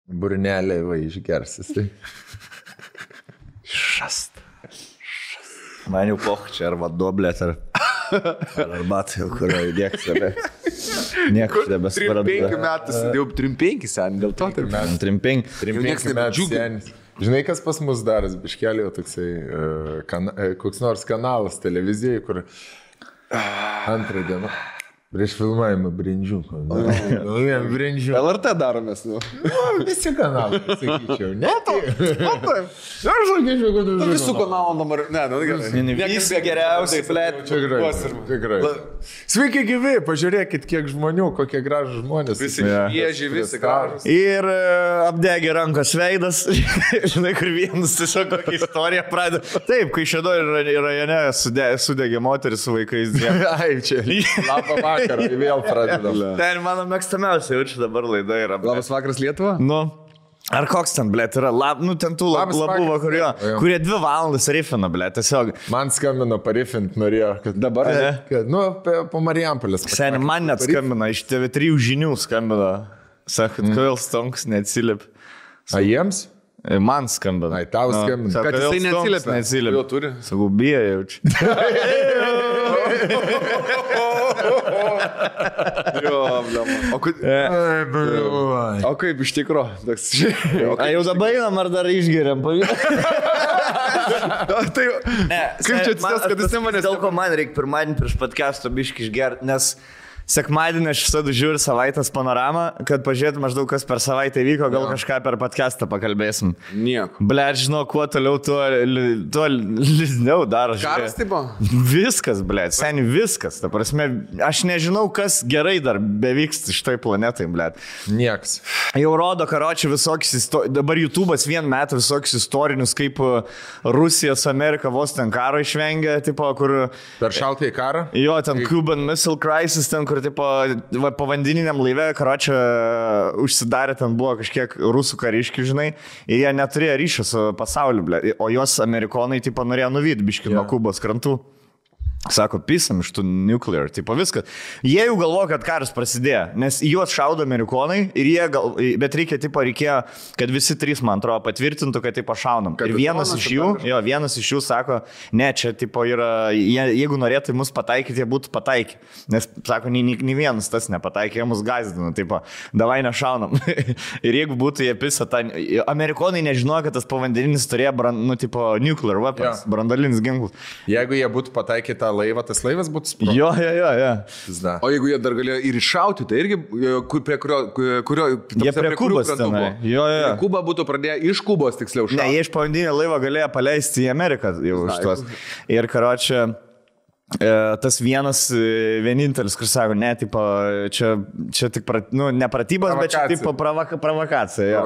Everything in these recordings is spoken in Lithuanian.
Burnelė va išgersis. Tai. Šast. Man jau poch čia ar vadoblėt, ar arbatą jau, kurio įdėk save. Nieko nebesvarbu. 3-5 metus, jau 3-5 sen, dėl to. 3-5 metų senis. Žinai, kas pas mus daras, biškelį jau toksai, koks nors kanalas televizijai, kur antrą dieną. Prieš filmavimą brindžių. Brindžių. LRT daromės, nu. Visi kanalai, sakyčiau. Ne, Aš sakyčiau, kad visų kanalų dabar. Ne, Visi geriausiai, blėt. Tikrai. Sveiki gyvi, pažiūrėkit, kiek žmonių, kokie gražų žmonės. Visi švieži, visi gražus. Ir apdegė rankos veidas. Žinai, kur vienas tiesiog kokią istoriją pradeda. Taip, kai Šėdojų rajone sudegė moteris su vaikais. Ai, čia. Labą vakarą, vėl pradedam. Ten mano mėgstamiausia jaučiu dabar laida yra. Labas vakaras Lietuva? Nu. Ar koks ten, blėt, yra, ten tų labų vakarų, kurie 2 valandas rifina, blėt, tiesiog. Man skambino parifint, norėjo, kad dabar, po Marijampolės. Seniai, man net skambino, iš TV3 žinių skambino. Sakot, kodėl Stonks neatsilip. A jiems? Man skambino. Ai, tau skambino. Kad jisai neatsilip. Jo turi. Sakau, bijo jaučiu. O kaip iš tikro? A jau dabar einam, ar dar išgeriam? Kaip čia atsitės, kad jis manęs... Dėl ko man reikia pirmadienį prieš podcast'o biškį išgerti, nes sekmadienį aš visada žiūriu savaitės panoramą, kad pažiūrėtų maždaug, kas per savaitę vyko, gal kažką per podcast'ą pakalbėsim. Nieko. Blet, žinau, kuo toliau, tuo liūdniau daro. Karas taip buvo? Viskas, blet, seniai viskas. Ta prasme, aš nežinau, kas gerai dar bevyksta šitoj planetai, blet. Nieks. Jau rodo, karočiui, visokius, dabar YouTube'as vien metą visokius istorinius, kaip Rusija su Amerika vos ten karo išvengia, tipo, kur... Per šaltąjį karą? Jo, ten Cuban Missile Crisis, ten, kur tipo, povandeniniam laive, karočią, užsidarė, ten buvo kažkiek rusų kariškių, žinai, ir jie neturėjo ryšio su pasauliu, ble, o jos amerikonai, tipo, norėjo nuvyti biškį nuo Kubos krantų. Sako, pisam iš tų nuclear, tipo viskas. Jie jau galvo, kad karas prasidėjo, nes juos šaudo amerikonai ir jie bet reikėjo, kad visi 3, man atrodo, patvirtintų, kad tipo šaunam. Ir vienas iš jų sako, ne, čia tipo yra, jeigu norėtų mus pataikyti, jie būtų pataikę. Nes, sako, nei vienas tas nepataikė, jie mus gazdino, tipo, davai nešaunam. Ir jeigu būtų jie pisa, amerikonai nežinojo, kad tas povandeninis turėjo, nuclear weapons, brandalinis ginklas. Jeigu jie būtų pataikę tą laivą, tas laivas būtų sprogęs. Jo. O jeigu jie dar galėjo ir iššauti, tai irgi prie kurio jie prie Kubos tenai. Jo. Kuba būtų pradėję iš Kubos tiksliau šaudyti. Ne, jie iš povandeninio laivo galėjo paleisti į Ameriką jau už tuos. Ir karočią, tas vienintelis, kur sako, ne, tipo, čia tik, ne pratybos, bet čia tipo provokacija.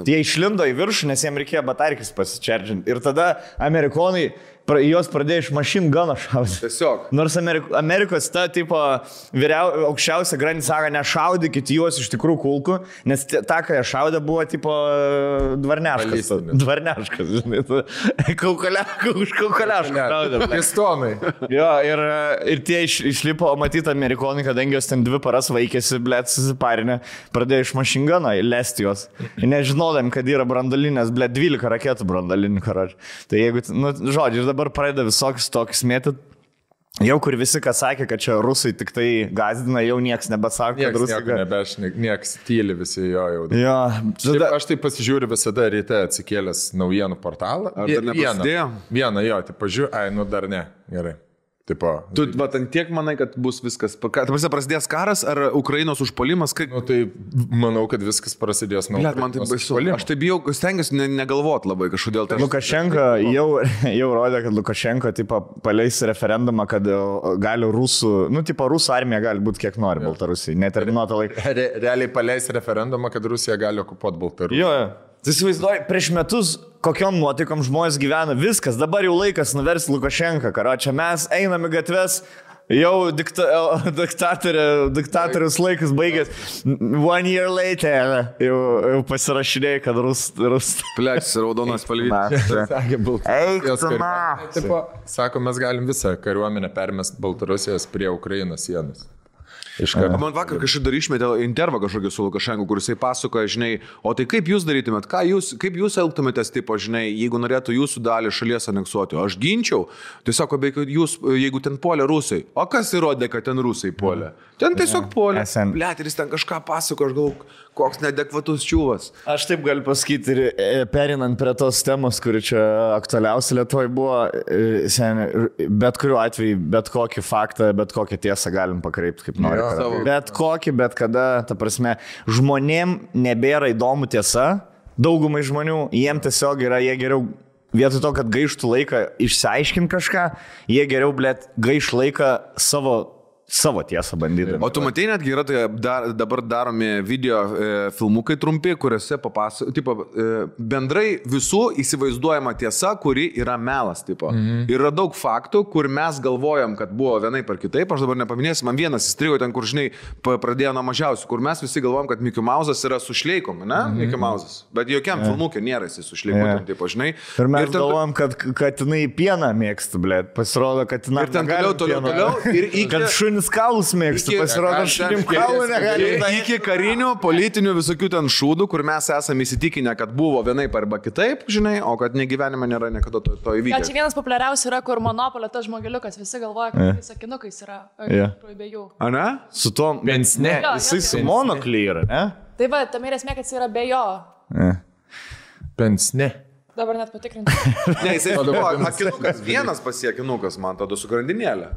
Jie išlindo į viršų, nes jiems reikėjo batarkis pasičerdžinti. Ir tada amerikonai jos pradėjo iš machine guno šaudyti. Tiesiog. Nors Amerikos ta, tipo, aukščiausia grandis sako, nešaudykit juos iš tikrųjų kulkų, nes ta, ką jie šaudė, buvo, tipo, dvarneškas. Dvarneškas, žinai. Už kaukoliašką šaudė. Pistonai. Jo, ir tie išlipo, matyti amerikonai, kadangi jos ten 2 paras vaikėsi, blėt, susiparinę, pradėjo iš machine guno lesti jos. Nežinodami, kad yra brandalinės, blėt, 12 raketų brandalinių, karočiui. Tai jeigu, žodžiu, dabar pradeda visokius tokius mėtyt. Jau kur visi, kas sakė, kad čia rusai tik tai gazdina, jau nieks nebesako, kad rusai... Nieks tyli visi jo jau. Jo. Aš tai pasižiūriu visada ryte atsikėlęs naujienų portalą. Ar dar neprasidėjo? Vieną, jo, tai pažiūrėjau, dar ne. Gerai. Tipo, tu tiek manai, kad bus viskas, prasidės karas ar Ukrainos užpuolimas? Tai manau, kad viskas prasidės nuo Ukrainos. Man tai baisu. Aš tai bijau, stengiuosi negalvoti labai kažkodėl. Lukašenka jau rodė, kad Lukašenka tipo, paleis referendumą, kad gali rusų armija gali būti kiek nori Baltarusijai, neterminuotą laiką. Realiai paleis referendumą, kad Rusija gali okupuoti Baltarusiją. Jo. Tai įsivaizduoju, prieš metus kokiom nuotaikom žmonės gyvena, viskas, dabar jau laikas nuversti Lukašenką, karočią, mes einame gatves, jau diktatorius laikas baigęs, 1 year later, jau pasirašinėjai, kad Pleksis, raudonas palvytis. Sako, mes galim visą kariuomenę permest Baltarusijos prie Ukrainos sienos. Man vakar kažkaip dar išmetė intervą kažkokį su Lukašenku, kur jisai pasakoja, žinai, o tai kaip jūs darytumėt, kaip jūs elgtumėtės, tipo, žinai, jeigu norėtų jūsų dalį šalies aneksuoti, aš ginčiau, tiesiog, jūs, jeigu ten puolė rusai, o kas įrodė, kad ten rusai puolė? Ten tiesiog puolė. Blet, ir jis ten kažką pasako, aš galvoju, koks neadekvatus čiūvas. Aš taip galiu pasakyti ir perinant prie tos temos, kuri čia aktualiausia Lietuvoje buvo, bet kuriuo atveju, bet kokį faktą, bet kokią tiesą galim pakreipti kaip nori. Bet kokį, bet kada, ta prasme, žmonėm nebėra įdomu tiesa, daugumai žmonių, jiem tiesiog yra, jie geriau, vietoj to, kad gaištų laiką išsiaiškinti kažką, jie geriau, blet, gaiš laiką savo tiesą bandydami. O tu matai, netgi yra tai dabar daromi video filmukai trumpi, kuriuose bendrai visų įsivaizduojama tiesa, kuri yra melas. Yra daug faktų, kur mes galvojam, kad buvo vienaip ar kitaip, aš dabar nepaminėsiu, man vienas įstrigo ten, kur, žinai, pradėjo nuo mažiausių, kur mes visi galvojam, kad Mickey Mouse'as yra su šleikom, ne? Mickey Mouse'as. Bet jokiam filmukė nėra jis su šleikom, tipo, žinai. Ir mes galvojam, kad jinai pieną mėgsta, blėt. Pasirodo, kad jinai toliau. Kaulus mėgstu, pasirodo, šunim kaulų negali. Iki karinių, politinių visokių ten šūdų, kur mes esame įsitikinę, kad buvo vienaip arba kitaip, žinai, o kad negyvenime nėra niekada to įvykio. Čia vienas populiariausių yra, kur Monopolio tas žmogeliukas, visi galvoja, kad jis sakinukais yra. Be jų. A ne? Su to pensne. Jisai su monokly yra, ne? Tai va, tam ir esmė, kad jis yra be jo. Pensne. Dabar net patikrinti. Ne, jisai akinukas, vienas pasiekinukas, man tada su grandinėlė.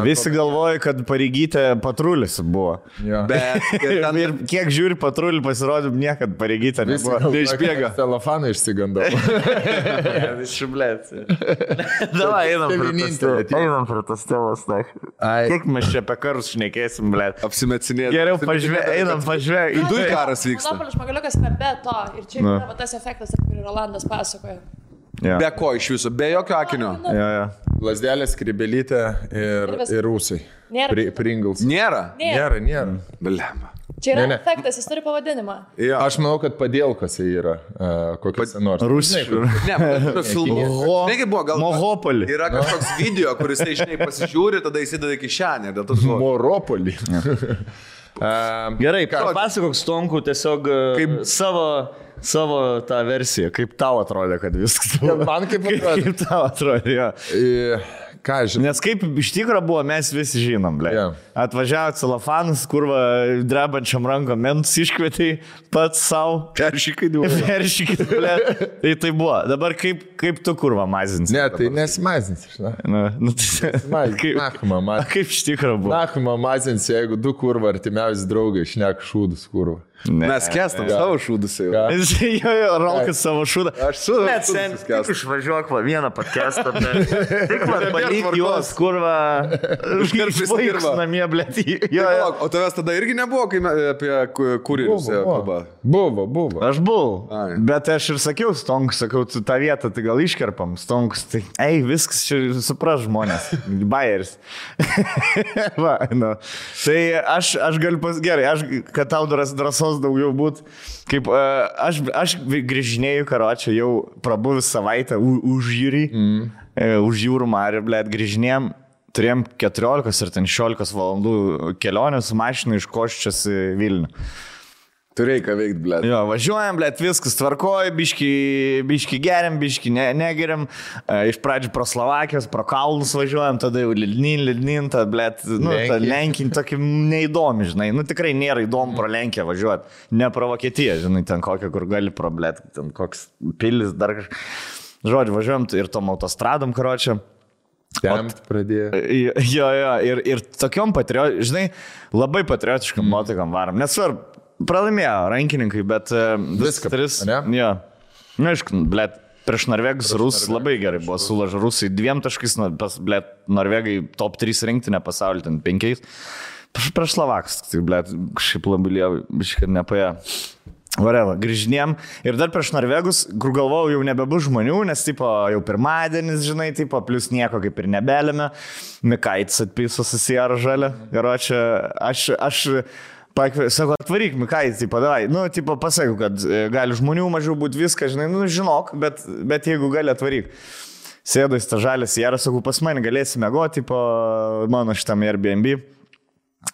Visi galvoja, kad Pareigytė patrulis buvo. Ja. Bet ir kiek žiūri patrulį, pasirodė, niekad Pareigytė nebuvo. Neišbėga. Telefoną išsigandau. Šiblėt. Davai, einam prie tas temos. Kiek mes čia apie karus šnekėsim, blėt. Apsimetsinėti. Geriau einam pažvėg. Du karas vyksta. Monopolio žmogeliukas yra be to. Ir čia yra tas efektas, kurį Rolandas pasakoja. Ja. Be ko iš viso, be jokio akinio. Ja. Lasdelė, skrybelytė ir rūsai. Pringles. Nėra? Nėra. Blemba. Čia yra efektas, jis turi pavadinimą. Ja. Aš manau, kad padėlkose yra kokiuose nors. Rusiškai. Ne, filmų. Negi buvo, gal Mohopolį. Yra kažkoks video, kuris tai, žinai, pasižiūri, tada įsideda kišenę. Moropolį. Gerai, papasakok Stonku tiesiog kaip savo tą versiją, kaip tau atrodė, kad viskas buvo. Man kaip atrodė. Kaip tau atrodė, jo. Ką žinai? Nes kaip iš tikrųjų buvo, mes visi žinom, ble. Yeah. Atvažiavo celofanas, kurva drebančiam rankom mentus iškvietė pats savo. Peršykai, ble. Tai buvo. Dabar kaip tu kurva mazinsi? Ne, tai nesimazinsi, žinai. Kaip iš tikrųjų buvo? Nachuma mazinsi, jeigu du kurva artimiausi draugai šneka šūdus kurva. Mes kestam savo šūdus jau. Jo, Rolkas savo šūdą. Aš su šūdus kestam. Išvažiuok va vieną podcastą. Tik man palik juos, kurva. Išvaiks namie, blėt. O tavęs tada irgi nebuvo, kai apie kuririus kalba? Buvo. Aš buvau. Bet aš ir sakiau Stonkus, sakau, tu tą vietą tai gal iškerpam. Stonkus, tai viskas čia supras žmonės. Bayeris. Va, nu. Tai aš galiu gerai, kad tau drąsos daugiau būt. Kaip aš grįžinėjau karočią jau prabuvis savaitę už jūrį, už jūrų marį, blėt, grįžinėjom, turėjom 14 ir 16 valandų kelionę su mašina iš Koščios į Vilnių. Turėjai ką veikti, blėt. Jo, važiuojam, blėt, viskas tvarkoja, biški geriam, biški negeriam. Iš pradžių pro Slovakijos, pro Kalnus važiuojam, tada jau Lidnin, tada, blėt, ta Lenkin tokį neįdomi, žinai. Tikrai nėra įdomu pro Lenkiją važiuoti. Ne pro Vokietiją, žinai, ten kokią, kur gali pro, blėt, ten koks pilis, dar kažkas. Žodžiu, važiuojam ir tom autostradom, karočią. Temt pradėjo. Jo, ir tokiom žinai, labai patriotiškam nuotaikam varom. Nesvarbu. Pralaimėjo rankininkai, bet viską tris. Ja. Na, aišku, blėt, prieš Norvegus Rusai labai gerai buvo sulažę. Rusai 2 taškais, blėt, Norvegai top 3 rinktinė pasaulį, ten 5. Prieš Slovakus, tai blėt, kažkaip labai lievai, biškai nepaėjo. Vareva, grįžinėm. Ir dar prieš Norvegus, kur galvojau, jau nebebus žmonių, nes tipo, jau pirmadienis, žinai, tipo, plus nieko kaip ir nebelėme. Mikaitis atpiso susijaro žalę. Garočia, aš sako, atvaryk, Mikaitis, tipo, davai. Tipo, pasakiau, kad gali žmonių mažiau būti viską, žinai, žinok, bet jeigu gali atvaryk. Sėdai tą žalę sierą, sakau, pas mane galėsi mėgoti, tipo, mano šitam Airbnb.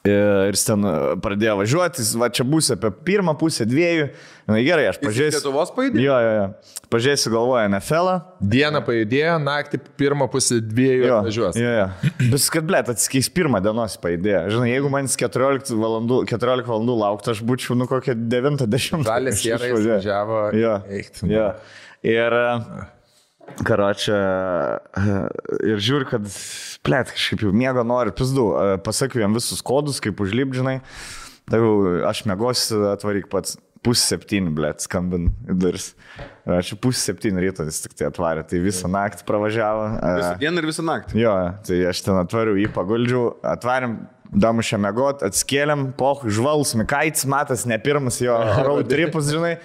Ir jis ten pradėjo važiuoti, va čia būsiu apie pirmą pusę, 2. Na gerai, aš pažiūrėsiu. Lietuvos pajudėjo? Jo. Pažiūrėsiu, galvoju, NFL-ą. Dieną pajudėjo, naktį pirmą pusę 2 atvažiuos. Jo. Bet kad, blėt, atsikeis pirmą dienos pajudėjo. Žinai, jeigu man 14 valandų lauktų, aš būčiau, kokią 9-10. Žalės sierai važiavo. Jo. Ir... Karočią, ir žiūri, kad, blėt, kažkaip jau miego nori, pizdu, pasakiau jam visus kodus, kaip užlipdžinai, tai aš mėgosiu, atvaryk pats, 6:30, blėt, skambin į duris. Aš 6:30 ryto jis tik tai atvarė, tai visą naktį pravažiavo. Visą dieną ir visą naktį? Jo, tai aš ten atvariu, jį paguldžiau, atvarėm, damušę mėgot, atskėlėm, žvalus, Mikaitis, matas, ne pirmas jo road tripus, žinai.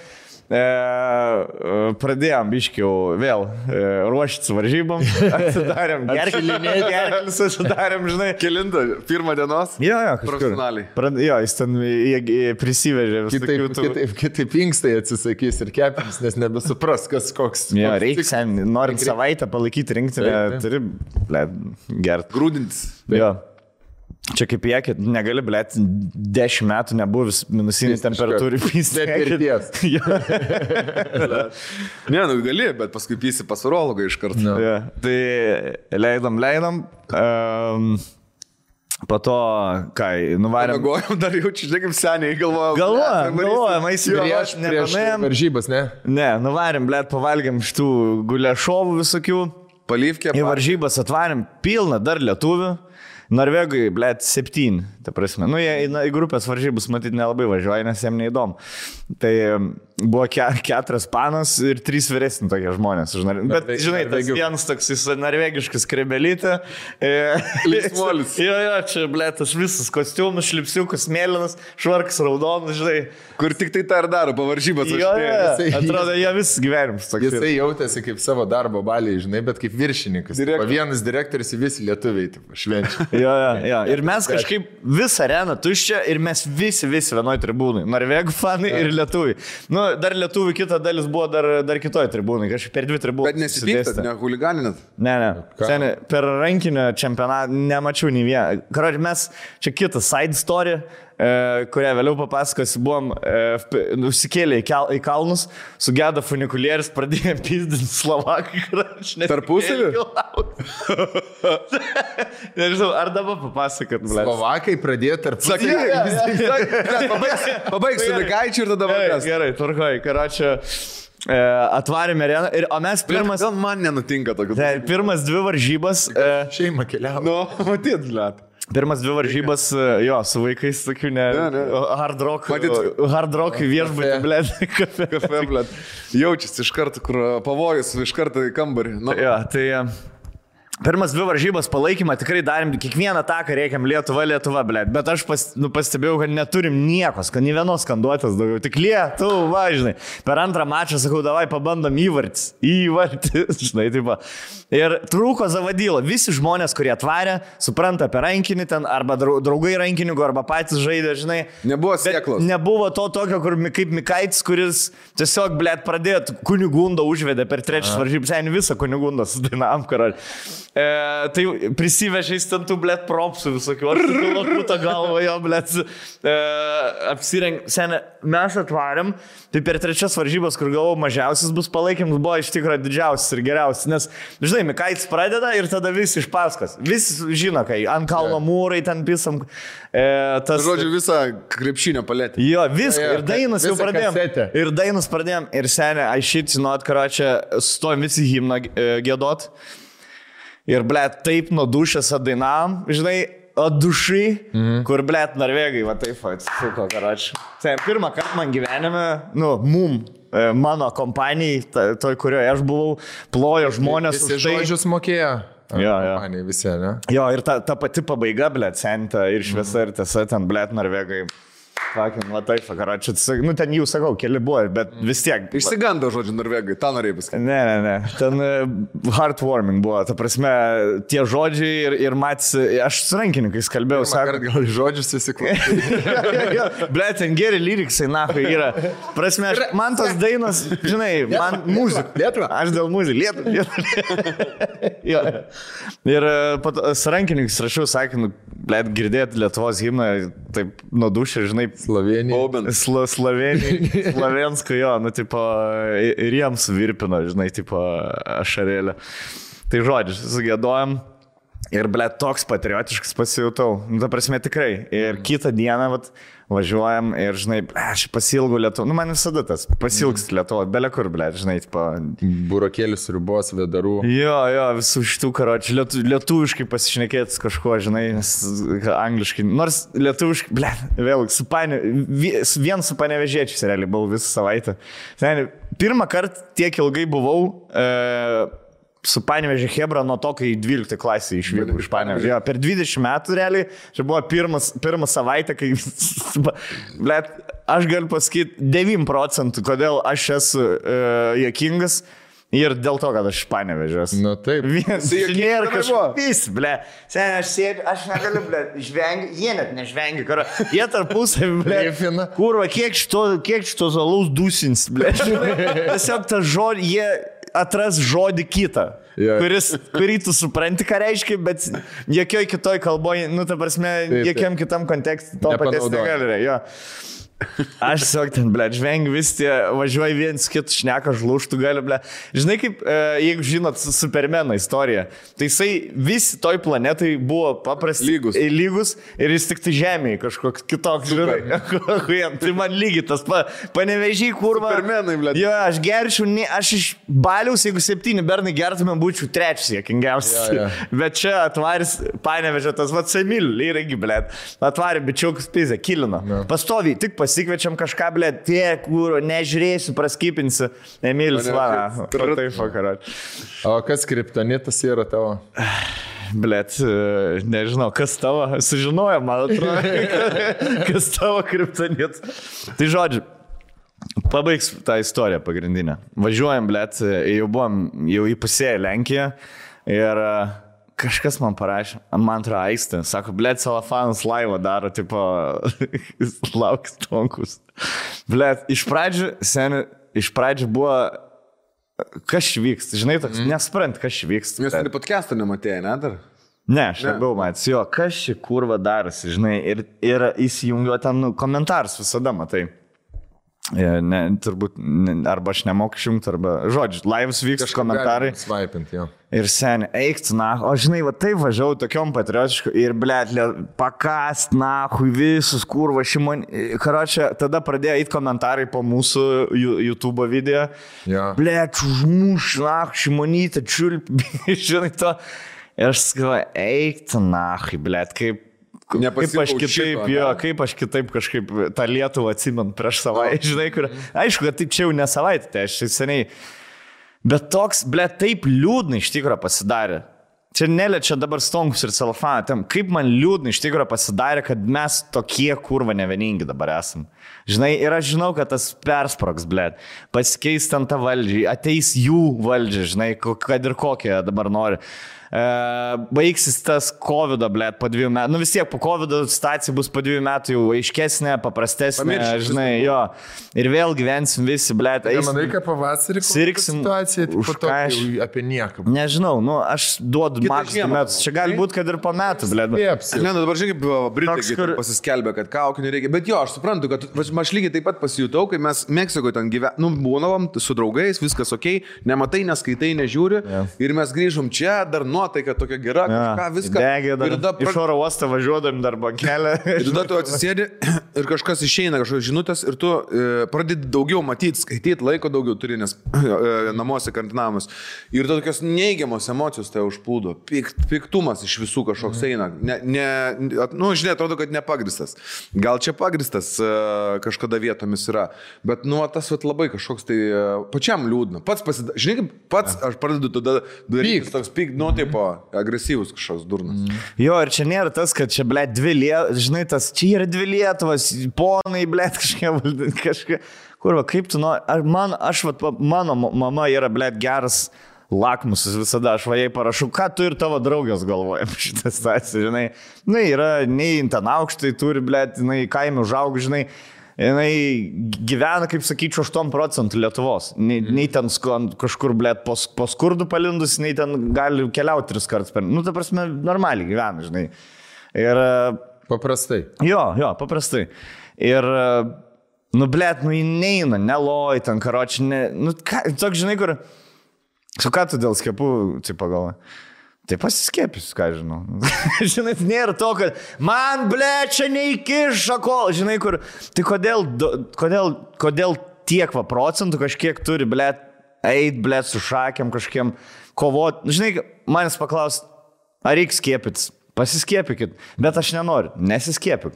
Pradėjom biškiau vėl ruoštis varžybom, atsidarėm gerklis, atsidarėm, žinai. Kelinta, pirmą dienos? Jo, profesionaliai. Jo, jis ten prisivežė visokių. Kitaip inkstai atsisakys ir kepinis, nes nebesupras, kas koks. Jo, reikia, norint savaitę palaikyti rinktinę, turi, gert. Grūdintis. Jo. Čia kaip jie, negali, blėt, 10 metų nebuvęs minusinį temperatūrį pystę. Ne, gali, bet paskui pysi pas urologą iš karto. No. Ja, tai leidom. Po to, nuvarėm. Galvojom, dar jaučiu, žinai, kaip seniai galvojom. Galvojom, prieš varžybas, ne? Ne, nuvarėm, blėt, pavalgėm šitų guliašovų visokių. Palyvkė. Į varžybas atvarėm pilną dar lietuvių. Norvegai, blėt, 7, ta prasme. Jie į grupės varžybus matyti nelabai važiuoja, nes jiems neįdomu. Tai buvo 4 panos ir 3 vyresni tokie žmonės. Bet, žinai, tas vienas toks norvegiškas krebelytė. Linksmolis. Jo, čia, blėt, aš visas kostiumus, šlipsiukas, mėlynas, švarkas, raudonas, žinai. Kur tik tai tą ir daro, po varžybas. Jo, atrodo, jie visas gyvenimas toks. Jisai jautėsi kaip savo darbo baliai, žinai, bet kaip viršininkas. Vienas direktorius į visi lietuviai, švenčia. Jo. Ir mes kažkaip visą areną tuščią ir mes visi vienoj tribūnai. Norvegų fanai ir lietuviai. Dar lietuvių kita dalis buvo dar kitoj tribūnai, kažkaip per 2 tribūnai. Bet nesipyktat, ne huliganinat? Ne. Seniai, per rankinio čempionatą nemačiau nei vieną. Karoči, mes čia kitą side story, kurią vėliau papasakosiu, buvom užsikėlė į kalnus, sugedo funikulierius, pradėjome pizdinti Slovakai. Tarpusavį? Nežinau, ar dabar papasakot, blėt. Slovakai pradėjo tarpusavį. Pabaigsiu Mikaičių ir tada vakar. Gerai, tvarkoj, karočią. Atvarėme areną, o mes pirmas... Gal man nenutinka tokių. Pirmas 2 varžybas... Šeima keliavo. Matyt, blėt. Pirmas 2 varžybas, su vaikais tokių hard rock viešbutį, blėt, kafe, blėt. Jaučiasi iš karto, kur pavojus, iš karto į kambarį. Jo, tai... Pirmas 2 varžybas palaikymą tikrai darėm, kiekvieną taką reikiam Lietuva, blėt, bet aš pastebėjau, kad neturim niekos, kad nei vienos skanduotės daugiau, tik Lietuva, žinai. Per antrą mačą sakau, davai pabandom įvartis, žinai, taip. Ir trūko Zavadylo, visi žmonės, kurie atvarė, supranta apie rankinį ten, arba draugai rankininkų, arba patys žaidė, žinai. Nebuvo sėklos. Nebuvo to tokio, kaip Mikaitis, kuris tiesiog, blėt, pradėjo Kunigundą užvedė per 3 varžybas, visą Kunigundą sudainavom, karaliu. Tai prisivežiais ten tų, blėt, propsų visokių, aš tu lakutą galvą jo, blėt, apsireng. Senė, mes atvarėm, tai per 3 varžybas, kur galvau mažiausias bus palaikymas, buvo iš tikrųjų didžiausias ir geriausias, nes, žinai, Mikaitis pradeda ir tada visi iš paskas. Visi žino, kai ant kalno mūrai ten pisam. Žodžiu, visą krepšinio paletę. Jo, viską. Ir dainas jau pradėjom. Ir senė, I shit you not, karočią, stojom visi himną giedot. Ir, blėt, taip nuo dušės atdainavom, žinai, dušai, kur, blėt, norvegai, va taip atsisuko, karočią. Tai pirmą kartą man gyvenime, mano kompanijai, toj, kurioje aš buvau, plojo žmonės už tai. Visi žodžius mokėjo. Jo. Visi, ne? Jo, ir ta pati pabaiga, blėt, senta ir šviesa ir tiesa, ten, blėt, norvegai. Fucking, va taip, karočią. Nu, ten jau sakau, keli buvo, bet vis tiek. Išsigando žodžiu norvegai, tą norėjai pasakyti. Ne. Ten heartwarming buvo. Ta prasme, tie žodžiai ir mats, aš su rankininkais kalbėjau, sakau. Gal žodžius įsiklausyti. Ble, ten geri lyriksai, nahui, yra. Prasme, man tos dainos, žinai, man muzika. Lietuva. Aš dėl muzikos. Lietuva. Ir su rankininkais rašiau, sakinu, ble, girdėti Lietuvos himną, taip nudušė, žinai, Slovensko, jo, nu, tipo, ir jiems virpino, žinai, tipo, ašarėlė. Tai žodžiu, sugėdojom ir, ble, toks patriotiškas pasijutau. Nu, ta prasme, tikrai. Ir kitą dieną, vat, važiuojam ir, žinai, ble, aš pasilgu Lietuvą. Nu, man visada tas pasilgst Lietuvą, bele kur, ble, žinai, tipo... Burokėlis, ribos, vedarų. Jo, visų šitų karočių. Lietuviškai pasišnekėtis kažko, žinai, nes angliškai. Nors lietuviškai, ble, vėl, vien su panevežėčiais realiai buvau visą savaitę. Pirmą kartą tiek ilgai buvau su Panevėžio Chebra nuo to, kai 12 klasė išvykau iš Panevėžio. Jo, per 20 metų realiai, čia buvo pirmą savaitę, kai, blet, aš galiu pasakyti 9%, kodėl aš esu juokingas ir dėl to, kad aš iš Panevėžio. Nu taip. Nėra kažkas, ble. Sen, aš sėdžiu, aš negaliu, ble, žvengi, jie net nežvengi, karo. Jie tarpusavį, ble, kurva, kiek šito zalaus dusins, ble. Tiesiog tą žodį, jie atras žodį kitą, kurį tu supranti, ką reiškia, bet jokioj kitoj kalboje, nu, ta prasme, jokiam kitam kontekste to paties negali. Aš tiesiog ten, ble, žvengiu vis tie, važiuoju viens kitų šneka, žlūštų gali, ble. Žinai, kaip, jeigu žinot Supermano istoriją, tai jisai visi toj planetai buvo paprasti lygus ir jis tik tai žemėje kažkoks kitoks, žinai. Tai man lygiai tas Panevėžį, kurva. Supermenai, ble. Jo, aš gerčiau, aš iš Baliaus, jeigu 7 bernai gertumėm, būčiau 3 sėkingiausias. Bet čia atvaris Panevėžio, tas vat Semil, irgi, ble. Atvarė bičiukus pizę, kilino. Pastoviai, tik pasikviečiam kažką, ble, tie, kur nežiūrėsiu, praskipinsiu. Emilis, va, taip, vakarat. O kas kriptonitas yra tavo? Blet, nežinau, kas tavo, sužinojo, man atrodo, kas tavo kriptonitas. Tai žodžiu, pabaigs tą istoriją pagrindinę. Važiuojam, blet, jau įpusėję Lenkiją ir... Kažkas man parašė, man atrodo Aistė, sako, blėt, Salafanas laivą daro, tipo, lauks tonkus. Blėt, iš pradžių buvo, kas čia vyksta, žinai, toks, nesprant, kas čia vyksta. Jūs ir podcast'ą nematėjai, ne, dar? Ne, aš nebuvau matęs, jo, kas čia kurva darosi, žinai, ir įsijungiu ten komentarus visada, matai. Ne, turbūt, arba aš nemoku išjungti, arba, žodžiu, laivas vyksta komentarai. Svaipint, jo. Ir seniai, eikti, na, o žinai, va taip važiavau tokiom patriotišku ir, blėt, pakast, na, hui visus, kurva, karočią, tada pradėjo eiti komentarai po mūsų YouTube video. Ja. Blėt, užmuš, na, Šimonytė, čiulp, žinai to. Ir aš sakau, eikti, na, blėt, kaip aš kitaip, kaip aš kitaip kažkaip tą Lietuvą atsimenu prieš savaitę, žinai, kur, aišku, kad taip čia jau ne savaitę, tai aš seniai, bet toks, ble, taip liūdnai iš tikrųjų pasidarė. Čia neliečia dabar Stonkus ir Salafaną, kaip man liūdnai iš tikrųjų pasidarė, kad mes tokie kurva nevieningi dabar esam. Žinai, ir aš žinau, kad tas persprogs, ble, pasikeis ten tą valdžią, ateis jų valdžią, žinai, kad ir kokią dabar nori. Baigsis tas COVID-o, blėt, po 2 metų. Nu vis tiek po COVID-o situacija bus po 2 metų jau aiškesnė, paprastesnė, žinai, jo. Ir vėl gyvensim visi, blėt. Manai, kad pavasarį situacija po to apie nieką. Nežinau, nu aš duodu maks 2 metus. Čia gali būti, kad ir po metų, blėt. Ne, nu dabar žiūrėk, Britai pasiskelbė, kad kaukių nereikia. Bet jo, aš suprantu, kad aš lygiai taip pat pasijutau, kai mes Meksikoje ten gyvenome, nu būnavom su draugais, viskas ok, nematai, neskaitai, nežiūri. Ir mes grįžom čia, dar nuotaika tokia gera, kažką, viską. Degė, iš oro uostą važiuodami darbo kelią. Ir tada tu atsisėdi ir kažkas išeina, kažkokios žinutės ir tu pradedi daugiau matyti, skaityti, laiko daugiau turi, nes namuose karantinavimas. Ir tada tokios neigiamos emocijos tai užplūdo. Piktumas iš visų kažkoks eina. Nu, žinai, atrodo, kad nepagristas. Gal čia pagristas kažkada vietomis yra, bet nu, tas labai kažkoks tai pačiam liūdna. Žinai, kaip pats aš pradedu tada daryti toks nu, taip, agresyvus kažkoks durnas. Jo, ir čia nėra tas, kad čia, ble, žinai, tas, čia yra 2 Lietuvos, ponai, blėt, kažkaip, kurva, kaip tu nori, mano mama yra, blėt, geras lakmusas visada, aš jai parašau, ką tu ir tavo draugės galvoja šitą situaciją, žinai, yra, nei ten aukštai turi, blėt, kaime užaug, žinai, jinai gyvena, kaip sakyčiau, 8% Lietuvos. Nei ten kažkur, blėt, po skurdų palindus, nei ten gali keliauti 3 kartus per... Ta prasme, normaliai gyvena, žinai. Ir... Paprastai. Jo, paprastai. Ir, blėt, neina, neloj, ten, karoči, toks, žinai, kur... Su ką tu dėl skiepų, pagalvoji? Tai pasiskiepys, ką žinau. Žinai, nėra to, kad man, blėt, čia neįkiša kol. Žinai, kur... Tai kodėl tiek procentų kažkiek turi, blėt, eit, blėt, su šakiam kažkiem kovot. Žinai, manęs paklaus, ar reikia skiepytis? Pasiskiepykit, bet aš nenoriu, nesiskiepyk.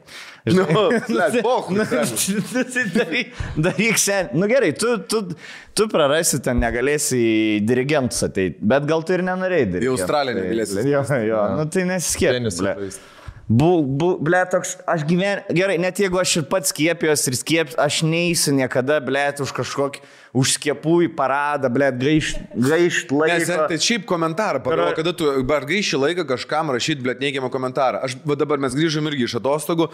Daryk sen. Gerai, tu prarasi ten, negalėsi į dirigentus ateiti, bet gal tu ir nenorėjai daryti. Į Australiją negalėsi. Jo, tai nesiskiepyk. Toks, aš gerai, net jeigu aš ir pats skiepijos ir aš neįsiu niekada, blėt, už kažkokį, už skiepų į paradą, blėt, gaišt laiką. Nes tai šiaip komentarą, pagalvo, kada tu gaiši laiką kažkam rašyti, blėt, neigiamą komentarą. Dabar mes grįžom irgi iš atostogų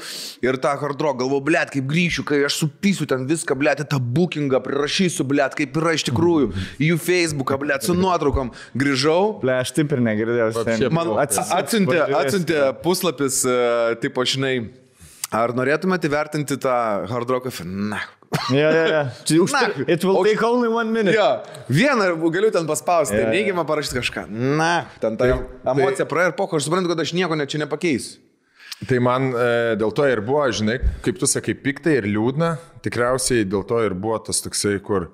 ir tą hard rock galvoju, blėt, kaip grįšiu, kai aš supysiu ten viską, blėt, tą bookingą prirašysiu, blėt, kaip yra iš tikrųjų, į jų Facebooką, blėt, su nuotraukom. Grįžau. Blėt, aš taip ir negirdėjau. Man atsiuntė puslapis, tipo, žinai, ar norėtumėte įvertinti tą hard rock? Na. It will take only 1 minute. Vieną galiu ten paspausti, neigiamą parašyti kažką. Na, ten ta emocija praėjo ir aš suprantu, kad aš nieko čia nepakeisiu. Tai man dėl to ir buvo, žinai, kaip tu sakai, piktai ir liūdna, tikriausiai dėl to ir buvo tas toksai, kur,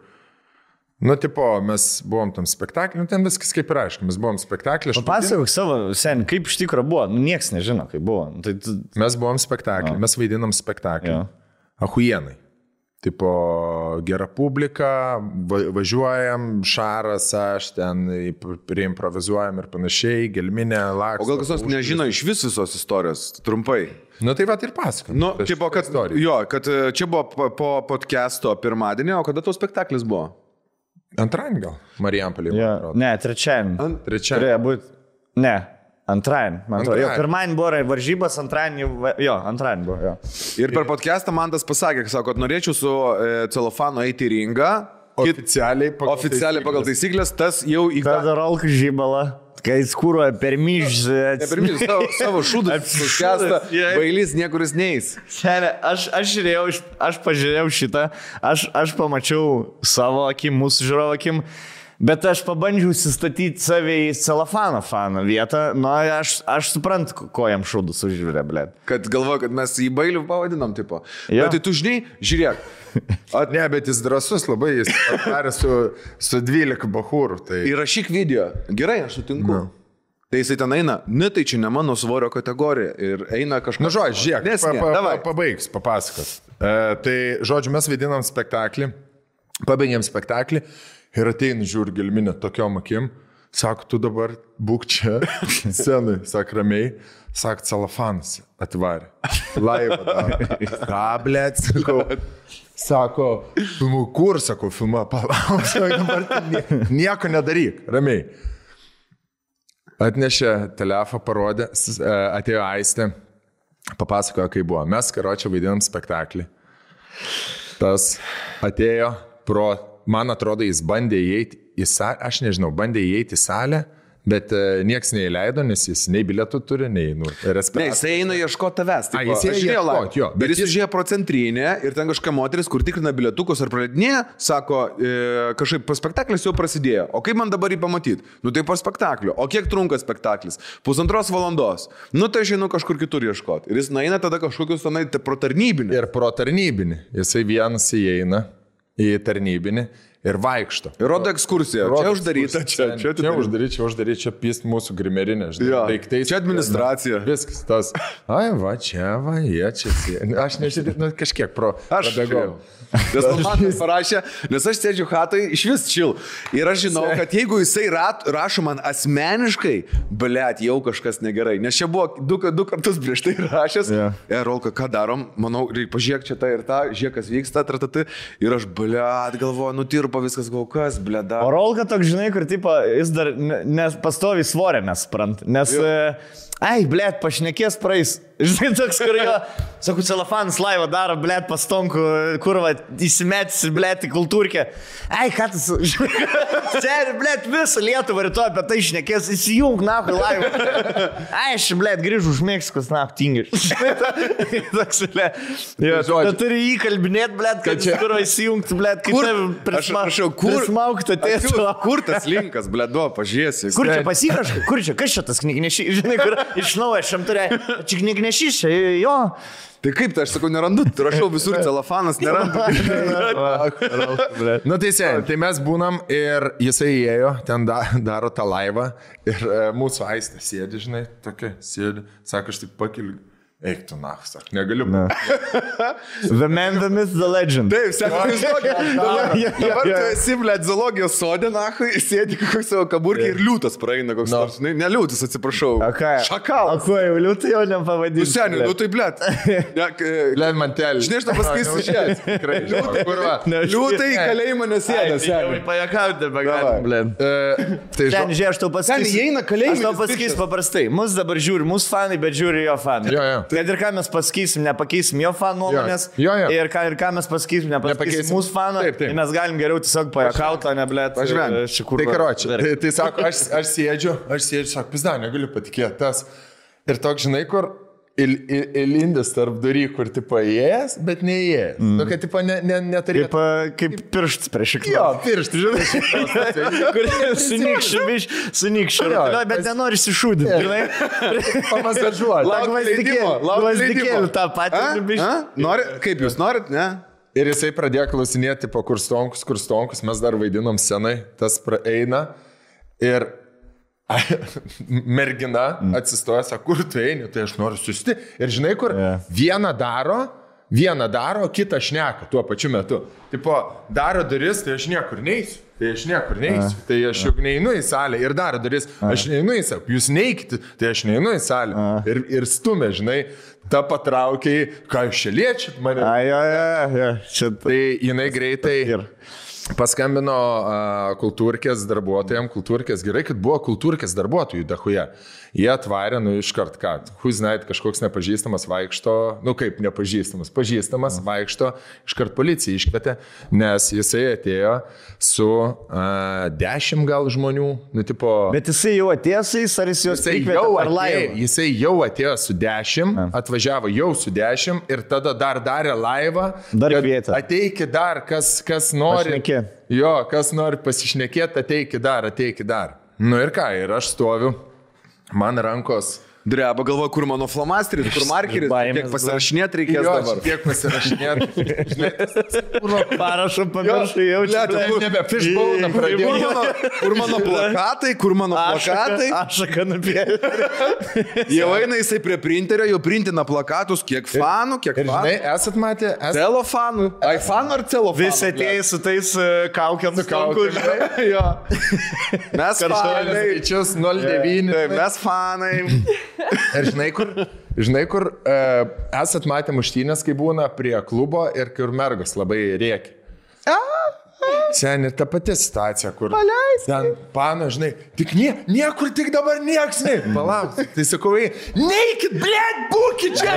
mes buvom tam spektaklį, ten viskas kaip ir aišku, mes buvom spektaklį. Papasakok savo, sen, kaip iš tikrųjų buvo, nieks nežino, kaip buvo. Mes buvom spektaklį, mes vaidinam spektaklį. Ahuienai. Tipo, gera publika, važiuojam, Šaras, aš ten priimprovizuojam ir panašiai, gelminė, laksto. O gal kas nors nežino iš visos istorijos, trumpai? Tai va ir pasakam. Kad čia buvo po podcast'o pirmadienį, o kada tavo spektaklis buvo? Antradienį gal, Marijampolė. Ne, trečiadienį. Turėjo būti, ne. Antradienį, man atrodo. Pirmadienį buvo varžybas, antradienį buvo. Ir per podcastą man tas pasakė, kad norėčiau su celofanu eiti į ringą. Oficialiai pagal taisyklės, tas jau į... Tada rolk žybalą, kai skūruoja per myžą. Ne per myžą, savo šūdą suskęsta, bailys niekuris neis. Aš pažiūrėjau šitą, aš pamačiau savo akim, mūsų žiūrovo akim. Bet aš pabandžiau įsistatyti save į celofano faną vietą, aš suprantu, ko jam šūdus užžiūrė, blėt. Kad galvoju, kad mes jį bailių pavadinom, tipo. Bet tai tu žinai, žiūrėk. Ne, bet jis drąsus labai, jis atvarė su 12 bachūrų. Tai... Įrašyk video. Gerai, aš sutinku. Tai jisai ten eina, tai čia ne mano svorio kategorija. Ir eina kažkas. Žiūrėk, pabaigs, papasakos. Tai, žodžiu, mes vaidinam spektaklį, pabaigėm spektaklį. Ir ateina žiūri gelminę tokiom akim, sako, tu dabar būk čia, scenai, sako ramiai, sako, celofanas atvarė, laivą daro. Ką, blėt, sako, kur, sako, filmuoja, palauk, nieko nedaryk, ramiai. Atnešė telefą, parodė, atėjo Aistė, papasakojo, kaip buvo. Mes, karočią, vaidinam spektaklį. Tas atėjo pro... Man atrodo, jis bandė įeiti į salę, aš nežinau, bandė įeiti į salę, bet nieks neįleido, nes jis nei bilietų turi, nei respiratorių. Ne, jis eina ieškoti tavęs. Jis ieškoti, jo. Bet jis užėjo pro centrinę ir ten kažkokia moteris, kur tikrina bilietukus ar praleidinėje, sako, kažkaip po spektaklis jau prasidėjo. O kaip man dabar jį pamatyti? Tai po spektaklio. O kiek trunka spektaklis? 1,5 valandos. Tai aš einu kažkur kitur ieškoti. Ir jis nueina tada kažkokius pro tarnybinį. Ir pro tarnybinį. Jisai vienas įeina į tarnybinį ir vaikšto. Ir rodo ekskursiją. Čia uždaryta, čia uždaryta, čia pist mūsų grimerinė, žinai. Daiktai. Čia administracija. Viskas tas. Ai, va, čia, va, jie čia. Aš nežinau, kažkiek prabėgau. Nes man parašė, nes aš sėdžiu hatai iš vis čil. Ir aš žinau, kad jeigu jisai rašo man asmeniškai, blėt, jau kažkas negerai. Nes čia buvo du kartus prieš tai rašęs. Rolka, ką darom? Manau, pažiūrėk čia tą ir tą, žiūrėk, kas vyksta, ir aš, blėt, galvoju, nutirpo viskas, gal kas, blėda. O Rolka toks, žinai, kur tipo, jis dar pastovi svorė, mes suprant. Nes, ai, blėt, pašnekės praeis. Žinai, toks, kur jo, sakau, celofanas laivą daro, blėt, pastonku, kur va, įsimetsi, blėt, į kultūrkę. Ai, ką tas, žinai, sėri, blėt, visą Lietuvą rytoj apie tai šnekės, įsijung, nahui, laivą. Ai, aš, blėt, grįžu už Meksikos, tingiu. Toks, blėt, tu turi įkalbinėt, blėt, kad čia kur įsijungti, blėt, kaip prismaukti atėtų. Kur tas linkas, blėt, pažiūrėsi. Kur čia pasikraškai, kur čia, kas čia tas knygnešys, žinai, kur iš naujo šiam turė, čia knygnešys, jo. Tai kaip tai, aš sakau, nerandu, rašau visur celofanas, nerandu. Nu tai mes būnam ir jisai įėjo, ten daro tą laivą ir mūsų Aistė sėdi, žinai, tokia sėdi, sako, aš tik pakeliu. Eik tu nach, sak, negaliu. The man, the myth, the legend. Taip, sako, dabar tu esi, blėt, zoologijos sode, nachui, sėdi koks savo kaburkį ir liūtas praeina koks nors. Ne liūtas, atsiprašau. Šakalas. O ko, jau liūtai jau nepavadinti. Seniai, nu tai, blėt. Blėt mantelį. Žinai, aš tau pasakysiu šiandien. Tikrai, kurva. Liūtai į kalėjimą nesėda, seniai. Jau pajakauti, begalim, blėt. Ten, žiūrėk, aš tau pasakysiu paprastai. Mus dabar žiūri, mūsų fanai, bet žiūri jo fanai. Kad ir ką mes pasakysim, nepakeisim jo fanų nuomonės. Ir ką mes pasakysim, nepakeisim mūsų fanų. Tai mes galim geriau tiesiog pajakauti, o ne, blėt. Tai karočią. Tai sako, aš sėdžiu, sako, pizda, negaliu patikėti tas. Ir toks, žinai, kur įlindęs tarp durį, kur tipo įėjęs, bet neįėjęs. Nu, kad tipo neturėtų. Kaip pirštas prieš šikną. Jo, pirštas, žinai. Kur sunykščiu. Bet nenori iššūdinti, žinai. Pamasažuoti. Gvazdikėlį tą patį. Nori, kaip jūs norit, ne? Ir jisai pradėjo klausinėti, tipo, kur stonkus, mes dar vaidinom senai, tas praeina. Ir mergina atsistoja, sako, kur tu eini, tai aš noriu susti. Ir žinai, kur vieną daro, kitą šneka tuo pačiu metu. Tipo, daro duris, tai aš niekur neisiu. Tai aš juk neinu į salę ir daro duris. Aš neinu į salę. Jūs neikite, tai aš neinu į salę. Ir stumė, žinai, ta patraukiai, ką jūs čia liečiat mane. Tai jinai greitai paskambino kultūrkės darbuotojams, kultūrkės gerai, kad buvo kultūrkės darbuotojų dachuje. Jie atvarė, iškart ką, huiznait, kažkoks nepažįstamas vaikšto, kaip nepažįstamas, pažįstamas vaikšto, iškart policija iškvietė, nes jisai atėjo su 10 gal žmonių, tipo... Bet jisai jau atėjo su jais, ar jis juos prikvietė per laivą? Jisai jau atėjo su 10, atvažiavo jau su 10 ir tada dar darė laivą. Dar kvietė. Ateikit dar, kas nori. Jo, kas nori pasišnekėti, ateikit dar. Nu ir ką, ir aš stoviu. Man rankos dreba, galvoju, kur mano flamasteris, kur markeris, kiek pasirašinėti reikės dabar. Kiek pasirašinėti. Parašo pamiršai jau čia. Nebe fishbone pradėjau. Kur mano plakatai? Ašaka nupėlė. Jau eina jisai prie printerio, jau printina plakatus, kiek fanų. Žinai, esat matę? Celofanų. Aifanų ar celofanų? Visi atėjai su tais kaukiam stonku. Mes fanai. Skaičius 09. Mes fanai. Ir žinai, kur esat matę muštynės, kai būna prie klubo ir kur mergos labai rėkia. Seniai, ta pati situacija, kur ten pano, žinai, tik niekur, tik dabar nieks, palauk. Tai sakau, neikit, blėt, būkit čia,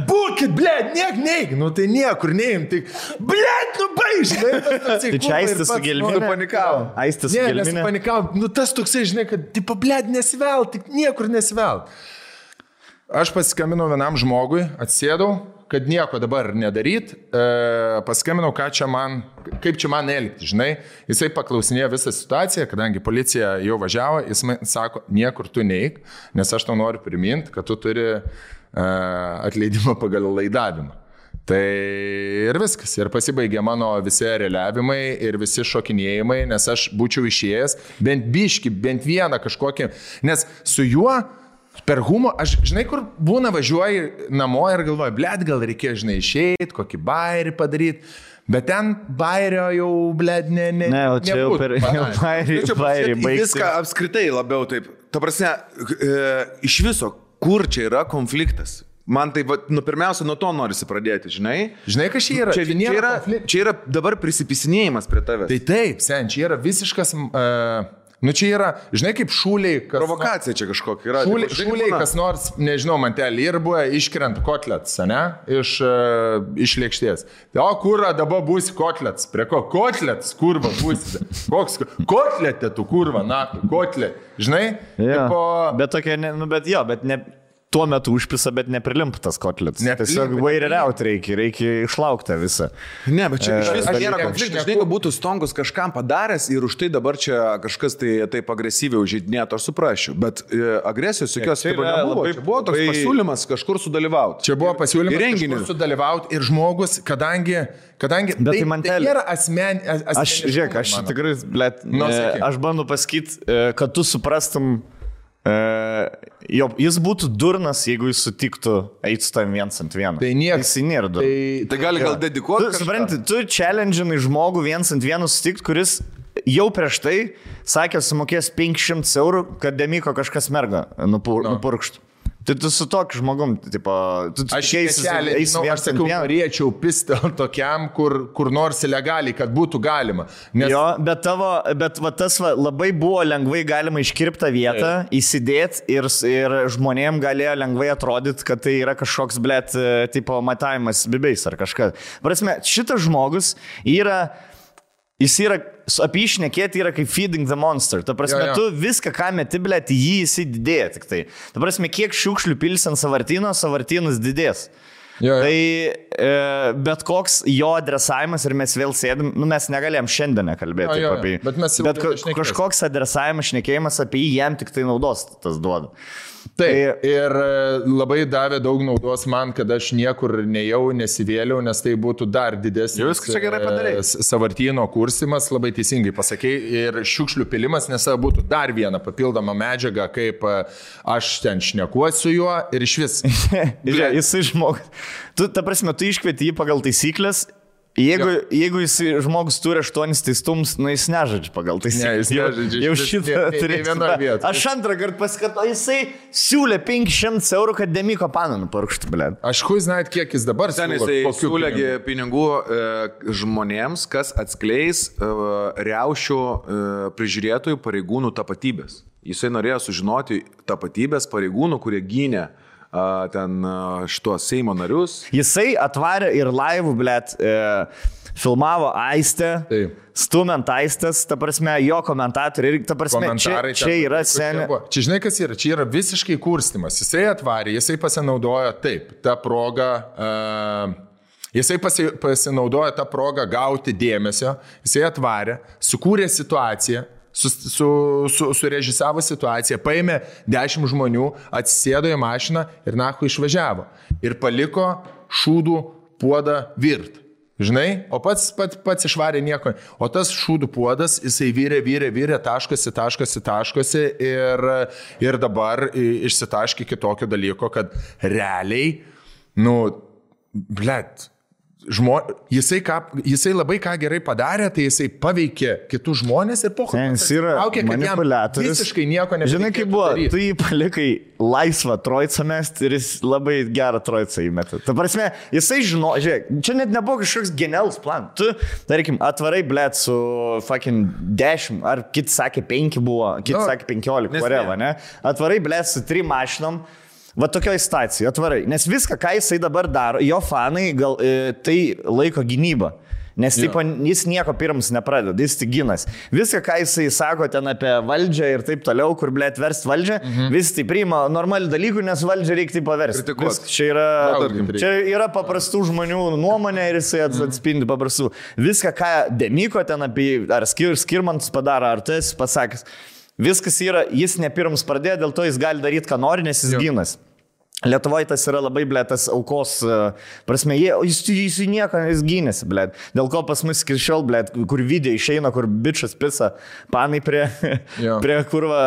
būkit, blėt, neik. Nu tai niekur neim, tik, blėt, baižinai. Tai čia Aistis su gelminė. Panikavo. Aistis su gelminė. Nepanikavo. Nu tas toksai, žinai, kad, tipo, blėt, nesivelt, tik niekur nesivelt. Aš pasiskambinau vienam žmogui, atsėdau, kad nieko dabar nedaryt, paskambinau, kaip čia man elgti, žinai. Jisai paklausinėjo visą situaciją, kadangi policija jau važiavo, jis man sako, niekur tu neik, nes aš tau noriu priminti, kad tu turi atleidimą pagal laidavimą. Tai ir viskas. Ir pasibaigė mano visi reliavimai ir visi šokinėjimai, nes aš būčiau išėjęs bent biški, bent vieną kažkokį. Nes su juo per humorą, aš žinai, kur būna važiuoji namo ir galvoju, blėt, gal reikėjo, žinai, išeiti, kokį bairį padaryti. Bet ten bairio jau, blėt, ne, o čia jau per bairį baigti. Viską apskritai labiau taip. Ta prasme, iš viso, kur čia yra konfliktas? Man tai, pirmiausia, nuo to norisi pradėti, žinai? Žinai, kas čia yra? Čia yra dabar prisipisinėjimas prie tavęs. Tai taip, sen, čia yra visiškas... čia yra, žinai, kaip šūliai... Provokacija čia kažkokia yra. Šūliai, kas nors, nežinau, mantelį ir buvo iškrent kotlets, ne? Iš lėkštės. O kurva dabar būsi kotlets? Prie ko? Kotlets, kurva būsi. Koks kotletė tu, kurva, na, kotlet. Žinai? Ja. Bet tokia, bet ne... Tuo metu užpisa, bet neprilimptas kotlets. Tiesiog vaireriaut reikia išlaukti visą. Ne, bet čia iš viso nėra konfliktas. Žinai, kad būtų Stonkus kažkam padaręs ir už tai dabar čia kažkas taip agresyviai užžeidinėtų, aš suprasčiau. Bet agresijos jokios nebuvo. Čia buvo toks pasiūlymas kažkur sudalyvauti. Čia buvo pasiūlymas kažkur sudalyvauti ir žmogus, kadangi tai nėra asmeninis. Aš tikrai, aš bandu pasakyti, kad tu suprastum, jis būtų durnas, jeigu jis sutiktų eiti su tavim 1-1. Tai niekas. Jis nėra durnas. Tai gali dedikuoti. Supranti, tu challenge'inai žmogų 1-1 sutikti, kuris jau prieš tai sakė, sumokės 500 eurų, kad Demiko kažkas merga nupurkštų. Tai tu su tokiu žmogum, tipo, aš sakiau, norėčiau pistel tokiam, kur nors legaliai, kad būtų galima. Nes... Jo, bet tas labai buvo lengvai galima iškirptą vietą, įsidėti ir žmonėm galėjo lengvai atrodyti, kad tai yra kažkoks, blėt, tipo, matavimas bibiais ar kažkas. Prasme, šitas žmogus jis yra, apie jį šnekėti yra kaip feeding the monster. Ta prasme, tu viską, ką meti, blėt, jį įsididėja tik tai. Ta prasme, kiek šiukšlių pilsi ant savartynas didės. Tai bet koks jo adresavimas ir mes vėl sėdim, mes negalėjom šiandien kalbėti apie jį. Bet kažkoks adresavimas, šnekėjimas apie jį jam tik tai naudos tas duoda. Taip, ir labai davė daug naudos man, kad aš niekur nejau, nesivėliau, nes tai būtų dar didesnis savartyno kursimas, labai teisingai pasakei, ir šiukšlių pilimas, nes būtų dar viena papildoma medžiaga, kaip aš ten šnekuosiu juo ir iš vis. Jisai žmogus. Ta prasme, tu iškvieti jį pagal taisyklės. Jeigu jis žmogus turi 8 teistums, jis nežaidžia pagal taisyklės. Jau šitą turėtų. Aš antrą kartą paskatau, jisai siūlė 500 eurų, kad Demiko paną nupurkštų, blėt. Aš žinai, kiek jis dabar siūlė pinigų žmonėms, kas atskleis riaušių prižiūrėtojų pareigūnų tapatybės. Jisai norėjo sužinoti tapatybės pareigūnų, kurie gynė ten šitos Seimo narius. Jisai atvarė ir laivų, blėt, filmavo Aistę, stumant Aistės, ta prasme, jo komentatoriai, ta prasme, čia yra senė. Čia žinai, kas yra? Čia yra visiškai kurstimas. Jisai atvarė, jisai pasinaudojo tą progą, jisai pasinaudojo tą progą gauti dėmesio, jisai atvarė, sukūrė situaciją, surežisavo situaciją, paėmė 10 žmonių, atsisėdo į mašiną ir nahu išvažiavo. Ir paliko šūdų puodą virt. Žinai? O pats išvarė nieko. O tas šūdų puodas, jisai vyrė, taškosi ir dabar išsitaškė kitokio dalyko, kad realiai, blėt, jisai labai ką gerai padarė, tai jisai paveikė kitus žmonės ir laukia, kad jam visiškai nieko nebereikėtų. Žinai, kaip buvo, tu jį palikai laisvą trojcą mest ir jis labai gerą trojcą įmetė. Ta prasme, jisai žiūrėk, čia net nebuvo kažkoks genialus plan. Tu, tarkim, atvarai, blėt, su fucking 10, ar kiti sakė 5 buvo, kiti sakė 15, whatever, ne? Atvarai, blėt, su 3 mašinom. Va tokioj stacijoje atvarai, nes viską, ką jisai dabar daro, jo fanai tai laiko gynybą, nes jis nieko pirms nepradeda, jis tik ginas. Viską, ką jisai sako ten apie valdžią ir taip toliau, kur, blėt, verst valdžią, vis tai priima normalių dalykų, nes valdžią reikia paversti. Čia yra paprastų žmonių nuomonė ir jisai atspindi paprastų. Viską, ką Demiko ten apie, ar Skirmantas padaro, ar tas pasakęs. Viskas yra, jis ne pirms pradėjo, dėl to jis gali daryti, ką nori, nes jis ginas. Lietuvoje tas yra labai, ble, tas aukos prasme, jis nieko gynėsi, ble. Dėl ko pas mus iki šiol, ble, kur video išeina, kur bičas pisa, panai prie kurva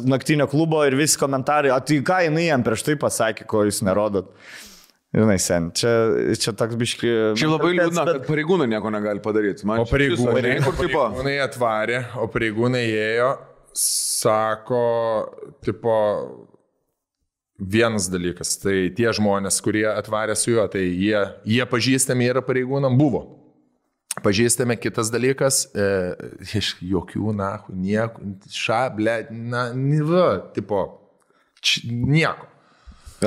naktinio klubo ir visi komentarai, o tai ką jinai jam prieš tai pasakė, ko jūs nerodot. Žinai, sen, čia toks biški... Čia labai liūdna, kad pareigūnai nieko negali padaryti. O pareigūnai atvarė, o pareigūnai ėjo, sako, tipo... Vienas dalykas, tai tie žmonės, kurie atvarė su juo, tai jie pažįstami yra pareigūnam, buvo. Pažįstami, kitas dalykas, iš jokių, nieko, tipo, nieko.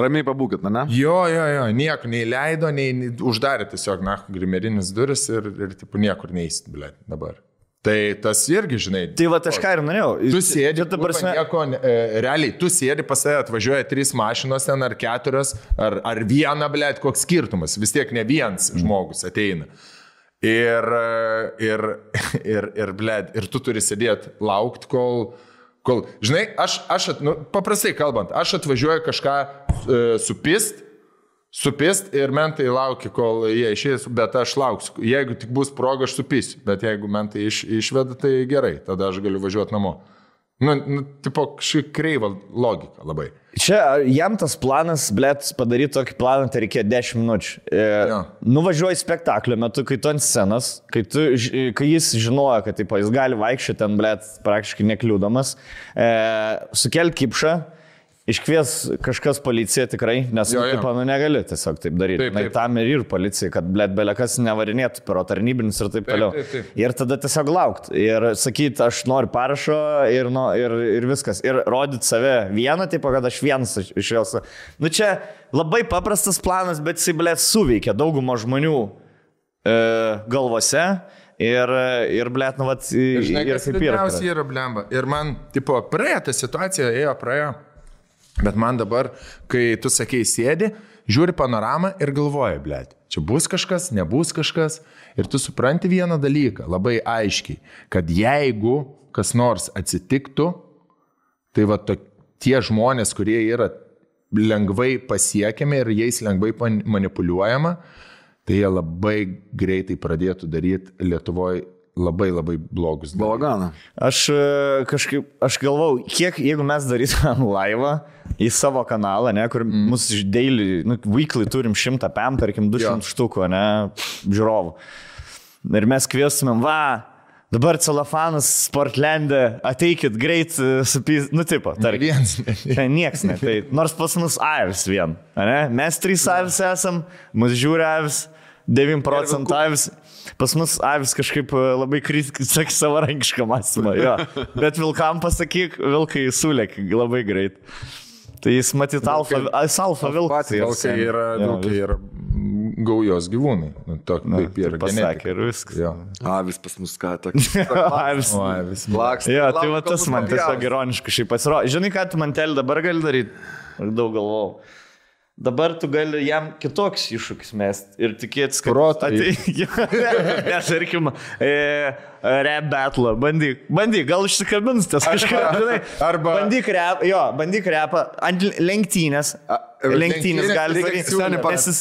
Ramiai pabūkit, ne? Jo, nieko, nei leido, nei uždarė tiesiog, grimerinis duris ir tipo, niekur neįsit, ble, dabar. Tai tas irgi, žinai. Tai va, aš ką ir norėjau. Tu sėdi, realiai, tu sėdi, pas tave atvažiuoja 3 mašinos ten, ar 4, ar vieną, blėt, koks skirtumas. Vis tiek ne vienas žmogus ateina. Ir blėt, ir tu turi sėdėti, laukti, kol žinai, paprastai kalbant, aš atvažiuoju kažką supist ir mentai laukia, kol jie išės, bet aš lauksiu. Jeigu tik bus proga, aš supisiu, bet jeigu mentai išveda, tai gerai, tada aš galiu važiuoti namo. Tipo, kažkaip kreiva logika labai. Čia jam tas planas, blėt, padaryti tokį planą, tai reikėjo 10 minučių. Nuvažiuoji spektaklio metu, kai tu ant scenos, kai jis žinojo, kad tipo, jis gali vaikščioti ten, blėt, praktiškai nekliūdamas, sukelt kipšą, iškvies kažkas policiją tikrai, nes negali tiesiog taip daryti. Taip. Tam ir policija, kad belekas nevarinėtų per tarnybinius ir taip toliau. Taip. Ir tada tiesiog laukti. Ir sakyti, aš noriu parašo ir viskas. Ir rodyti save vieną, taip, kad aš vienas iš jos. Čia labai paprastas planas, bet jis, blėt, suveikia daugumo žmonių galvose. Ir blėt, vat... Žinai, kas liūdniausiai yra blemba. Ir man, tipo, praėjo ta situacija, praėjo. Bet man dabar, kai tu sakei sėdi, žiūri panoramą ir galvoji, blėt, čia bus kažkas, nebus kažkas. Ir tu supranti vieną dalyką, labai aiškiai, kad jeigu kas nors atsitiktų, tai va tie žmonės, kurie yra lengvai pasiekiami ir jais lengvai manipuliuojama, tai jie labai greitai pradėtų daryti Lietuvoje labai blogus. Balaganą. Aš galvau, kiek, jeigu mes darytumėm laivą į savo kanalą, ne, kur mūsų daily, weekly turim 100 PM, tarkim 200 štukų, ne, žiūrovų. Ir mes kviestumėm, dabar celofanas Sportlande, ateikit greit supys, tipo, tarkim. Nieks ne, tai nors pas mus avis vien, ne, mes 3 avis esam, mus žiūri avis, 9% avis. Pas mus avis kažkaip labai sakė savarankišką mąstymą, bet vilkam pasakyk, vilkai sulėk labai greit. Tai jis matyt alfa vilkas. Vilkai yra gaujos gyvūnai. Taip ir pasakė ir viskas. Avis pas mus ką tokį. Avis laksta. Tai va tas man tiesiog ironiškai šiaip pasirodė. Žinai, ką tu mantelį dabar gali daryti? Aš daug galvau. Dabar tu gali jam kitoks iššūkis mest ir tikėtis, kad... Nes, tarkim, rap battle, bandyk, gal išsikabins tas kažką, žinai. Arba... Bandyk rapą ant lenktynės. Lenktynės gali daryti.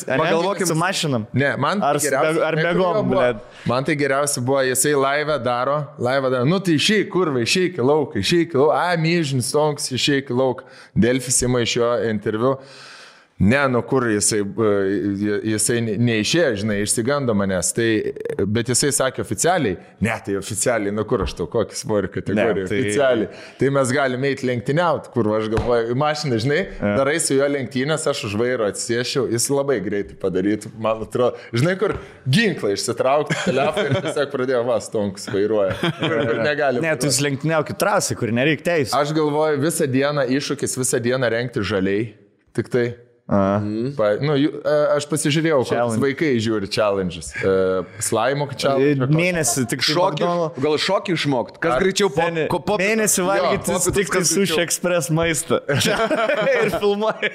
Pagalvokim su mašinam. Ne, man ar begom, blėd. Man tai geriausia buvo, jisai laivą daro, tai išeik, kurva, išeik į lauką, myžinis tonks, išeik į lauką. Delfis ima iš jo interviu. Ne, kur jisai neišėjo, žinai, išsigando manęs, bet jisai sakė oficialiai, tai oficialiai, kur aš tau, kokį svorį kategoriją, oficialiai, tai mes galime eiti lenktyniauti, kur aš galvoju, mašiną, žinai, darai su jo lenktynės, aš už vairo atsisėšiau, jis labai greitai padarytų, man atrodo, žinai, kur ginklą išsitraukti, telefoną ir tiesiog pradėjo stonkus vairuoja, kur negali. Ne, tu lenktyniaukit trasai, kur nereik teisų. Aš galvoju, visą dieną iššūkis, visą dieną rengti žaliai, tik tai. Aš pasižiūrėjau, kokius vaikai žiūri challenges. Slaimo challenge. Mėnesį tik šokį. Gal šokį išmokti? Kas greičiau po mėnesį valgyti tik Sushi Express maistą. Ir filmuoji.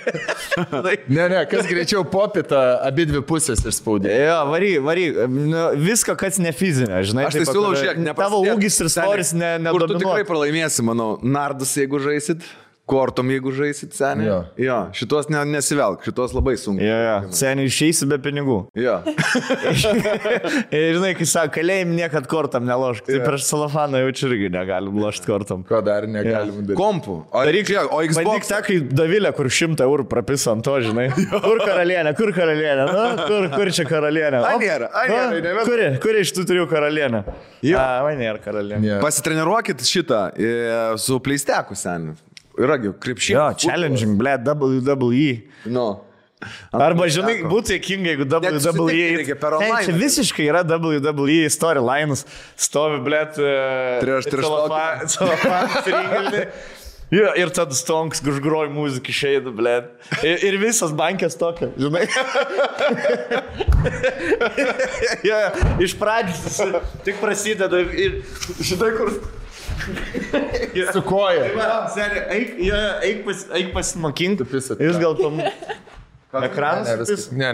Ne, kas greičiau popitą abi dvi pusės išspaudė. Vary. Viską, kas ne fizinė, žinai. Aš tai siūlau žiūrėk, tavo ūgis ir svoris nedominuoja. Kur tu tikrai pralaimėsi, manau, nardus, jeigu žaisit. kortom, jeigu žaisit seniai. Jo, šitos nesivelk, šitos labai sunku. Seniai išeisi be pinigų. Jo. Ir žinai, kai sako, kalėjim niekad kortam nelošk. Tai prieš celofaną jaučiu irgi negalim lošti kortam. Ko dar negalim daryti? Kompų. O Xbox. Bandyk tą, kai Davilė, kur 100 eurų prapisa ant to, žinai. Kur karalienė? Kur čia karalienė? Kur iš tų 3 karalienė? Man nėra karalienė. Pasitreniruokit šitą su pleisteku seniai. Yragi, krepšinį. Jo, challenging, WWE. No. Arba, žinai, būtų jėkinga, jeigu WWE. Čia visiškai yra WWE storylines. Stovi, blėt, celofan, ir tada Stonks gužgroji muziką išeina, blėt. Ir visas bankės tokia, žinai. Iš pradžių tik prasideda ir žinai, kur... Su koja. Eik pasimokink. Jūs gal tam... Ekranas? Ne.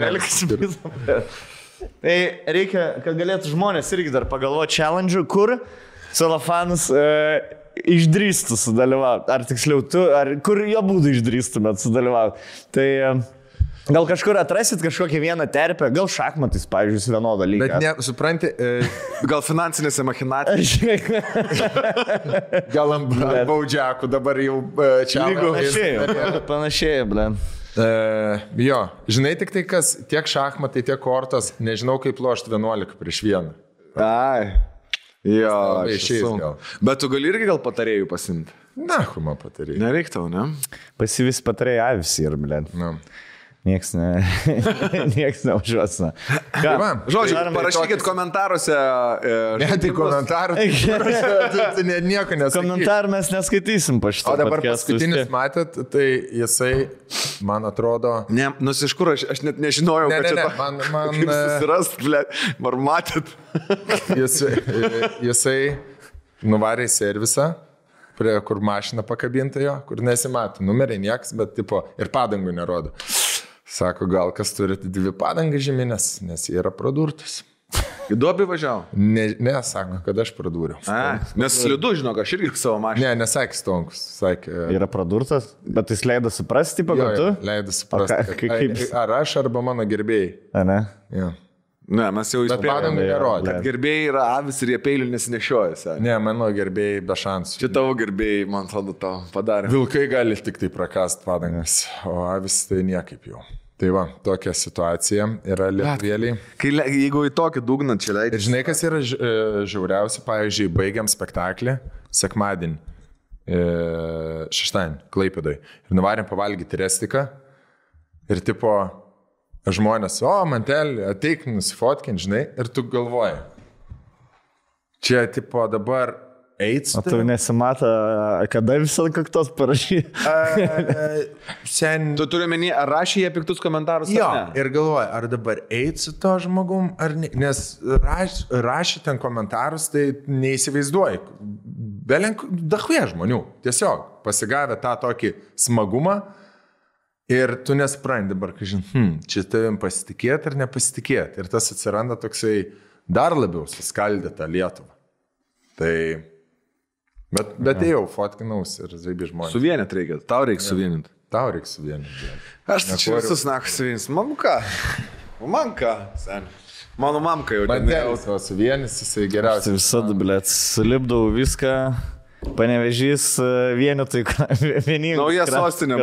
Tai reikia, kad galėtų žmonės irgi dar pagalvoti challenge, kur celofanas išdrįstų sudalyvauti. Ar tiksliau tu, ar kur jo būdų išdrįstumėt sudalyvauti. Tai... Gal kažkur atrasit kažkokią vieną terpę, gal šachmatais, pavyzdžiui, vienodą lygą. Bet ne, supranti, gal finansinėse machinacijose. Gal ant baudžiakų dabar jau čia. Panašiai, blin. Jo, žinai tik tai, kas tiek šachmatai, tiek kortos, nežinau kaip lošti 11 prieš 1. Ai, jo, išeis gal. Bet tu gali irgi gal patarėjų pasimti? Na, kuma patarėjų. Nereik tau, ne? Pasivis patarėjai avis ir, blin. Na. Nieks neužuosina. Žodžiu, parašykit komentaruose. Ne, tai komentarų. Tai nieko neskaitysim. Komentarų mes neskaitysim po šitą. O dabar paskutinis matėt, tai jisai, man atrodo... Ne, iš kur aš net nežinojau, kad čia man susirast, ar matėt. Jisai nuvarė į servisą, prie kur mašina pakabinta jo, kur nesimato. Numeriai nieks, bet tipo ir padangų nerodo. Sako, gal kas turite 2 padangas žeminės, nes jie yra pradurtus. Į duobį važiavo? Ne, sako, kad aš pradūriau. Nes slidu, žinok, aš irgi savo mašiną. Ne, nesakė Stonkus. Sakė, yra pradurtas, bet jis leido suprasti, tipo, kad tu? Leido suprasti. Ar aš, arba mano gerbėjai. A, ne? Jo. Ne, mes jau įspėjome, kad gerbėjai yra avis ir jie peilių nesinešioja. Ne, mano gerbėjai be šansų. Čia tavo gerbėjai, man atrodo, tau padarė. Vilkai gali tik tai prakast padangas, o avis tai niekaip jau. Tai va, tokia situacija yra lietuvėliai. Jeigu į tokį dugną čia leidžiu. Ir žinai, kas yra žiauriausia, pavyzdžiui, baigiam spektaklį sekmadienį, šeštadienį, Klaipėdoj. Ir nuvarėm pavalgyti restiką. Ir tipo, žmonės, mantelį, ateik, nusifotkint, žinai, ir tu galvoji. Čia, tipo, dabar eits. O tu nesimata, kada visą kaktos parašy? Tu turi menį, ar rašė jie piktus komentarus? Jo, ir galvoji, ar dabar eits su to žmogum, ar ne. Nes rašė ten komentarus, tai neįsivaizduoji. Belenk, dahuje žmonių. Tiesiog pasigavę tą tokį smagumą. Ir tu nesprendai dabar, kai čia tavim pasitikėti ar nepasitikėti. Ir tas atsiranda toksai dar labiau suskaldyta Lietuva. Tai... Bet jau fotkinausi ir zaibi žmonės. Suvienyti reikia, tau reikia suvienyti. Tau reikia suvienyti. Aš tai čia visus nakus suvienys. Mamka, sen. Mano mamka jau. Mandelis va suvienys, jisai geriausiai. Visada, blėt, sulipdau viską. Panevežys vienetai, vieningai. Nauja sostinė.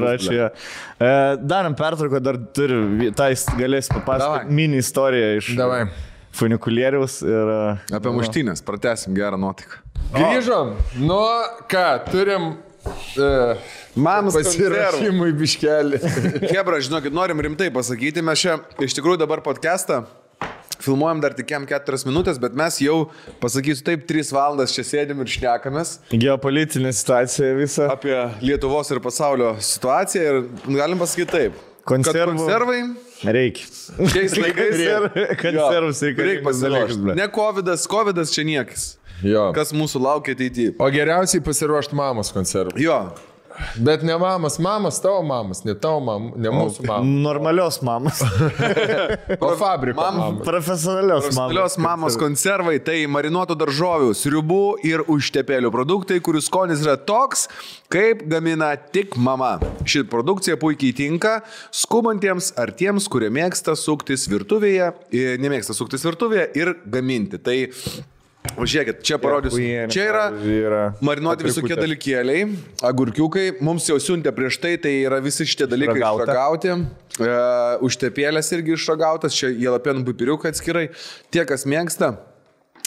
Darom pertrauką, dar turiu, tai galės papasakoti mini istoriją iš funikulieriaus. Apie muštynės, pratęsim gerą nuotaiką. Grįžom, ką, turim pasirašymui biškelį. Hebra, žinokit, norim rimtai pasakyti, mes čia iš tikrųjų dabar podcastą filmuojam dar tik 4 minutės, bet mes jau, pasakysiu taip, 3 valandas čia sėdim ir šnekamės. Geopolitinė situacija visa. Apie Lietuvos ir pasaulio situaciją ir galim pasakyti taip. Konservai reikia. Šiais laikais konservus reikia pasiruošti. Ne Covidas čia niekis. Jo. Kas mūsų laukia ateityje. O geriausiai pasiruošti mamos konservų. Jo. Bet ne mamos, tavo mamos, ne tavo mamos, ne mūsų mamos. Normalios mamos. O fabriko mamos. Profesionalios mamos konservai tai marinuotų daržovių, sriubų ir užtepėlių produktai, kurių skonis yra toks, kaip gamina tik mama. Ši produkcija puikiai tinka skubantiems ar tiems, kurie nemėgsta suktis virtuvėje ir gaminti. Tai žiūrėkit, čia parodysiu. Čia yra marinuoti visokie dalykėliai, agurkiukai. Mums jau siuntė prieš tai yra visi šitie dalykai išragauti. Užtepėlės irgi išragautas. Čia jalapenų pipiriukai atskirai. Tie, kas mėgsta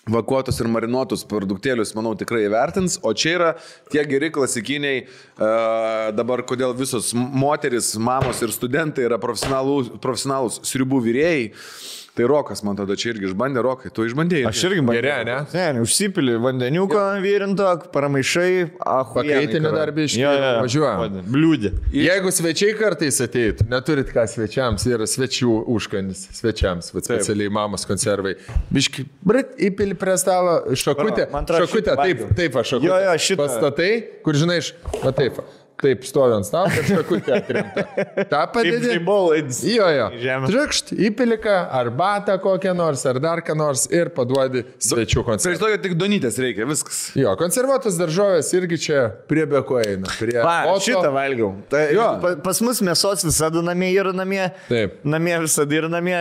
vakuotus ir marinuotus produktėlius, manau, tikrai įvertins. O čia yra tie geri klasikiniai, dabar kodėl visos moteris, mamos ir studentai yra profesionalūs sriubų virėjai. Tai Rokas, man tada čia irgi išbandė, Rokai, tu išbandėjai. Aš irgi bandėjau, ne? Ne, užsipili vandeniuko vyrinto, paramaišai, pakaitinį darbį važiuoja. Bliūdį. Jeigu svečiai kartais ateitų, neturit ką svečiams, yra svečių užkandis, svečiams, specialiai mamos konservai. Biški, įpili prie stalo šakutę, taip, šakutę. Pastatai, kur žinai, taip, stovi ant stalo, kad šakutė atkrinta. Ta padėdė. Jo. Trikšt, įpilika, arbatą kokią nors, ar dar ką nors ir paduodi svečių konservą. Prieš tokia tik donytės reikia, viskas. Jo, konservuotas daržovės irgi čia prie beko eina. Šitą valgiau. Pas mus mėsos visada namie yra namie. Taip. Namie visada yra namie.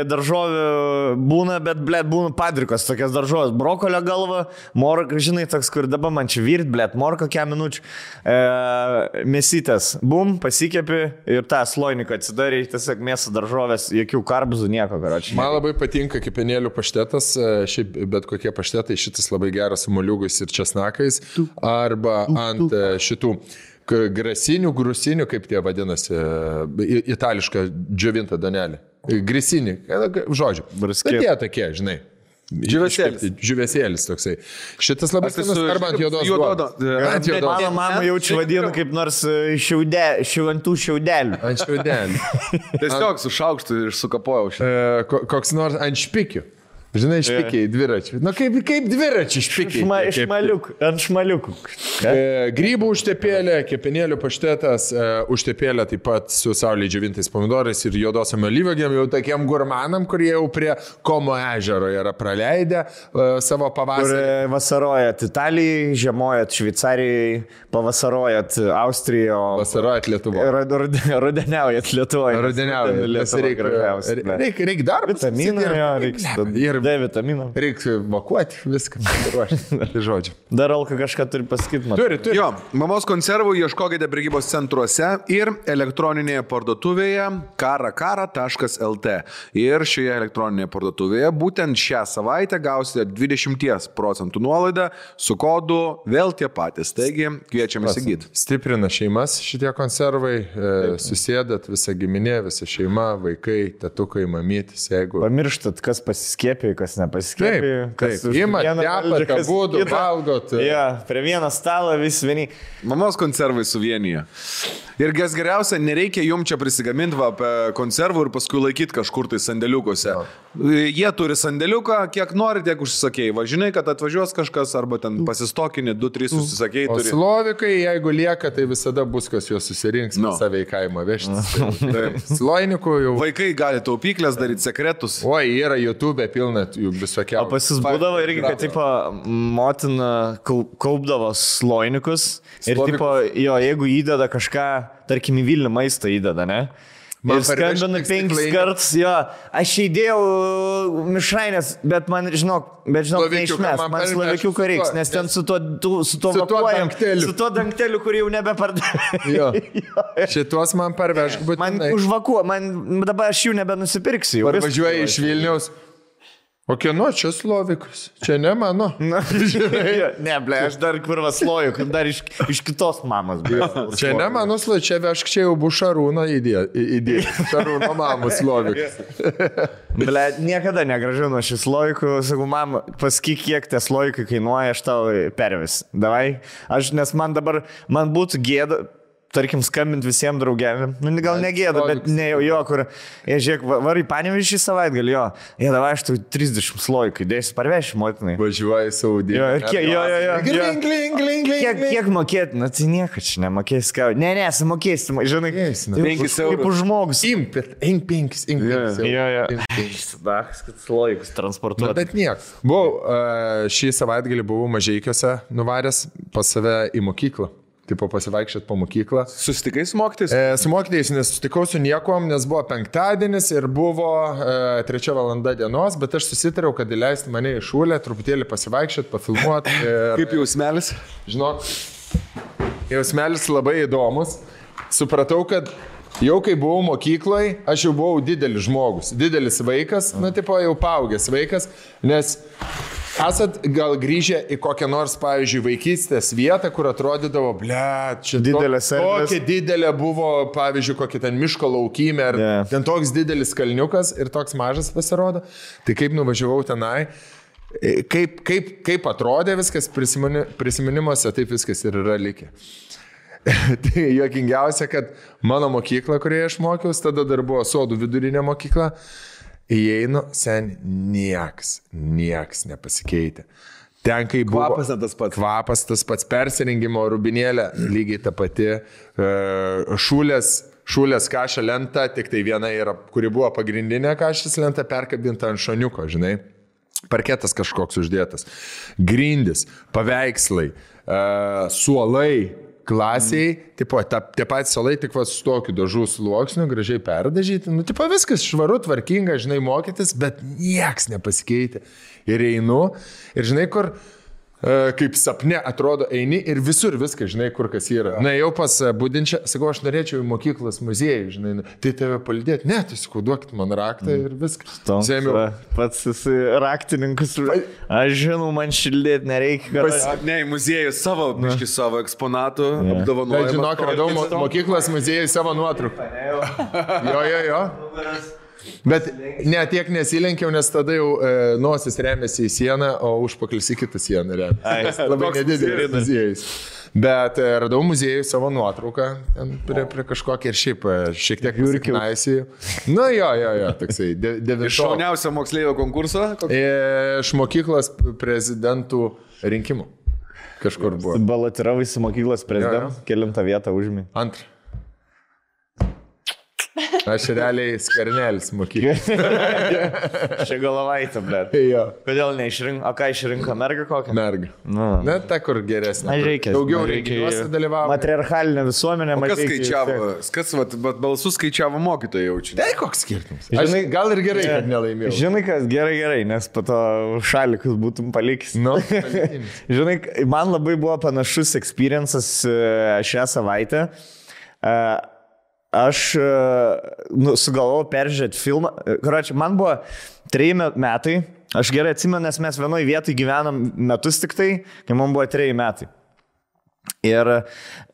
Daržovių būna, bet, būna padrikos, tokias daržovės. Brokolio galva, morka, žinai, toks, kur dabar man čia virt, morka kiek minučių. Mėsytės, pasikepi ir tą sloiniką atsidarė, tiesiog mėsą daržovės, jokių karbuzų, nieko, karočiui. Man labai patinka kepenėlių paštetas, šiaip bet kokie paštetai, šitas labai geras su moliūgais ir česnakais, arba ant šitų grusinių, kaip tie vadinasi, itališką džiovintą danelį. Grisinį, žodžiu. Bet jie tokie, žinai. Žiūvėsėlis toksai. Šitas labai skanus arba ant juodos duonos. Mano mama jaučiu vadinu kaip nors ant tų šiaudelių. Ant šiaudelių. Tiesiog su šaukštu ir sukapojau šitą. Koks nors ant špikių. Žinai, špikiai, dviračiai. Na kaip dviračiai špikiai. Ant šmaliukų. Grybų užtepėlė, kepenėlių paštetas, užtepėlė taip pat su saulėje džiovintais pomidorais ir juodosiam alyvuogėm, jau tokiem gurmanam, kurie jau prie Komo ežero yra praleidę savo pavasarį. Kur vasarojat Italijai, žiemojat Šveicarijai, pavasarojat Austrijoje. Vasarojat Lietuvoje. Rudeniaujat Lietuvoje. Rudeniaujat. Reikia darbą. Vitaminų, D vitaminą. Reikia vakuoti viską. Tai žodžiu. Dar Alka kažką turi pasakyti. Turi. Jo, mamos konservų ieškokite prekybos centruose ir elektroninėje parduotuvėje karakara.lt. Ir šioje elektroninėje parduotuvėje būtent šią savaitę gausite 20% nuolaidą su kodu vėl tie patys. Taigi kviečiame įsigyti. Stiprina šeimas šitie konservai, susėdat visa giminė, visa šeima, vaikai, tetukai, mamytis, jeigu... Pamirštat, kas pasiskėpė, kas nepasiskėpė. Taip. Imat, tepat, abudu, valgot. Prie vieną stalą vis vieni. Mamos konservai suvienyje. Ir kas geriausia, nereikia jums čia prisigaminti konservų ir paskui laikyti kažkur tai sandėliukose. Jie turi sandėliuką, kiek nori, tiek užsisakėjai. Važinai, kad atvažiuos kažkas arba ten pasistokinį, 2-3 užsisakėjai. O slovikai, jeigu lieka, tai visada bus, kas juos susirinks, save į kaimą vežtis. Sloinikų jau... Vaikai gali taupyklės daryti, sekretus. Oi, yra YouTube pilna jų visokiausių. O pas jis būdavo irgi, kad tipo, motina kaupdavo sloinikus ir tipo, jo, jeigu įdeda kažką, tarkim, į Vilnių maistą įdeda, ne? Ir skambina 5 kartus, jo, aš įdėjau mišrainės, bet man, žinok, neišmes, man slovikiuko reiks, nes ten su tuo dangteliu, kurį jau nebepardavė. Šitos man parvežk, bet... Man užvakuo, dabar aš jų nebenusipirksiu. Parvažiuoja iš Vilniaus. O kieno čia slovikas? Čia ne mano. Ne, aš dar kurva sloju, dar iš kitos mamos. Čia ne mano slovikas, čia vešk, čia jau bus Šarūno idėja. Šarūno mamos slovikas. Niekada negražinu šį slovikų. Sakau, mama, pasakyk, kiek tie slovikai kainuoja, aš tau pervis. Davai. Nes man dabar, man būtų gėda. tarkim, skambint visiems draugėm. Nu, gal negėda, bet ne jo, kur, žiūrėk, varai Panevėžį savaitgalį, jo. Jie davai, aš tu 30 slojų, dėsiu parveši, motinai. Važiuoji Saudį. Kiek mokėti? Na, tai nieko čia nemokėsi, ką. Ne, sumokėsi, žinai, 5 eurų. Už žmogus. Imk 5 eurų. Kad slojus transportuoti. Bet niek. Šį savaitgalį buvau Mažeikiuose nuvaręs pas save į mokyklą. Tipo pasivaikščiat po mokyklą. Susitikai su mokytais? Su mokytais nesusitikau su niekom, nes buvo penktadienis ir buvo 3 valanda dienos, bet aš susitariau, kad įleisti mane į šūlę, truputėlį pasivaikščiat, pafilmuot. Kaip jausmelis? Žinok, jausmelis labai įdomus. Supratau, kad jau kai buvau mokykloje, aš jau buvau didelis žmogus, didelis vaikas, tipo jau paaugęs vaikas, nes esat gal grįžę į kokią nors, pavyzdžiui, vaikystės vietą, kur atrodydavo, čia tokia didelė buvo, pavyzdžiui, kokia ten miško laukymė, ar ten toks didelis kalniukas ir toks mažas pasirodo. Tai kaip nuvažiavau tenai, kaip atrodė viskas prisiminimuose, taip viskas ir yra likę. Tai juokingiausia, kad mano mokykla, kurioje aš mokiausi, tada dar buvo Sodų vidurinė mokykla, įeinu, nieks nepasikeitė. Ten, kai buvo... Kvapas tas pats. Kvapas tas pats, persirengimo rubinėlė, lygiai ta pati, šūlės kašą lenta, tik tai viena yra, kuri buvo pagrindinė kašas lenta, perkabinta ant šoniuko, žinai. Parketas kažkoks uždėtas. Grindis, paveikslai, suolai, klasiai, tipo, tie patys salai tik su tokiu dažų sluoksniu, gražiai perdažyti, tipo, viskas švaru, tvarkinga, žinai, mokytis, bet nieks nepasikeitė. Ir einu, ir žinai, kur, kaip sapne atrodo, eini ir visur viskas, žinai, kur kas yra. Na, jau pas Budinčią, sakau, aš norėčiau į mokyklos muziejų, žinai, tai tave palydėti. Ne, tai sakau, duokit man raktą ir viskas. Pats esi raktininkas. Aš žinau, man šildėti nereikia. Ne, į muziejų savo eksponatų apdovanojimą. Žinok, radau mokyklos muziejų savo nuotrauką. Jo. Bet ne, tiek nesilenkiau, nes tada jau nosis remiasi į sieną, o užpaklis į kitą sieną remiasi. Labai nedidelis muziejus. Bet radau muziejų savo nuotrauką prie kažkokį ir šiek tiek jūrkiausi. Nu jo, toksai. Iš šauniausio moksleivio konkurso? Iš mokyklos prezidentų rinkimų. Kažkur buvo. Balotiravai su mokyklos prezidentu, kelintą vietą užimi. Antrą. Aš realiai Skvernelis mokyklos. Čia galavaitė, blėt. Jo. Kodėl neišrinko? O ką išrinko? Mergą kokią? Mergą. Ne, ta kur geresnė. Daugiau renginiuose dalyvavo. Matriarchalinė visuomenė. Kas skaičiavo? Kas balsus skaičiavo mokytojai jaučiu? Tai koks skirtumas? Žinai, gal ir gerai, kad nelaimėjau. Žinai, kas gerai, nes po to šalikus būtum palikęs. Žinai, man labai buvo panašus experiences šią savaitę. Aš sugalvojau peržiūrėti filmą. Karočiui, man buvo 3 metai. Aš gerai atsimenu, nes mes vienoje vietoje gyvenam metus tik tai, kai man buvo 3 metai. Ir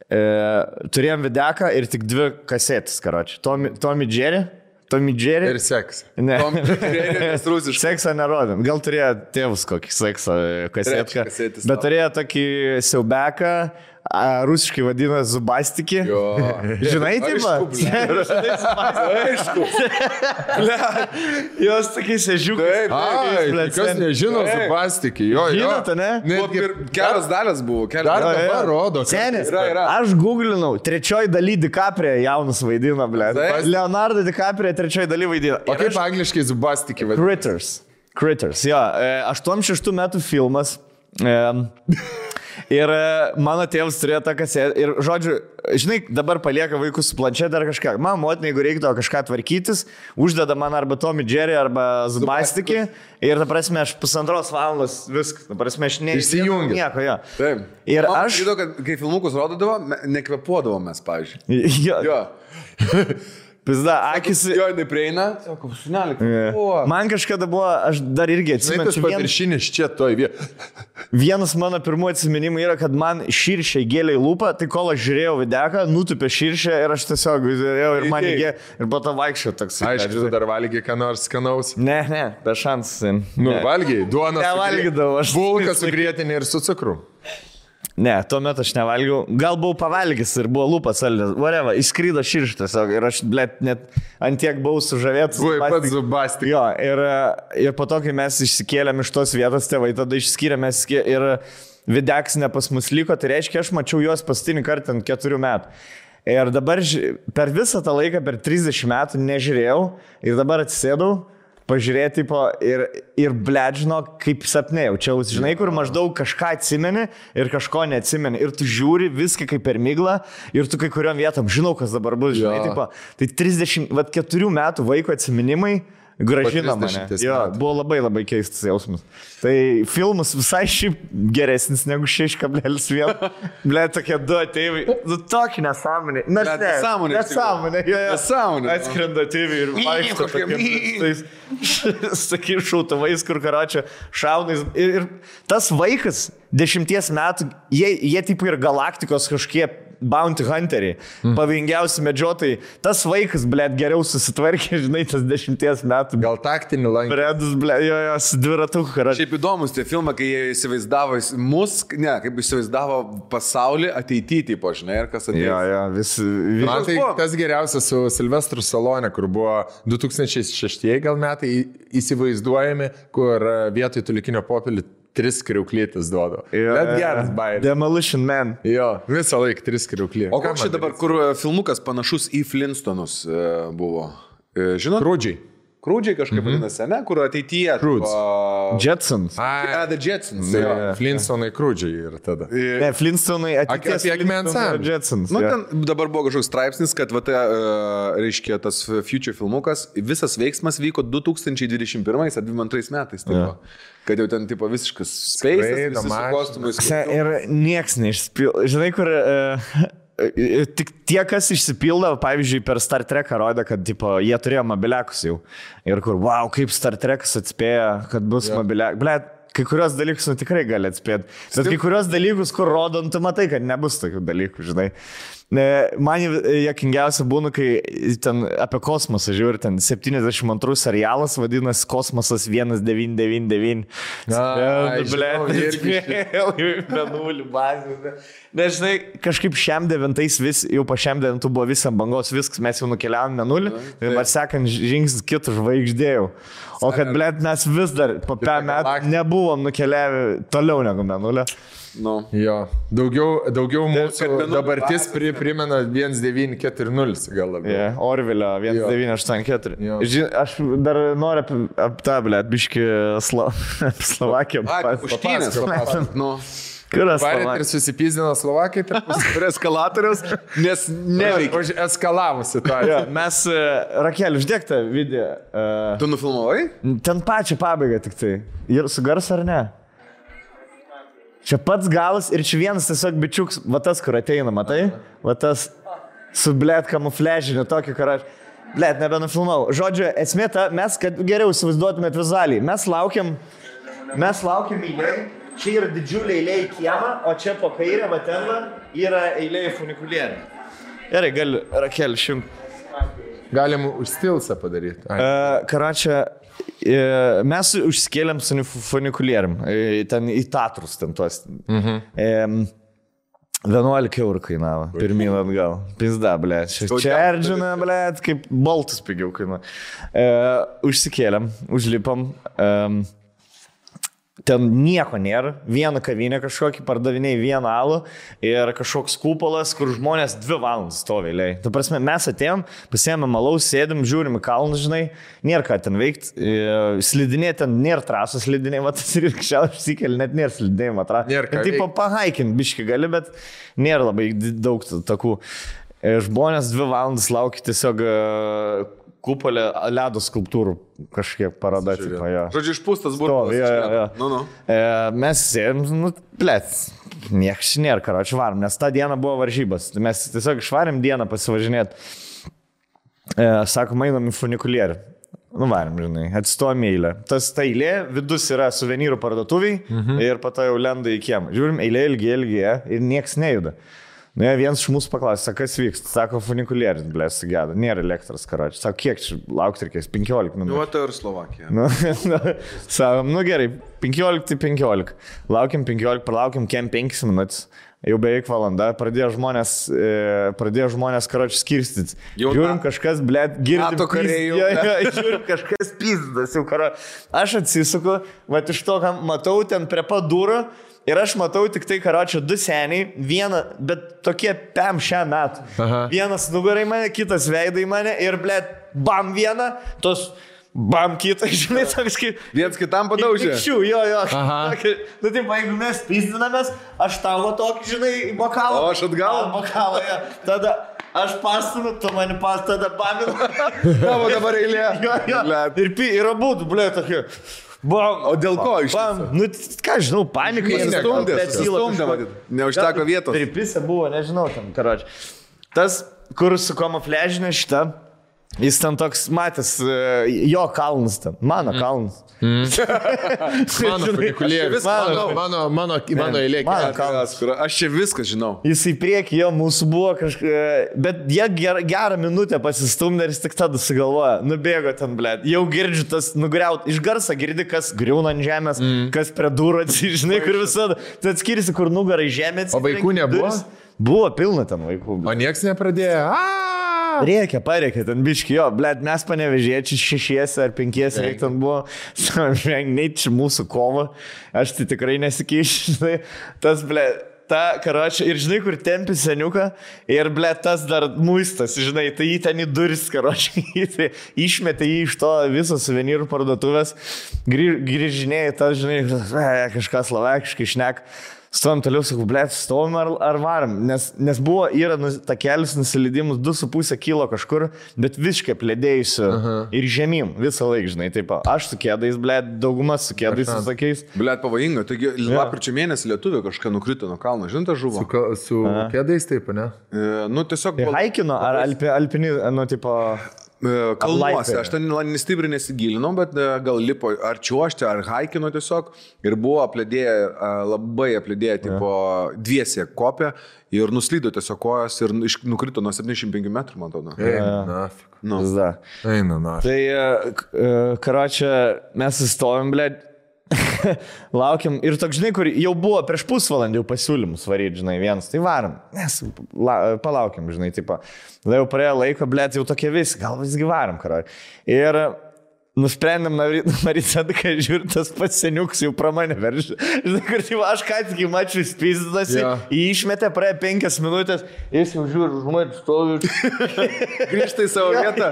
turėjom videką ir tik 2 kasetės, karočiui. Tommy Jerry. Ir seksą. Ne. Tommy Jerry, nes rusiškai. Seksą nerodėm. Gal turėjo tėvus kokį seksą kasetką. Bet turėjo tokį siaubeką. Rusiškai vadina Zubastiki. Žinai, taip pat? Aišku. Jos tokiais ežiukai. Kas nežino Zubastiki. Žinote, ne? Kelios dalis buvo. Dar dabar rodo. Senis. Aš googlinau. 3 daly DiCaprio jaunas vaidina, ble. Leonardo DiCaprio 3 daly vaidina. O kaip angliškai Zubastiki vadina? Critters, jo. 86 metų filmas. Ir mano tėvas turėjo tą kasetę. Ir, žodžiu, žinai, dabar palieka vaikus su planšetė ar kažką. Man motina, jeigu reiktų kažką tvarkytis, uždeda man arba Tommy Jerry, arba Zubastiki. Ir, ta prasme, aš 1,5 valandos viskas. Ta prasme, aš neįsijungiu. Nieko, jo. Taip. Ir man aš... Žinau, kad kai filmukus rodydavo, nekvepuodavo mes, pavyzdžiui. Jo. Pizda, akis... Jo, neprieina. Sako, sunelį. Man kažkada buvo, aš dar irgi atsimenu. Tas paviršinis čia toj vietoj. Vienas mano pirmų atsiminimų yra, kad man širšė gėlė į lūpą, tai kol aš žiūrėjau videką, nutupė širšę ir aš tiesiog žiūrėjau ir man įgė ir po to vaikščiau toks. Aišku, tu dar valgiai ką nors skanaus. Ne, be šansų. Valgiai, duoną. Nevalgydavau aš. Bulką su grietinė ir su cukru. Ne, tuomet aš nevalgiau. Gal buvau pavalgęs ir buvo lūpas saldės. Vareva, išskrydo širštas. Ir aš, blėt, net antiek buvau sužavėtas. Buvai pats zubastik. Jo, ir po to, kai mes išsikėlėm iš tos vietos, tėvai tada išskyrėme ir Videksinė pas mus liko, tai reiškia, aš mačiau juos paskutinį kartą ant 4 metų. Ir dabar per visą tą laiką, per 30 metų nežiūrėjau ir dabar atsisėdau. Pažiūrėti ir bledžino, kaip sapne jaučiausi. Žinai, kur maždaug kažką atsimeni ir kažko neatsimeni. Ir tu žiūri viską kaip per miglą ir tu kai kuriuom vietom žinau, kas dabar bus. Žinai, tipo, tai 34 metų vaiko atsiminimai gražina mane. Jo, buvo labai labai keistas jausmas. Tai filmas visai šiaip geresnis negu 6,1. Ble, tokie 2 ateiviai. Nu, tokį nesąmonį. Nesąmonė. Atskrenda ateiviai ir vaikšto tokiais sakai šautavais, kur karočią šaunais. Ir tas vaikas 10 metų, jie taip ir galaktikos kažkiek bounty hunteriai, pavojingiausi medžiotojai. Tas vaikas, blėt, geriau susitvarkė, žinai, tas 10 metų. Gal taktinį lankį. Bredus, blėt, jo, su dviratuku karočią. Šiaip įdomus tie filmai, kai jie įsivaizdavo kaip įsivaizdavo pasaulį ateityje, tipo, žinai, ir kas atėjo. Jo, Man tai tas geriausias su Silvestru Salone, kur buvo 2006 gal metai įsivaizduojami, kur vietoj tulikinio popelį 3 kriauklytis duodu. Bet geras bairis. Demolition Man. Jo, visą laiką 3 kriauklį. O koks čia dabar, kur filmukas panašus į Flintstonus buvo? Žinot? Krūdžiai kažkaip vadinasi, ne? Kur ateityje. Jetsons. The Jetsons. Flintstonai krūdžiai ir tada. Ne, Flintstonai ateities Jetsons. Nu, ten dabar buvo kažkoks straipsnis, kad reiškia tas Future filmukas, visas veiksmas vyko 2021 ar 2022 metais. Tipo. Kad jau ten tipo visiškas space'as, visi su kostumais. Ir nieks neišspildo. Žinai, kur... Tik tie, kas išsipildo, pavyzdžiui, per Star Treką rodė, kad tipo, jie turėjo mobiliakus jau. Ir kur, wow, kaip Star Trekas atspėjo, kad bus mobiliakus. Blet, kai kurios dalykus tikrai gali atspėti. Bet kai kurios dalykus, kur rodom, tu matai, kad nebus tokių dalykų, žinai. Man juokingiausia būna, kai ten apie kosmosą žiūri, ten 72 serialas vadinasi Kosmosas 1999. Menulį bazę. Nežinai, kažkaip šiam 9 jau po šiam 9 buvo visam bangos viskas, mes jau nukeliavom menulį ir man sekant žingsnis kitų žvaigždėjau. O kad, blėt, mes vis dar po 5 metų nebuvom nukeliavę toliau negu menulio. No. Jo, daugiau mūsų dabartis primena 1940 gal labiau. Yeah, Orvilio 1984. Aš dar noriu apie tą, blėt, biškį Slovakiją. Puštynės. Kuras ir susipizdino Slovakai prie eskalatoriaus, nes neveikia. Eskalavusi tą. Mes, Rakel, uždėk tą video. Tu nufilmavai? Ten pačią pabaigą tik tai. Ir su garsu ar ne? Čia pats galas ir čia vienas tiesiog bičiuks, va tas, kur ateina, matai? Va tas su blėt kamufležiniu tokį, kur aš, blėt, nebenufilmau. Žodžiu, esmė ta, mes, kad geriau įsivaizduotumėt vizualiai, mes laukiam eilėj, čia yra didžiulė eilė į kiemą, o čia po kairę, va ten yra eilė į funikulierių. Gerai, gali, Rakel, Galim užstilsą padaryti. Karočią, mes užsikėlėm su funikulierium, ten į Tatrus, ten tuos. 11 eurų kainavo, pirmyn atgal. Pizda, blėt. Čia Erdžina, blėt, kaip boltus pigiau kainavo. Užsikėlėm, užlipom. Ten nieko nėra, vieną kavinę kažkokį, pardavinėjai vieną alų ir kažkoks kupolas, kur žmonės 2 valandas stovi eilėj. Ta prasme, mes atėjom, pasiėmėm alaus, sėdim, žiūrim į kalnus, žinai, nėra ką ten veikti, slidinė ten nėra trasos slidinė, va tas ir kšiau išsikeli, net nėra slidinėjimo trasos. Tipo pahaikint biški gali, bet nėra labai daug takų. Žmonės 2 valandas laukia tiesiog kupolė ledo skulptūrų kažkiek paroda. Žodžiu, išpūstas burbulas. Mes sėdėm, blėt, nieks nėra, karočią varom, nes tą dieną buvo varžybas. Mes tiesiog išvarėm dieną pasivažinėti. Sakom, einam į funikulierių. Varim, žinai, atstojom eilę. Ta eilė, vidus yra suvenyrų parduotuviai ir po to jau lenda į kiemą. Žiūrim, eilė ilgi ir nieks nejuda. Vienas iš mūsų paklausė, kas vyksta. Sako, funikulierius, blė, sugeda. Nėra elektros, karočią. Sako, kiek čia laukti reikės? 15 minučių. Nu, tai ir Slovakija. Sakom, gerai. 15. Laukiam 15, pralaukiam kem 5 minutės. Jau beveik valanda, pradėjo žmonės karočiui skirstytis. Žiūrim kažkas, blėt, girdim. Žiūrim kažkas pizdas jau karo. Aš atsisuku, va iš to, ką matau ten prie pat durų. Ir aš matau tik tai, karočio, 2 seniai, vieną, bet tokie pem šią metų. Vienas nugarai mane, kitas veidai mane ir, blėt, bam vieną, tos bam kitą, žinai, toks kaip... Viens kitam padaužė. Jo. Nu, taip, jeigu mes pizdinamės, aš tavo tokį, žinai, bokalą. O aš atgal. Bokalą, jo. Tada aš pastumiu, tu mani tada baminu. Tavo dabar eilė. Jo. Ir abudu, blėt, tokie... Bam, o dėl ko iš viso? Nu, ką žinau, panikai. Sustumdė, neužteko vietos. Pripisa buvo, nežinau, tam, karoči. Tas, kur su kamufliažinė šita, jis ten toks matęs, jo kalnas ten, mano kalnas. Mano funikulierius, mano eilė. Mano kalnas. Aš čia viską žinau. Jis į priekį, jo, mūsų buvo kažkaip, bet jie gerą minutę pasistumdė ir jis tik tada sugalvoja, nubėgo ten, blėt. Jau girdžiu tas nugriaut, iš garso girdi, kas griūna ant žemės, kas prie durų atsižinai, kur visada. Tai atskirsi, kur nugarai žemės. O vaikų nebuvo? Buvo pilna ten vaikų. O nieks nepradėjo. Pareikia, ten biški, jo, blėt, mes panevežėčiai 6 ar 5 reik ten buvo, neit čia mūsų kova, aš tai tikrai nesikeišiu, žinai, tas, blėt, ta, karočią, ir žinai, kur tempi seniuką, ir, blėt, tas dar muistas, žinai, tai jį ten į duris, karočią, išmetė jį iš to viso suvenyrų parduotuvės, grįžinėjai, tas, žinai, kažką slovakiškai šnek. Stovim toliau, sakau, blėt, stovim ar varam, nes yra takelis nusileidimus 2,5 kilo kažkur, bet visiškai plėdėjusiu ir žemyn visą laiką, žinai, taip, aš su kėdais, blėt, daugumas su kėdais visokiais. Blėt, pavojinga, taigi lapkričio mėnesį Lietuvė kažką nukrito nuo kalno, žinai, ta žuvo. Su kėdais taip, ne? Nu, tiesiog... Haikino ar alpini, nu, tipo... Kalnuose, aš ten stipriai nesigilinau, bet gal lipo ar čiuošti, ar haikino tiesiog ir buvo labai aplėdėję, tipo, dviese kopė ir nuslydo tiesiog kojas ir nukrito nuo 75 metrų, man atrodo. Eina, na. Tai, karočią, mes įstovim, blėt, laukiam ir toks, žinai, kur jau buvo prieš pusvalandį pasiūlymus varyti, žinai, vienas, tai varom, nes palaukiam, žinai, tipo, jau praėjo laiko, blėt, jau tokie visi, gal visgi varom, karai. Ir nusprendėm naryti tada, kai žiūrint, tas pats seniuks jau pra mane veržė. Žinai, kur jau aš ką tik į mačių įspizdasi, jį išmetė, praėjo 5 minutės, jis jau žiūri, žmonės stovi. Grįžta į savo vietą.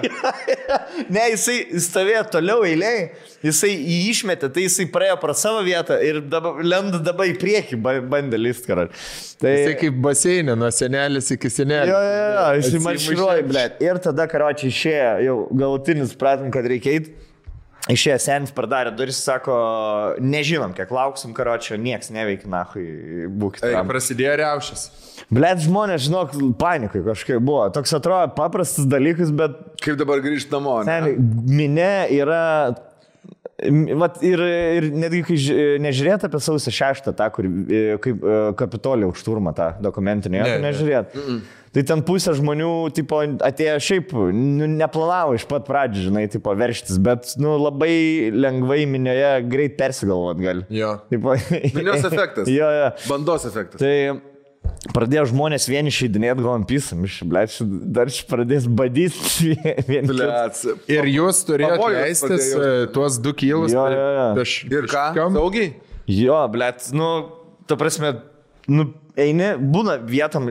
Ne, jisai stovėjo toliau eiliai, jisai jį išmetė, tai jisai praėjo pro savo vietą ir lenda dabar į priekį, bandė list, karai. Tai... Jisai kaip baseinė, nuo senelis iki senelės. Jo, jisai marširuoja, blėt. Ir tada, karočiai, išėjo, jau galutinis pratim, kad reikia eiti. Išėjo senis, pradarė duris, sako, nežinom, kiek lauksim, karočio, nieks neveikia, nahui, būkite. Prasidėjo riaušės. Blet, žmonės, žinok, panikai kažkaip buvo. Toks atrodo paprastas dalykas, bet... Kaip dabar grįžti namo, ne? Minė yra... Vat, ir netgi, kai nežiūrėt apie sausio 6, tą, kur kaip Kapitolijos šturmą, tą dokumentinį, nežiūrėt. Tai ten pusė žmonių, tipo, atėjo šiaip, neplanavo iš pat pradžių, žinai, tipo, verštis, bet, labai lengvai minioje greit persigalvot gali. Jo. Minios efektas. Jo. Bandos efektas. Tai pradėjo žmonės vieni išeidinėti, galvom pisam, dar pradės badyti vieni. Ir jūs turėjote leistis tuos 2 kilus. Ir ką? Saugiai? Jo, blėt, ta prasme, eini, būna vietom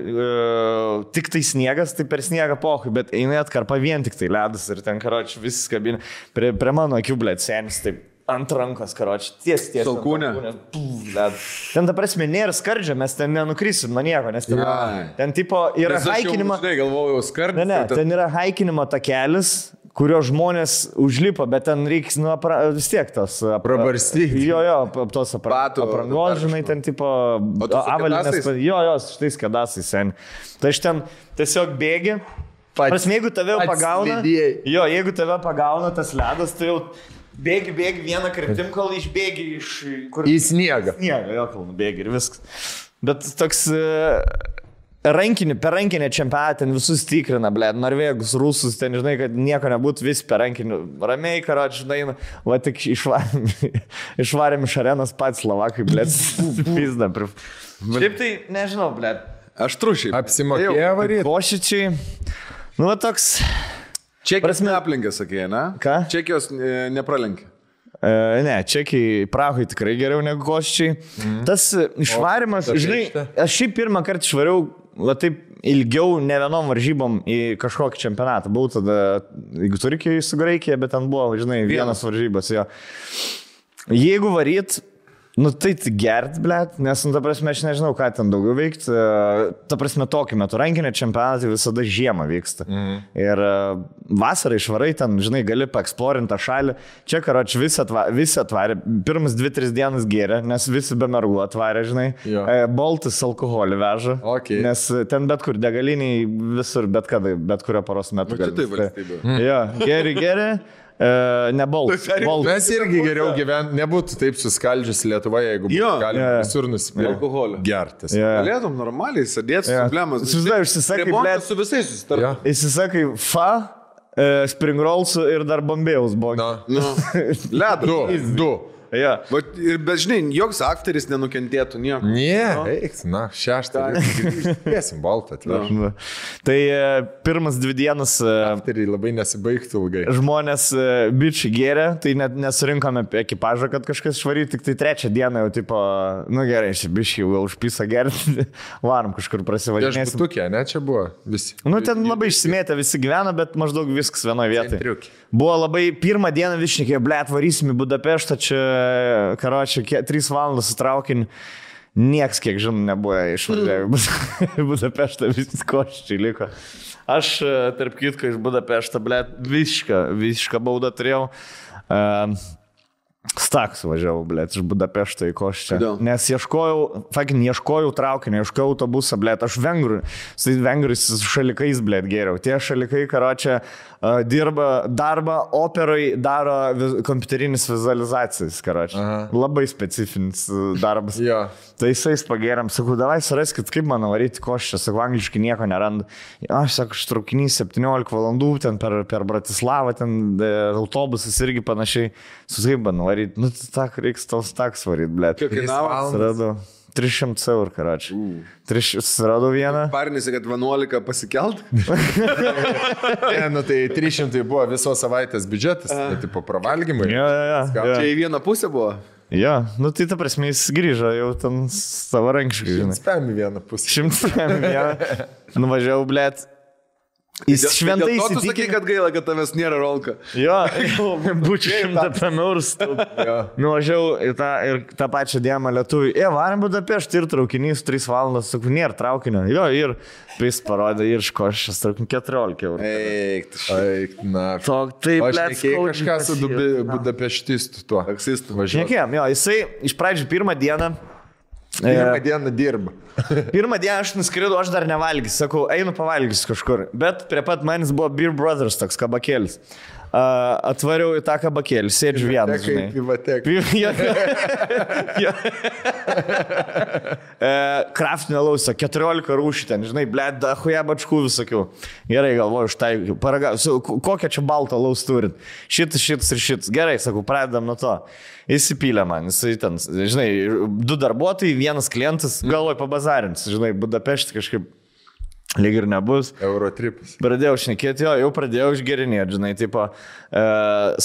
tik tai sniegas, tai per sniegą pohui, bet eini atkarpa vien tik tai ledas ir ten, karoči, viskas kabina. Prie mano akių, blėt, senis, taip. Ant rankos, karoči, ties. Salkūnė. Ten, ta prasme, nėra skardžio, mes ten nenukrysim nuo nieko, nes ten tipo yra haikinimo... Aš galvojau, skardžio. Ne, ten yra haikinimo takelis, kurio žmonės užlipo, bet ten reiks vis tiek tos... Prabarstyti. Jo, tos aprangos, žinai, ten tipo... Avalinės. Jo, šitais kedasais, sen. Tai aš ten tiesiog bėgi. Prasme, jeigu tave pagauna... Jo, jeigu tave pagauna tas ledas, tai jau... Bėgi vieną kryptim, kol išbėgi iš... Į sniegą. Sniegą, jo, kol bėgi ir viskas. Bet toks... per rankinę čempionatą ten visus tikrina, blėt, norvėgus, rusus, ten, žinai, kad nieko nebūtų, vis per rankinį. Ramiai, karoč, žinai, va tik išvarėm iš arenos pats Slovakai, blėt, pizda. Šiaip tai, nežinau, blėt. Aš trušiai. Apsimokėjo varyti. Košičiai, nu, va toks... Čekijos neaplenkė, sakė, ne? Ką? Čekijos nepralenkė. Ne, Čekiai, Prahai tikrai geriau negu Košičiai. Tas išvarimas, žinai, aš šiaip pirmą kartą išvariau, va taip ilgiau ne vienom varžybom į kažkokį čempionatą. Buvau tada, jeigu Turkijai su Graikija, bet ten buvo, žinai, vienas varžybas. Jo. Jeigu varyt, nu tai gert, blėt, nes, nu, ta prasme, aš nežinau, ką ten daugiau veikti. Ta prasme, tokį metu rankinio čempionatai visada žiemą vyksta. Ir vasarą išvarai ten, žinai, gali paeksplorinti tą šalį. Čia, karoč, visi atvarė. Pirmas 2-3 dienas gėrė, nes visi be mergų atvarė, žinai. Boltis alkoholį veža. Okay. Nes ten bet kur degaliniai visur, bet kada, bet kurio paros metu. Tai valstybė. Jo, geri. Ne Boltas. Mes irgi geriau gyventi, nebūtų taip suskaldžius Lietuvoje, jeigu galime visur nusipirkti alkoholio. Gertis. Galėtum normaliai sėdėti su problemas. Užsisakai, blėt, su visais susitarti. Įsisakai spring rollsų ir dar bombėjus buvo. Ledo. Du. Ja. Bet žinai, joks aktorius nenukentėtų nieko. Na, 6. Dėsim baltą. Tai pirmas 2 dienas aktoriai labai nesibaigtų ilgai. Žmonės bičiai gėrė, tai net nesurinkome ekipažą, kad kažkas švaryti, tik tai 3 dieną jau tipo, nu gerai, šį bičiai jau užpisa gerti, varom kažkur prasivažinėsim. Viešbutukė, ne, čia buvo visi. Nu, ten labai išsimėtę visi gyvena, bet maždaug viskas vienoje vietoje. Buvo labai, pirmą dieną višnikė, blėt, varysim į Budapeštą, čia karočią, 3 valandas su traukiniu. Nieks, kiek žinau, nebuvo išvažiavę Budapeštą, visi Košičiai liko. Aš, tarp kitko, iš Budapeštą, blėt, visišką baudą turėjau. Staks važiavau, blėt, iš Budapešto į Košičią. Nes ieškojau traukinio, ieškojau autobusą, blėt, aš vengrais su šalikais, blėt, geriau. Tie šalikai, karočią, dirba darbą, operai daro kompiuterinis vizualizacijas, karočią. Labai specifinis darbas. Tai jisais pagėrėm, sakau, davai suraskit, kaip man varyti Košičią, sakau, angliškai nieko nerandu. Aš sakau, traukinys 17 valandų, ten per Bratislavą, ten autobusas irgi panašiai. Suskaip man varyti, nu, reiks tau staks varyti, blėt. Kiek kainavo? 300 eurų, karočiui. Suradau vieną. Parinėsi, kad 11 pasikelt? Nu tai 300 buvo visos savaitės biudžetas, tai tipo pravalgymai. Čia į vieną pusę buvo? Jo, nu tai ta prasme jis grįžo jau ten savarankiškai, žinai. 100 vieną pusę. 100 vieną. Nuvažiavau, blėt. Jis šventai įsitikinę. Tu sakai, kad gaila, kad tavęs nėra rolka. Jo, būčiau 100 eurų. Nuvažiavau ir tą pačią dieną lietuvių. Varam Budapeštą ir traukinys 3 valandas, sakau, nėra traukinio. Jo, ir jis parodė ir iš Košičios traukinį 14 eurų. Eik, na. Taip, blėt, kažką su Budapeštistu tuo. Taksistu. Nekėjom, jo, jisai iš pradžių pirmą dieną dirba. Pirmą dieną aš nuskridau, aš dar nevalgysiu, sakau, einu pavalgysiu kažkur. Bet prie pat manis buvo Beer Brothers toks kabakėlis. Atvariau į tą kabakėlį, sėdžiu vienas, žinai. Kraftinio lauso, 14 rūšių ten, žinai, blėt, dachuja bačkų visokių. Gerai, galvoju, štai, paragausiu, kokią čia baltą laus turit. Šitas. Gerai, sakau, pradedam nuo to. Įsipylė man, jisai ten, žinai, 2 darbuotojai, 1 klientas, galvoju pabazarins, žinai, Budapeštą kažkaip lyg ir nebus. Eurotripas. Pradėjau šnekėti, jau pradėjau išgerinėti, žinai, tipo,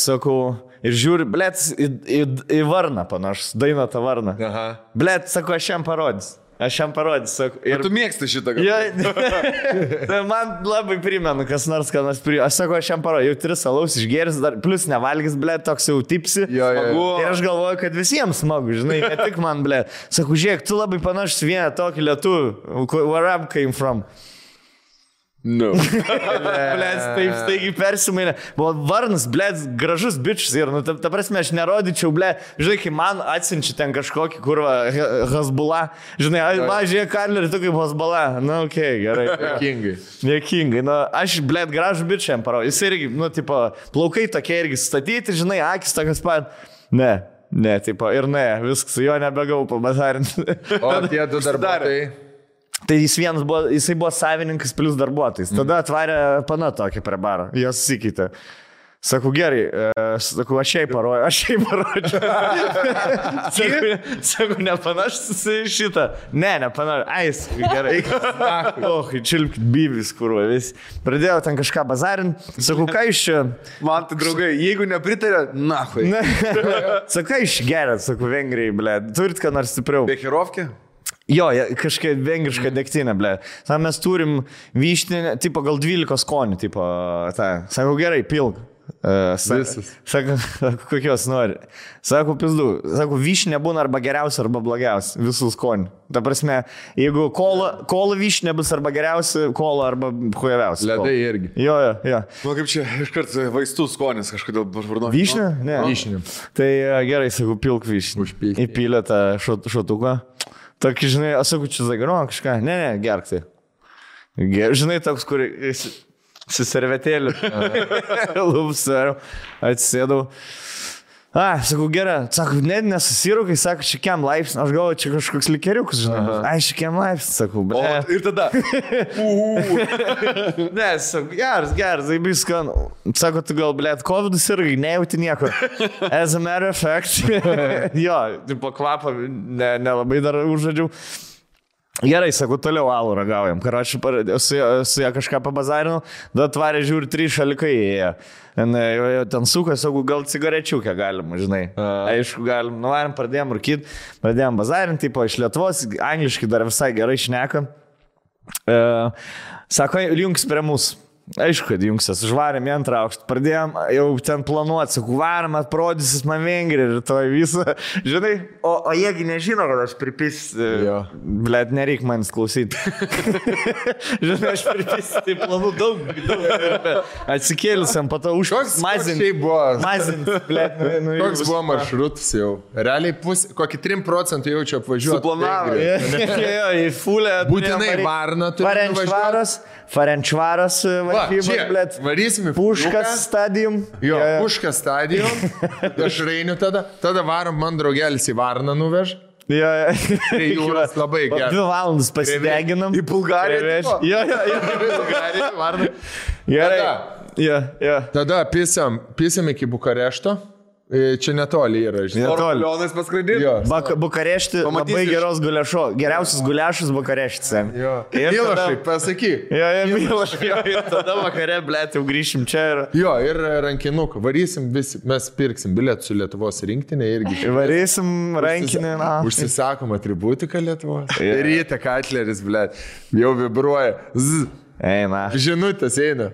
sakau, ir žiūri, blėt, į varną panašus, dainą tą varną. Blėt, sakau, aš jam parodys. Sakau. Ir tu mėgsti šitą gal? Tai man labai primenu, kas nors primenu. Aš sakau, aš jam parodžiu, jau 3 alaus išgėris, dar plus nevalgys, blėt, toks jau tipsi. Ir aš galvoju, kad visiems smagu, žinai, ne tik man, blėt. Sakau, žiūrėk, tu labai panašus vieną tokį lietuvį. Where I came from? No. Blėt, taip staigiai persimainė. Buvo varnas, blėt, gražus bičius ir, nu, ta prasme, aš nerodyčiau, blėt, žinai, kai man atsinči ten kažkokį kurvą Hezbollah, žinai, žiūrėk, Karlerį, tu kaip Hezbollah, nu, okei, gerai. Niekingai, nu, aš, blėt, gražų bičią jam parodžiu, jis irgi, nu, tipo, plaukai tokie irgi statyti, žinai, akis tokias pat, ne, tipo, ir ne, viskas, jo nebegau pabazarinti. O tie 2 darbuotojai? Tai jisai buvo savininkas plus darbuotojas. Tada atvarė pana tokį prie baro. Jos susikeitė. Sakau, gerai, aš šiai parodžiu. Sakau, nepanašus šitą. Nepanašus. Gerai. Čilpkit bybis, kurva, vis. Pradėjau ten kažką bazarinti. Sakau, ką iš čia? Man tai, draugai, jeigu nepritarė, nahui. Sakau, ką iš gerą, sakau, Vengrijai, ble. Turit ką nors stipriau. Bekirovkė? Jo, kažkaip vengrišką degtinę, ble. Tam mes turim vyštinę, tipo gal 12 skonių, tipo, sakau, gerai, pilk. Sako, kokios nori. Sako, pizdu. Sako, vyšnė būna arba geriausia, arba blogiausia. Visų skonių. Ta prasme, jeigu kola vyšnė bus arba geriausia, kola arba hujaviausia. Ledai irgi. Jo. Nu, kaip čia iškart vaistų skonis kažkodėl vardu. Vyšnė? Ne. Vyšnė. Tai gerai, sakau, pilk vyšnį. Užpilk. Įpylė tą šotuką. Tokį, žinai, aš sakau, čia zagaro kažką. Ne, gerk tai. Žinai, toks, kur... Su servetėliu. Lūpsariu. Atsisėdau. Sakau, gerai. Sakau, nesusirūkai, sako, šikiam laipsnį. Aš galvoju, čia kažkoks likeriukas, žinai. Šikiam laipsnį, sakau. O, ir tada. Ne, sakau, geras, tai viskan. Sako, tu gal, blėt, COVID irgi, nejauti nieko. As a matter of fact. Jo, tipo kvapą nelabai dar užžadžiau. Gerai, sakau, toliau alų ragaujam. Karoči, su ją kažką pabazarinu, da atvarė žiūri 3 šalikai įėjo. Ten suka, sakau, gal cigarečiukę galima, žinai. Aišku, galim. Nuvarim, pradėjom rūkyti, pradėjom bazarinti, tipo iš Lietuvos, angliškai dar visai gerai šneka. Sako, jungs prie mūsų. Aišku, kad jungsias, užvarėm į 2 aukštą, pradėjom jau ten planuoti, sakau, varom, atprodysis man Vengrija ir to visą, žinai, o jiegi nežino, kad aš pripis, blėt, nereik manęs klausyti. Žinai, aš pripis, tai planų daug, atsikėlusiam, po to mazint, blėt, koks buvo maršrutas jau, realiai kokį 3% jaučiu apvažiuoti. Suplanavo, į fulę. Būtinai Varną turime važiuoti. Ferencvaros varžybos, varysim į Puškas stadium. Jo, Puškas stadium. Aš reiniu tada varom man draugelis į Varną nuveš. Tai jūras labai gerai. 2 valandas pasideginam. Į Bulgariją. Jo, į Bulgariją, Varną. Gerai. Tada pisam iki Bukarešto. Čia netoli yra, žinai. Orlionas paskraidyti? Bukarešti labai geros guliašo. Geriausias guliašas Bukareštis. Milošai, pasakyk. Milošai. Ir tada vakare, blėt, jau grįšim čia. Ir rankinuką. Varysim visi, mes pirksim bilietų su Lietuvos rinktinė irgi. Varysim rankinį. Užsisakom atributiką Lietuvos. Ryte Katleris, blėt, jau vibruoja. Eina. Žinutės eina.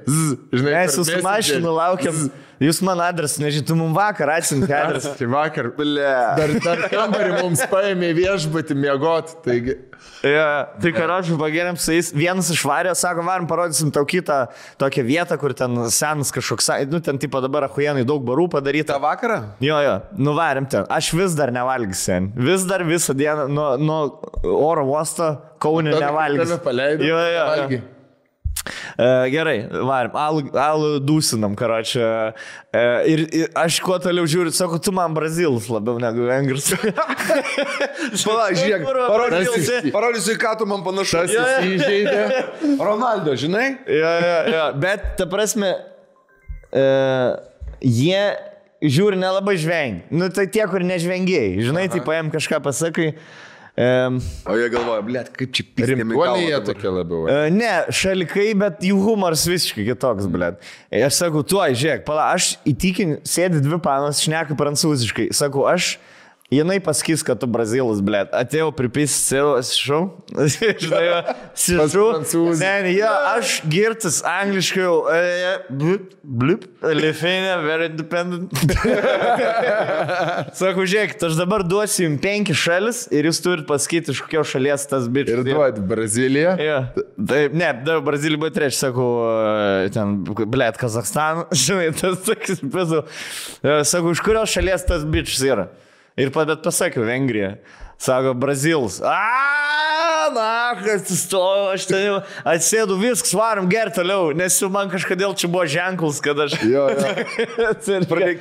Žinai, mes su mašinu laukiam. Jūs man adresą, nežinai, tu mums vakar atsinti adresą. Tai vakar, dar kambarį mums paėmė viešbutį miegoti, taigi. Tai karočiui pagėrėm su jais, vienas išvarė, sako, varom parodysim tau kitą tokią vietą, kur ten senas kažkoks, ten tipo dabar achujenai daug barų padaryta. Ta vakarą? Jo, nuvarėm ten. Aš vis dar nevalgysiu, vis dar visą dieną nuo oro uosto Kaune nevalgysiu. Tave paleidau, valgy. Gerai, varim, alų dūsinam, karočią. Ir aš kuo toliau žiūriu, sako, tu man brazilas labiau negu vengras. Pala, žiūrėk, parodysiu, ką tu man panašus. Įžeidė. Ronaldo, žinai? Jo, bet, ta prasme, jie žiūri nelabai žvengi. Nu, tai tie, kur nežvengiai. Žinai, tai paėm kažką pasakai. O jie galvoja, blėt, kaip čia pistėmi galva. Rimtuoliai tokie labiau. Ne, šalikai, bet jų humoras visiškai kitoks, blėt. Aš sakau, tuoj, žiūrėk, pala, aš įtikinu, sėdi 2 panos, šneka prancūziškai. Sakau, jinai pasakys, kad tu brazilas, blėt. Atėjau pripisi, šau. Žinai, aš girtas angliškai jau. Blip, Lithuania, very independent. Sakau, žiūrėk, aš dabar duosiu jums 5 šalis ir jūs turit pasakyti, iš kokios šalies tas bičias. Ir duoti Braziliją? Ne, Brazilija buvo 3, sakau, ten, blėt, Kazakstaną. Žinai, tas sakys, sakau, iš kurios šalies tas bičias yra. Ir bet pasakiau, Vengrija. Sako, Brazilas. Na, atsistoju, aš ten jau atsėdu, viskas, varom gerti toliau, nes jau man kažkodėl čia buvo ženklas, kad aš... Jo.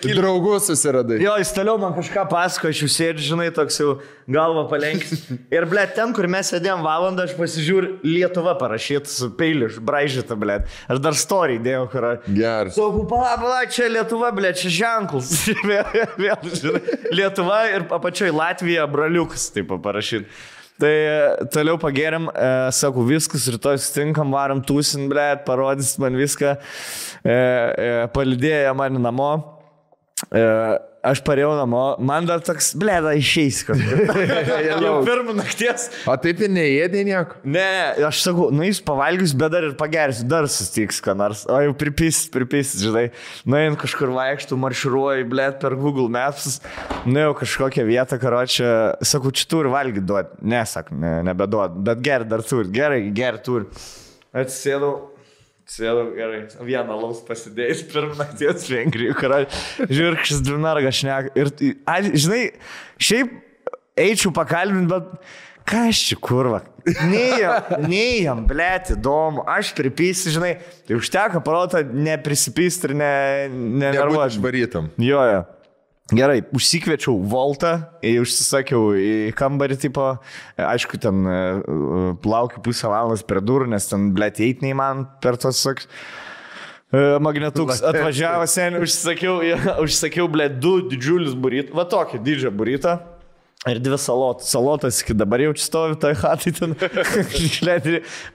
Draugus susiradai. Jo, jis toliau man kažką pasako, aš jau sėdžiu, žinai, toks jau galva palenkis. Ir, ble, ten, kur mes sėdėjom valandą, aš pasižiūriu Lietuva parašyta su peiliu, braižyta, ble. Aš dar story dėjau, kur... Geras. Sakau, pala, čia Lietuva, ble, čia ženklas. Vėl, žinai, Lietuva ir apačioj Latvija, braliukas, taip parašyta. Tai toliau pagėrėm, sakau, viskas, rytoj sutinkam, varom tūsin, ble, parodys man viską, palidėjo mane namo. Aš parėjau namo, man dar toks, ble, da išeis kažkas. Jau pirmą nakties. O taip ir neėdė nieko? Ne, aš sakau, jis pavalgius, bet dar ir pagersiu, dar sustiks, ką nors. O jau pripis, žinai. Nuėjant kažkur vaikštų, marširuoju, ble, per Google Maps. Nuėjau kažkokią vietą, karočią. Sakau, čia turi valgyti duoti. Ne, sak, nebeduot. Bet geri dar turi. Gerai turi. Atsisėdau. Gerai, vieną laus pasidėjęs pirmą nakties Vengrijų, žiūrėk, šis dvinarga šneka. Ir, žinai, šiaip eičiau pakalbinti, bet ką aš čia kurva? Neįjam, blėti, įdomu, aš pripysi, žinai, tai užteko parotą neprisipysti ir nenervuoti. Išvarytam. Jo. Gerai, užsikviečiau Voltą, užsisakiau į kambarį, tipo, aišku, ten plaukiu pusę valandos per durų, nes ten, blėt, eit neįman per tos, saks, magnetuks atvažiavo seniai, užsisakiau, blėt, 2 didžiulius burytus, va tokį didžią burytą. Ir 2 salotas. Salotas iki dabar jau čia stovi toj hatai ten.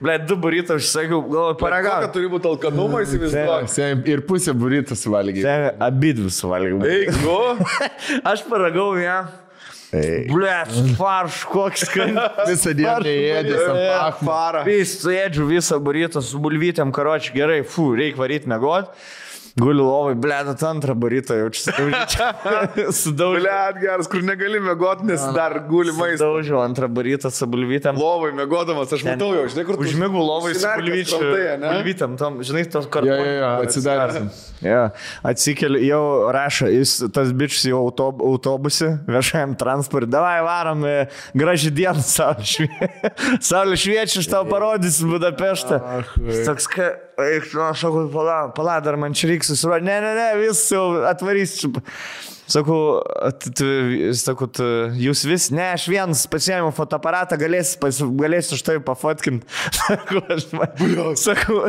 Ble, 2 burytą užsakiau, galvoju, paragau. Kokia turi būti alkanumą, įsivaizduoju. Ir pusę burytą suvalgiai. Abidvi suvalgiau. Eik, Aš paragau ją. Ble, farš, koks skanus. Visą dieną neėdės ant parą. Suėdžiu visą burytą su bulvytėm, karoči, gerai, reikia varyti mėgot. Guliu lovai, blėdat antrą barytą, jau čia sudaužiu. Blėd geras, kur negali mėgoti, nes dar guli maistą. Sudaužiu antrą barytą su bulvytėm. Lovai mėgodamas, aš matau jau, žinai, kur tu... Užmigų lovai su bulvytėm, žinai, tos kartu. Jo, atsidarėsim. Atsikeliu, jau rašo, tas bičius jau autobusį, viešajam transportui, davai varom, graži diena, saulė šviečia, aš tau parodysiu Budapeštą. Toks, aš sakau, pala, dar man čia reiks susiruoti. Ne, vis jau atvarysiu. Sakau, jūs vis, ne, aš vienas pasiėmiau fotoaparatą, galėsiu štai pafotkinti. Sakau,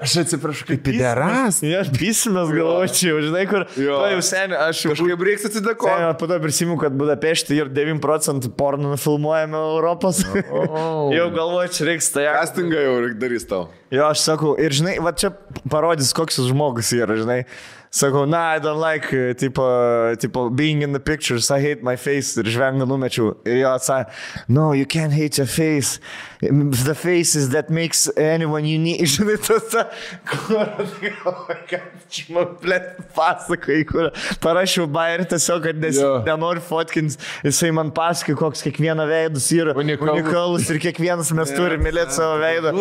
aš atsiprašau, kaip pideras. Aš pysimės galvočiau, žinai, kur, jau seniai, aš kažkaip reiks atsidėkoti. Po to prisimenu, kad Budapešte ir 9% porno filmuojame Europos. Jau galvočiau, reiks tai. Castingą jau darys tau. Jo, aš sakau, ir žinai, va čia parodys, koks jis žmogus yra, žinai. Sakau, I don't like, tipo, being in the pictures, I hate my face, ir žvengą numečiau. Ir jo atsakė, no, you can't hate your face, the face is that makes anyone unique. Žinai, čia man plėt pasakai, kur parašiau bairį tiesiog, kad nenori fotkins, jisai man pasakai, koks kiekviena veidus yra unikalus ir kiekvienas mes turime mylėti savo veidą.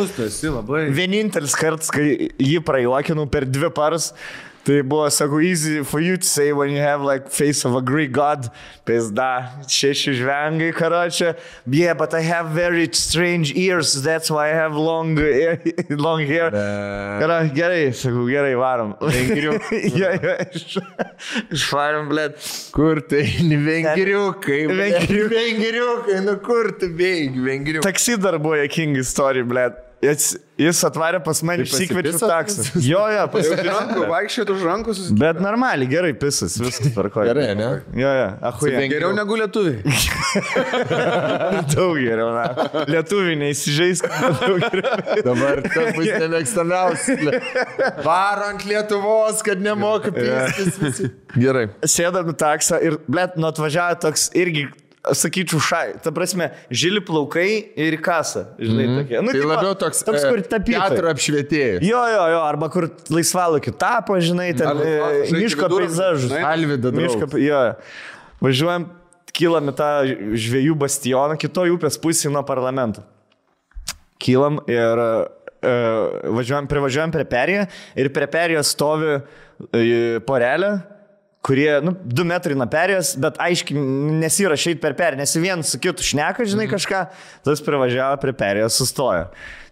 Vienintelis kartas, kai jį prajuokinau per 2 paras, tai buvo, sakau, easy for you to say when you have like face of a Greek god. Pizda, 6 žvengai, karočią. Yeah, but I have very strange ears, that's why I have long hair. Gerai, sakau, gerai, varom. Vengriukai. Išvarom, blėt. Kur tai? Vengriukai. Vengriukai, nu kur tu bėgi, vengriukai. Taksi dar buvo jokinga istorija, blėt. Jis atvarė pas mane, išsikviečiu taksą. Jo, vaikščiot už rankus. Bet normaliai, gerai pisas, viskas tvarkoja. Gerai, ne? Jo, achuja. Geriau negu lietuviai. Daug geriau, na. Lietuviai neįsižeisk. Dabar tas bus nemėgstamiausias. Varo ant Lietuvos, kad nemoka pistis visi. Gerai. Sėdam taksą ir, blėt, nu atvažiavo toks irgi, sakyčiau, ta prasme, žili plaukai ir kasą, žinai, tokie. Nu, tai labiau toks kur teatro apšvietėjas. Jo, arba kur laisvalaikiu tapo, žinai, ten miško peizažus. Alvyda draugas. Jo, važiuojam, kylam į tą žvejų bastioną, kitoj upės pusėje nuo parlamento. Kylam ir privažiuojam prie perėjo ir prie perėjo stovi porelė, kurie, 2 metrai nuo perėjos, bet aiškiai nesirašyti per perėją, nes vien su kitu šneka, žinai, kažką, tas privažiavo prie perėjos, sustojo.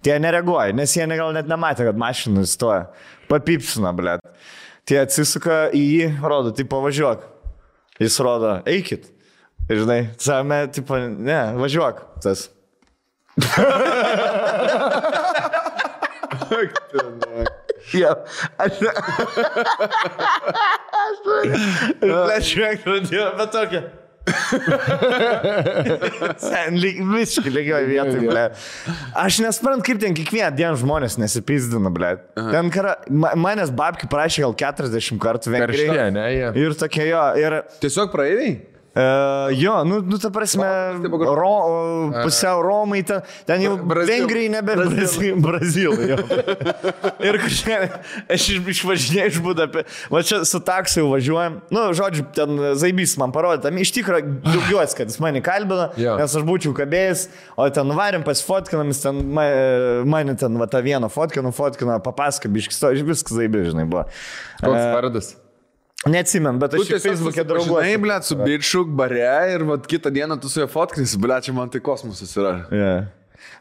Tie nereaguoja, nes jie gal net nematė, kad mašinų stoja. Papipsina, blėt. Tie atsisuka į jį, rodo, tai pavažiuok. Jis rodo, eikit. Ir žinai, savame, tipo, ne, važiuok. Tas. Ja, aš žiūrėk, pradėjau, bet tokia. Sen, visiškai lygioj vietoj, ble. Aš nesprantu, kaip ten kiekvieną dieną žmonės nesipizdina, ble. Ten manęs babki prašė gal 40 kartų Vengrijai. Karštė, ne, jie. Ir tokie jo, ir... Tiesiog praeiviai? Jo, ta prasme, pusiau Romai, ten jau Vengrijai nebe Brazilai. Ir kažkaip, aš išvažinėjau iš Budapeštos, va čia su taksiu važiuojam, žodžiu, ten Zaibys man parodė, tam iš tikrųjų džiaugiuosi, kad jis mane kalbino, nes aš būčiau kabėjęs, o ten nuvarėm pasifotkinam, jis ten mane ten va tą vieną fotkino, papasako, biškis, viskas Zaibys, žinai, buvo. Koks vardas? Neatsimenu, bet aš Facebook'e drauguoju. Žinai, blėt, su bičiu bare ir vat kitą dieną tu su juo fotkins, blėt, čia man tai kosmosas yra. Yeah.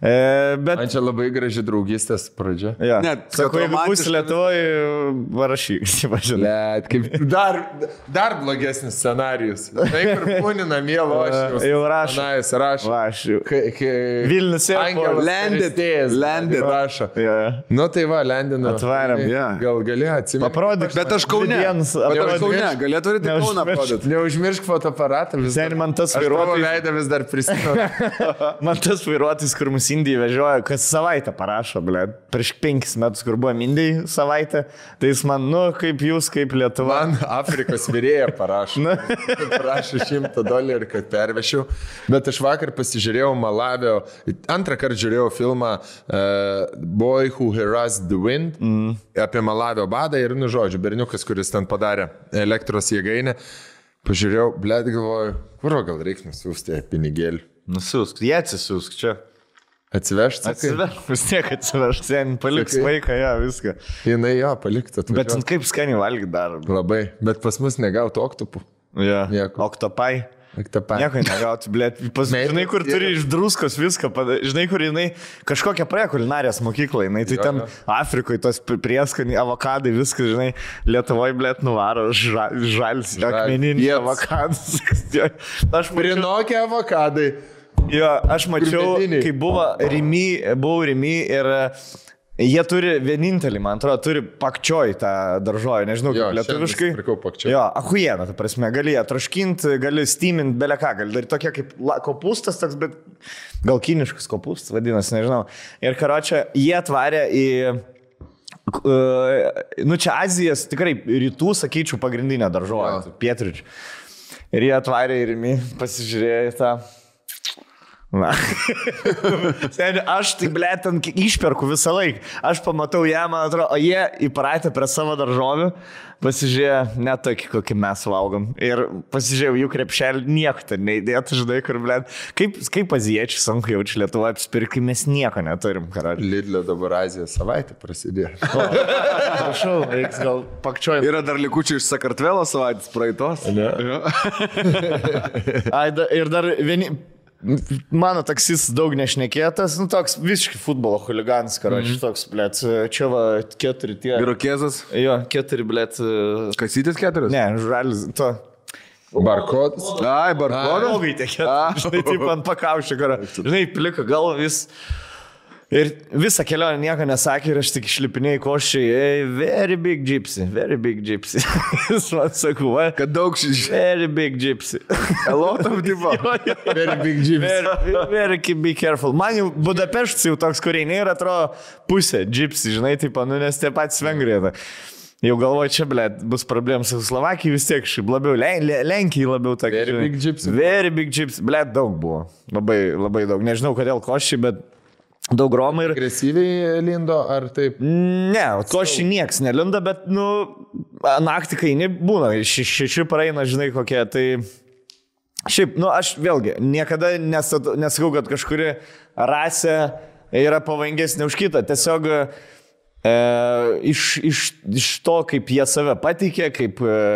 Bet... Man čia labai graži draugystės pradžia. Ja. Net, sakau, jeigu būsi Lietuvoje, varašyk. Let, kaip dar blogesnis scenarijus. Tai kur būni namie, lošiu. Jau rašo. Rašo. Vilnius landed. Rašo. Yeah. Nu tai va, landinu. Atvarėm. Gal gali atsimti. Paprodyk. Bet aš Kaune. Galėtų turėti Kauną parodyti. Neužmiršk fotoaparatą. Sen man tas vairuotojas. Veidą vis dar prisimenu. Man tas vairuotojas, kur mus Indijai vežioja, kas savaitę parašo, ble. Prieš 5 metus, kur buvo Indijai savaitę, tai jis man, kaip jūs, kaip Lietuva. Man Afrikos vyrėja parašo. Prašo $100, kad pervešiau. Bet aš vakar pasižiūrėjau Malavio, antrą kartą žiūrėjau filmą Boy Who Harassed the Wind apie Malavio badą ir, žodžiu, berniukas, kuris ten padarė elektros jėgainę. Pažiūrėjau, blėt, galvoju, kur gal reikia nusiųsti pinigėlį. Nusiųsk, jie atsisiųsk čia. Atsivežti? Vis tiek atsivežti, sen paliks vaiką, viską. Jinai paliktų. Bet kaip skaniai valgyti dar. Labai, bet pas mus negautų oktopų. Oktopai. Nieko negauti, blėt. Žinai, kur turi iš druskos viską, žinai, kur jinai kažkokią praėjo kulinarijos mokyklą, jinai tai ten Afrikoje tos prieskoniai, avokadai, viskas, žinai, Lietuvoje, blėt, nuvaro žalis, akmeninį avokadas. Aš Prinokia avokadai. Jo, aš mačiau, kai buvau Rimi ir jie turi vienintelį, man atrodo, turi pakčioj tą daržovę, nežinau, kaip lietuviškai. Jo, achujiena, ta prasme, gali ją traškinti, gali steamint, beleką, gali daryti tokia kaip kopūstas toks, bet gal kiniškas kopūstas vadinasi, nežinau. Ir karočią, jie atvarė į, čia Azijos, tikrai rytų, sakyčiau, pagrindinę daržovę, pietryčių. Ir jie atvarė į Rimi, pasižiūrėjo tą. Na. Aš tai, ble, ten išperku visą laiką. Aš pamatau ją, man atrodo, o jie įpratę prie savo daržovių, pasižiūrėjo, net tokį, kokį mes valgom. Ir pasižiūrėjau, jų krepšelį nieko ten neįdėtų, žinai, kur, ble, kaip azijiečiai sunku jaučiu Lietuvoje apsipirkti, mes nieko neturim, karaliu. Lidlio dabar Azijos savaitė prasidėjo. Prašau, reiks gal pakčiojim. Yra dar likučių iš Sakartvelo savaitės praeitos. Ne. Ir dar vieni... Mano taksis daug nešnekėtas, toks visiškai futbolo huliganas, karoči, toks, blėt, čia va 4 tie. Irokezas? Jo, 4, blėt. Kasytis 4? Ne, žalis, to. Barkodas? Ai, barkodas? Blogai tie 4, žinai, taip ant pakaušio, karo. Žinai, plika gal vis. Ir visą kelionę nieko nesakė ir aš tik išlipinėjau koščiai, very big gypsy. Jis man sakau, kad daug very big gypsy. A lot of diva. Very big gypsy. Very be careful. Man jau Budapeštas jau toks, kur eini ir atrodo pusė gypsy, žinai, taip, nes tie patys Vengrija. Jau galvoju, čia, blėt, bus problemas su Slovakijai vis tiek šiaip labiau, Lenkijai labiau tokia. Very big gypsy. Blėt, daug buvo. Labai, labai daug. Nežinau, kodėl koščiai, bet daug romai ir... Agresyviai lindo, ar taip? Ne, koščiai nieks nelindo, bet, naktį kai nebūna, 6 praeina, žinai, kokie, tai... Šiaip, aš vėlgi, niekada nesakau, kad kažkuri rasė yra pavojingesnė už kitą, tiesiog Iš to, kaip jie save pateikė,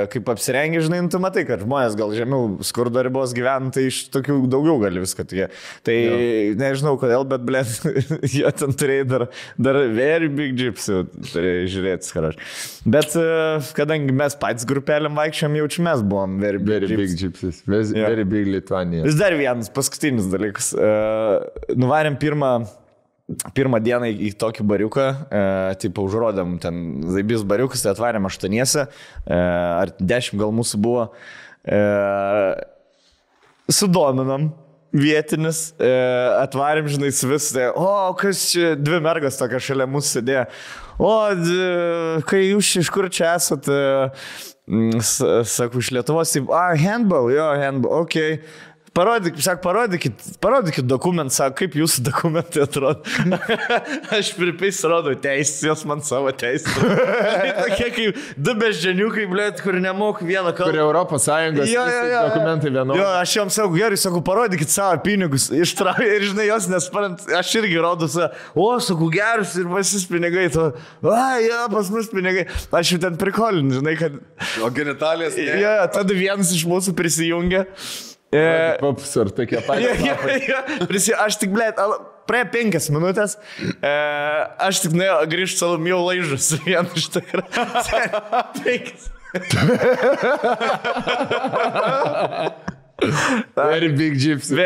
kaip apsirengė, žinai, tu matai, kad žmonės gal žemiau skurdo ribos gyvena, tai iš tokių daugiau gali viską tikė. Tai nežinau kodėl, bet, blėt, jie ten turėjo dar very big gypsy, turėjo žiūrėti, skaraš. Bet kadangi mes patys grupelėm vaikščiam, jaučiu mes buvom very big gypsies. Very big Lithuania. Vis dar vienas paskutinis dalykas. Nuvarėm pirmą dieną į tokį bariuką, tipo užrodėm ten Zaibys bariukas, tai atvarėm 8, ar 10 gal mūsų buvo, sudominom vietinis, atvarėm, žinai, su visai, kas čia, 2 mergas tokia šalia mūsų sėdėjo, kai jūs iš kur čia esat, sakau, iš Lietuvos, handball, okei. Parodykit dokumentą, sako, kaip jūsų dokumentai atrodo. Aš pripais rodau teisės, jos man savo teisės. Tokie kaip 2 beždžioniukai, blėt, kur nemok vieną kalbą. Kur Europos Sąjungos dokumentai vienodai. Jo, aš joms sakau, gerai, sakau, parodykit savo pinigus. Ištraukė ir, žinai, jos nesparant, aš irgi rodau savo, sakau, gerus ir pasis pinigai. Pas mus pinigai. Aš jau ten prikolinu, žinai, kad... O genitalės? Jo, tada vienas iš mūsų prisijungė. Paps, ar tokie patys. Aš tik, blėt, praėjo 5 minutės, aš tik grįžtu salomijau laižus vieną iš tikrą. 5. Very big gypsy.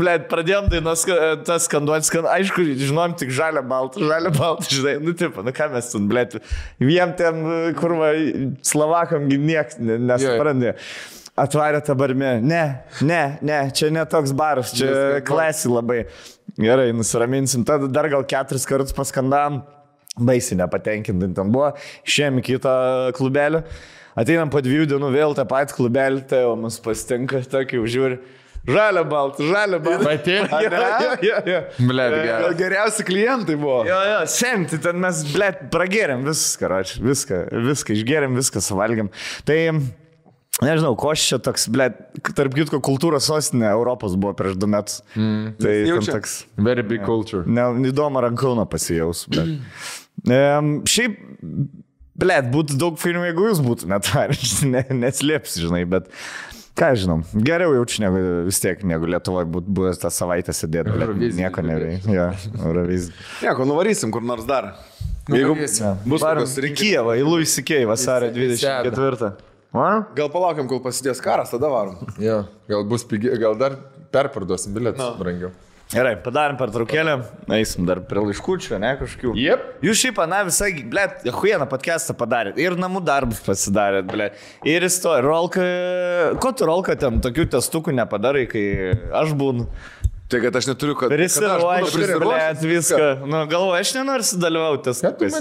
Blėt, pradėjom dainos tas skanduoti, aišku, žinom tik žalia balta, žinai, ką mes ten, blėt, vien ten, kur Slovakam nieks nesuprandė. Atvarė tą barmę. Ne, čia ne toks baras, čia klasi labai. Gerai, nusiraminsim. Tada dar gal 4 kartus paskandam. Baisiai nepatenkinti ten buvo. Išėjom į kitą klubelį. Ateinam po 2 dienų vėl tą patį klubelį, tai jau mus pasitinka, tokį užžiūri. Žalia balta. Matėt? Blet, geriausi klientai buvo. Jo, semti, ten mes, blet, pragėrėm viską išgėrėm, viską suvalgėm. Tai... Nežinau, koš čia toks, blėt, tarp kitko kultūros sostinė Europos buvo prieš 2 metus. Tai toks... Very big culture. Įdomu Rankūną pasijaus, blėt. Šiaip, blėt, būtų daug filmų, jeigu jūs būtų neslėpsi, žinai, bet ką žinom, geriau jaučiu negu vis tiek, negu Lietuvoje būtų buvęs tą savaitę sėdėti, blėt, nieko neveikia. Eurovizija. Nieko, nuvarysim kur nors dar. Jeigu bus kokios rinkimai. Kijevą, į Louis C.K. vasario 24. Gal palaukiam, kol prasidės karas, tada varom. Jo, gal bus pigiai, gal dar perparduosim bilietus brangiau. Gerai, padarim pertraukėlę, eisim dar prie laiškučių, ne kažkokių. Jep. Jūs šiaip, visai, blėt, huieną podcastą padarėt ir namų darbus pasidarėt, blėt. Ir istorija, Rolka, ko tu Rolka ten tokių testukų nepadarai, kai aš būnu? Tai kad aš neturiu, kad... Prisiruošęs viską. Nu, galvoju, aš nenoriu sudalyvauti testukais.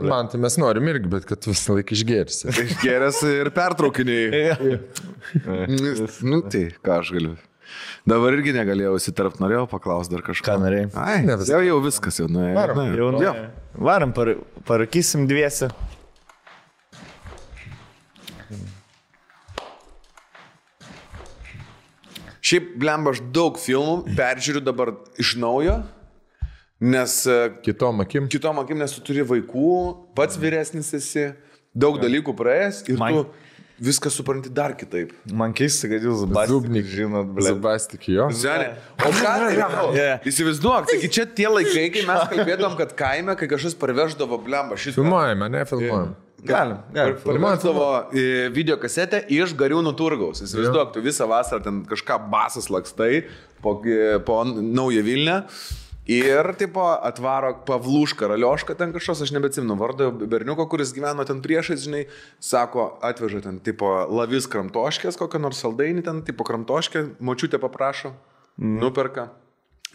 Man tai mes norim irgi, bet kad visą laiką išgėrsi. Išgėręs ir pertraukiniai. Tai ką aš galiu. Dabar irgi negalėjau įsitarpt, norėjau paklausti dar kažką. Ką norėjai? Ai, jau viskas jau nuėjo. Varam, parakysim 2. Šiaip, blemba, aš daug filmų peržiūriu dabar iš naujo, nes... Kitom akim, nes tu turi vaikų, pats vyresnis esi, daug dalykų praėjęs ir tu viską supranti dar kitaip. Man keista, kad jūs Zubastik žinot, blėt. Zubastik, jo. O ką? Įsivaizduok, taigi čia tie laikai, kai mes kalbėdom, kad kaime, kai kažkas parveždavo, blemba, šitą... Filmuojame, ne filmuojam. Galim. Parveždavo videokasetę iš Gariūnų turgaus. Įsivaizduok, tu visą vasarą ten kažką basas lakstai po Naują Vilnią ir tipo atvaro Pavlušką, Raliošką ten kažkas, aš nebeatsimenu vardą berniuko, kuris gyveno ten priešais, žinai, sako, atveža ten tipo lavis kramtoškės, kokią nors saldainį ten, tipo kramtoškę, močiutė paprašo, nuperka.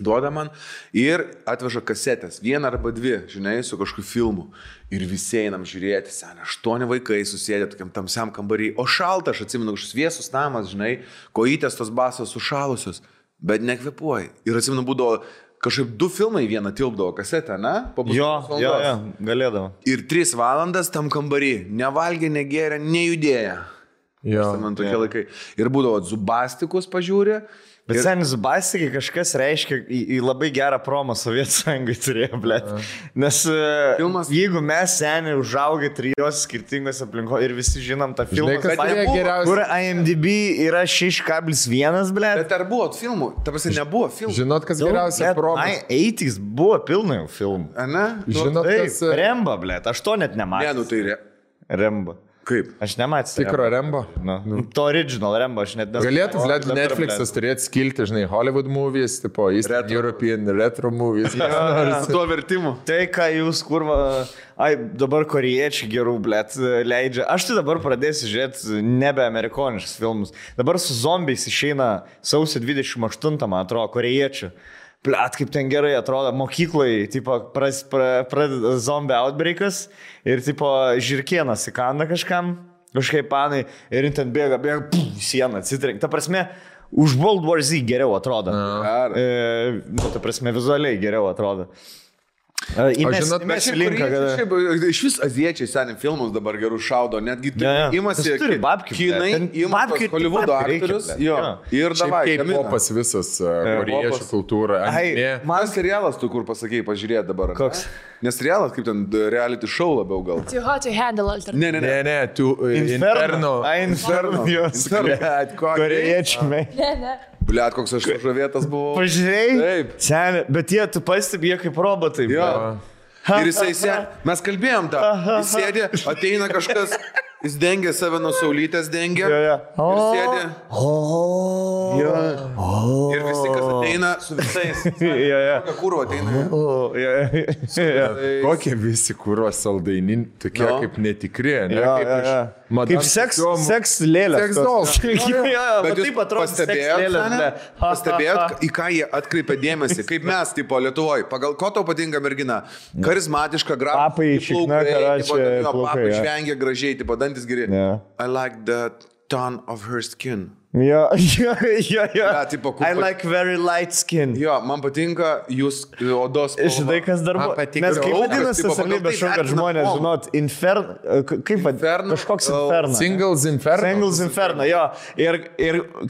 Duoda man ir atveža kasetės, 1 arba 2, žinai, su kažkokiu filmu. Ir visi einam žiūrėti, seniai, 8 vaikai susėdė tokiam tamsiam kambarį, o šalta, aš atsimenu, kažkoks vėsus namas, žinai, kojytės tos basos sušalusios, bet nekvepuoja. Ir atsimenu, būdavo kažkaip 2 filmai vieną tilpdavo kasetę, ne? Jo, galėdavo. Ir 3 valandas tam kambarį, nevalgė, negėrė, nejudėjo. Jo, man tokie laikai. Ir būdavo Zubastikus pažiūrė. Bet seniai Zubastikai kažkas reiškia į labai gerą promą Sovietų Sąjungai turėjo, blėt. Nes jeigu mes seniai užaugę 3 skirtingose aplinkoje ir visi žinom tą filmą, kur IMDb yra 6,1, blėt. Bet ar buvo filmų? Ta prasme, nebuvo filmų. Žinot, kas geriausia proma? 80s buvo pilnai filmų. Ne? Žinot, kas... Rembo, blėt, aš to net nematau. Ne, nu tai Rembo. Kaip? Aš nematau. Tikro Rembo? To original Rembo aš net nesu. Galėtų Netflix'as turėti skilti, žinai, Hollywood movies, tipo Eastern European retro movies. Tuo vertimu. Tai, ką jūs, kurva, dabar korėjiečiai gerų, blėt, leidžia. Aš tai dabar pradėsiu žiūrėti nebe amerikoniškus filmus. Dabar su zombiais išeina sausio 28, man atrodo, korėjiečių. Plet, kaip ten gerai atrodo, mokykloje, tipo, pradeda zombie outbreakas ir, tipo, žirkienas įkanda kažkaip panai ir ten bėga, sieną atsitrenkia. Ta prasme, už World War Z geriau atrodo. Ta prasme, vizualiai geriau atrodo. Žinot, mes iš vis aziečiai seniai filmus dabar gerų šaudo, netgi imasi kinai, imasi Hollywoodo aktorius, ir davai. Kaip popas visas, korėjiečių kultūra. Man serialas tu kur pasakėjai, pažiūrėt dabar. Koks? Nes serialas kaip ten reality show labiau gal. Too hot to handle alternative. Ne, tu Inferno. Inferno, jos. Korėjiečiai. Ne. Bliat, koks aš žavėtas buvau. Pažiūrėjai? Taip. Seniai, bet tu pastebėjai kaip robotai. Jo. Ir jisai mes kalbėjom tą. Jis sėdė, ateina kažkas, jis dengia save nuo saulytės, dengia. Ir sėdė. Ir visi, kas ateina su visais. Kokia kurva ateina. Kokie visi kurva saldainin, tokie kaip netikri, ne? Kaip seks lėlės. Seks dolls. Bet jūs pastebėjot, į ką jie atkreipia dėmesį, kaip mes, tipo, Lietuvoje. Pagal ko tau patinka mergina? Karizmatiška, papai, papai žvengia gražiai, tipo, dantis geri. I like the tone of her skin. Ja, tipo, I like very light skin. Jo, man patinka jūs odos spalva. Žinai, kas dar buvo? Nes kaip vadinasi tas savybė šau, kad žmonės, žinot, kaip vadinasi, kažkoks inferno. Singles Inferno, jo. Ir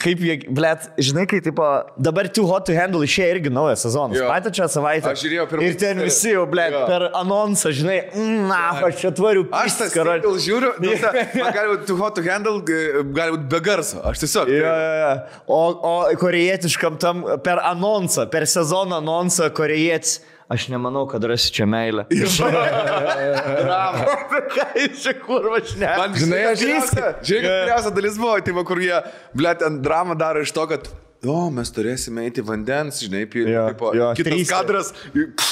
kaip jie, blėt, žinai, kai, tipo, dabar Too Hot to Handle išėjo irgi naujas sezonas. Patį čia savaitę. Aš žiūrėjau pirmą. Ir ten visi jau, blėt, per anonsą, žinai, aš čia tvariu pistis, karaliu. Aš tas žiūriu, gali būti Too Hot to Handle, gali būti be garso. Aš tiesiog. O korėjietiškam tam per anonsą, per sezoną anonsą korėjietis. Aš nemanau, kad rasi čia meilę. Bravo. Ką jūs čia kurva šneka? Man, žinai, geriausia dalis buvo, tai kur jie, blėt, ant dramą daro iš to, kad mes turėsime eiti vandens, žinai, kitas kadras,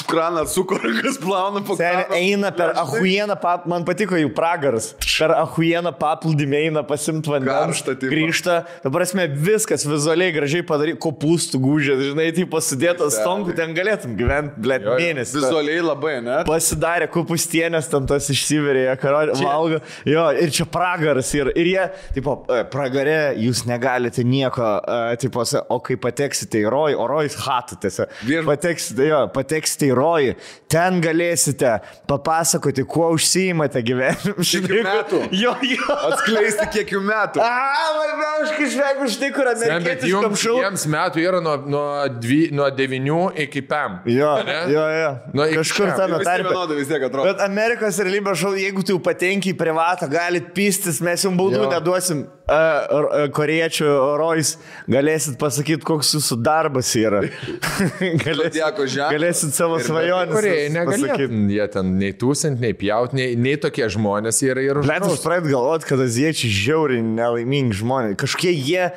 kraną sukorangas plauna po kraną. Eina per ahujieną, man patiko jų pragaras, per ahujieną paplūdimį eina pasimti vandens, grįžta, dabar esmė viskas vizualiai gražiai padaryti, kopūstų gūžės, žinai, tai pasidėtas stonkų, ten galėtum gyventi, blėt, mėnesį. Vizualiai labai, ne? Pasidarė kopūstienės, ten tas išsiverė, valgo, ir čia pragaras, ir jie, tipo, pragare jūs negalite nieko, tipo, o kai pateksite į rojų, o rojus hatų tiesiog. Pateksite į rojų, ten galėsite papasakoti, kuo užsiimate gyvenime. Kiek metų? Jo. Atskleisti kiek metų. Aš kažkaip už tai, kur amerikietiškam šau. Jiems metų yra nuo 9 iki 5. Jo. Kažkur ten tarpe. Bet Amerikos realybės šau, jeigu tu patenki į privatą, galit pistis, mes jums baudų neduosim. Korėjiečių rojus, galėsit pasakyti, koks jūsų darbas yra. Galėsit savo svajonės. Korėjai negalėtų. Jie ten nei tūsint, nei pjaut, nei tokie žmonės yra ir uždraus. Aš pradėjau galvoti, kad aziečiai žiauriai nelaimingi žmonės. Kažkokie jie,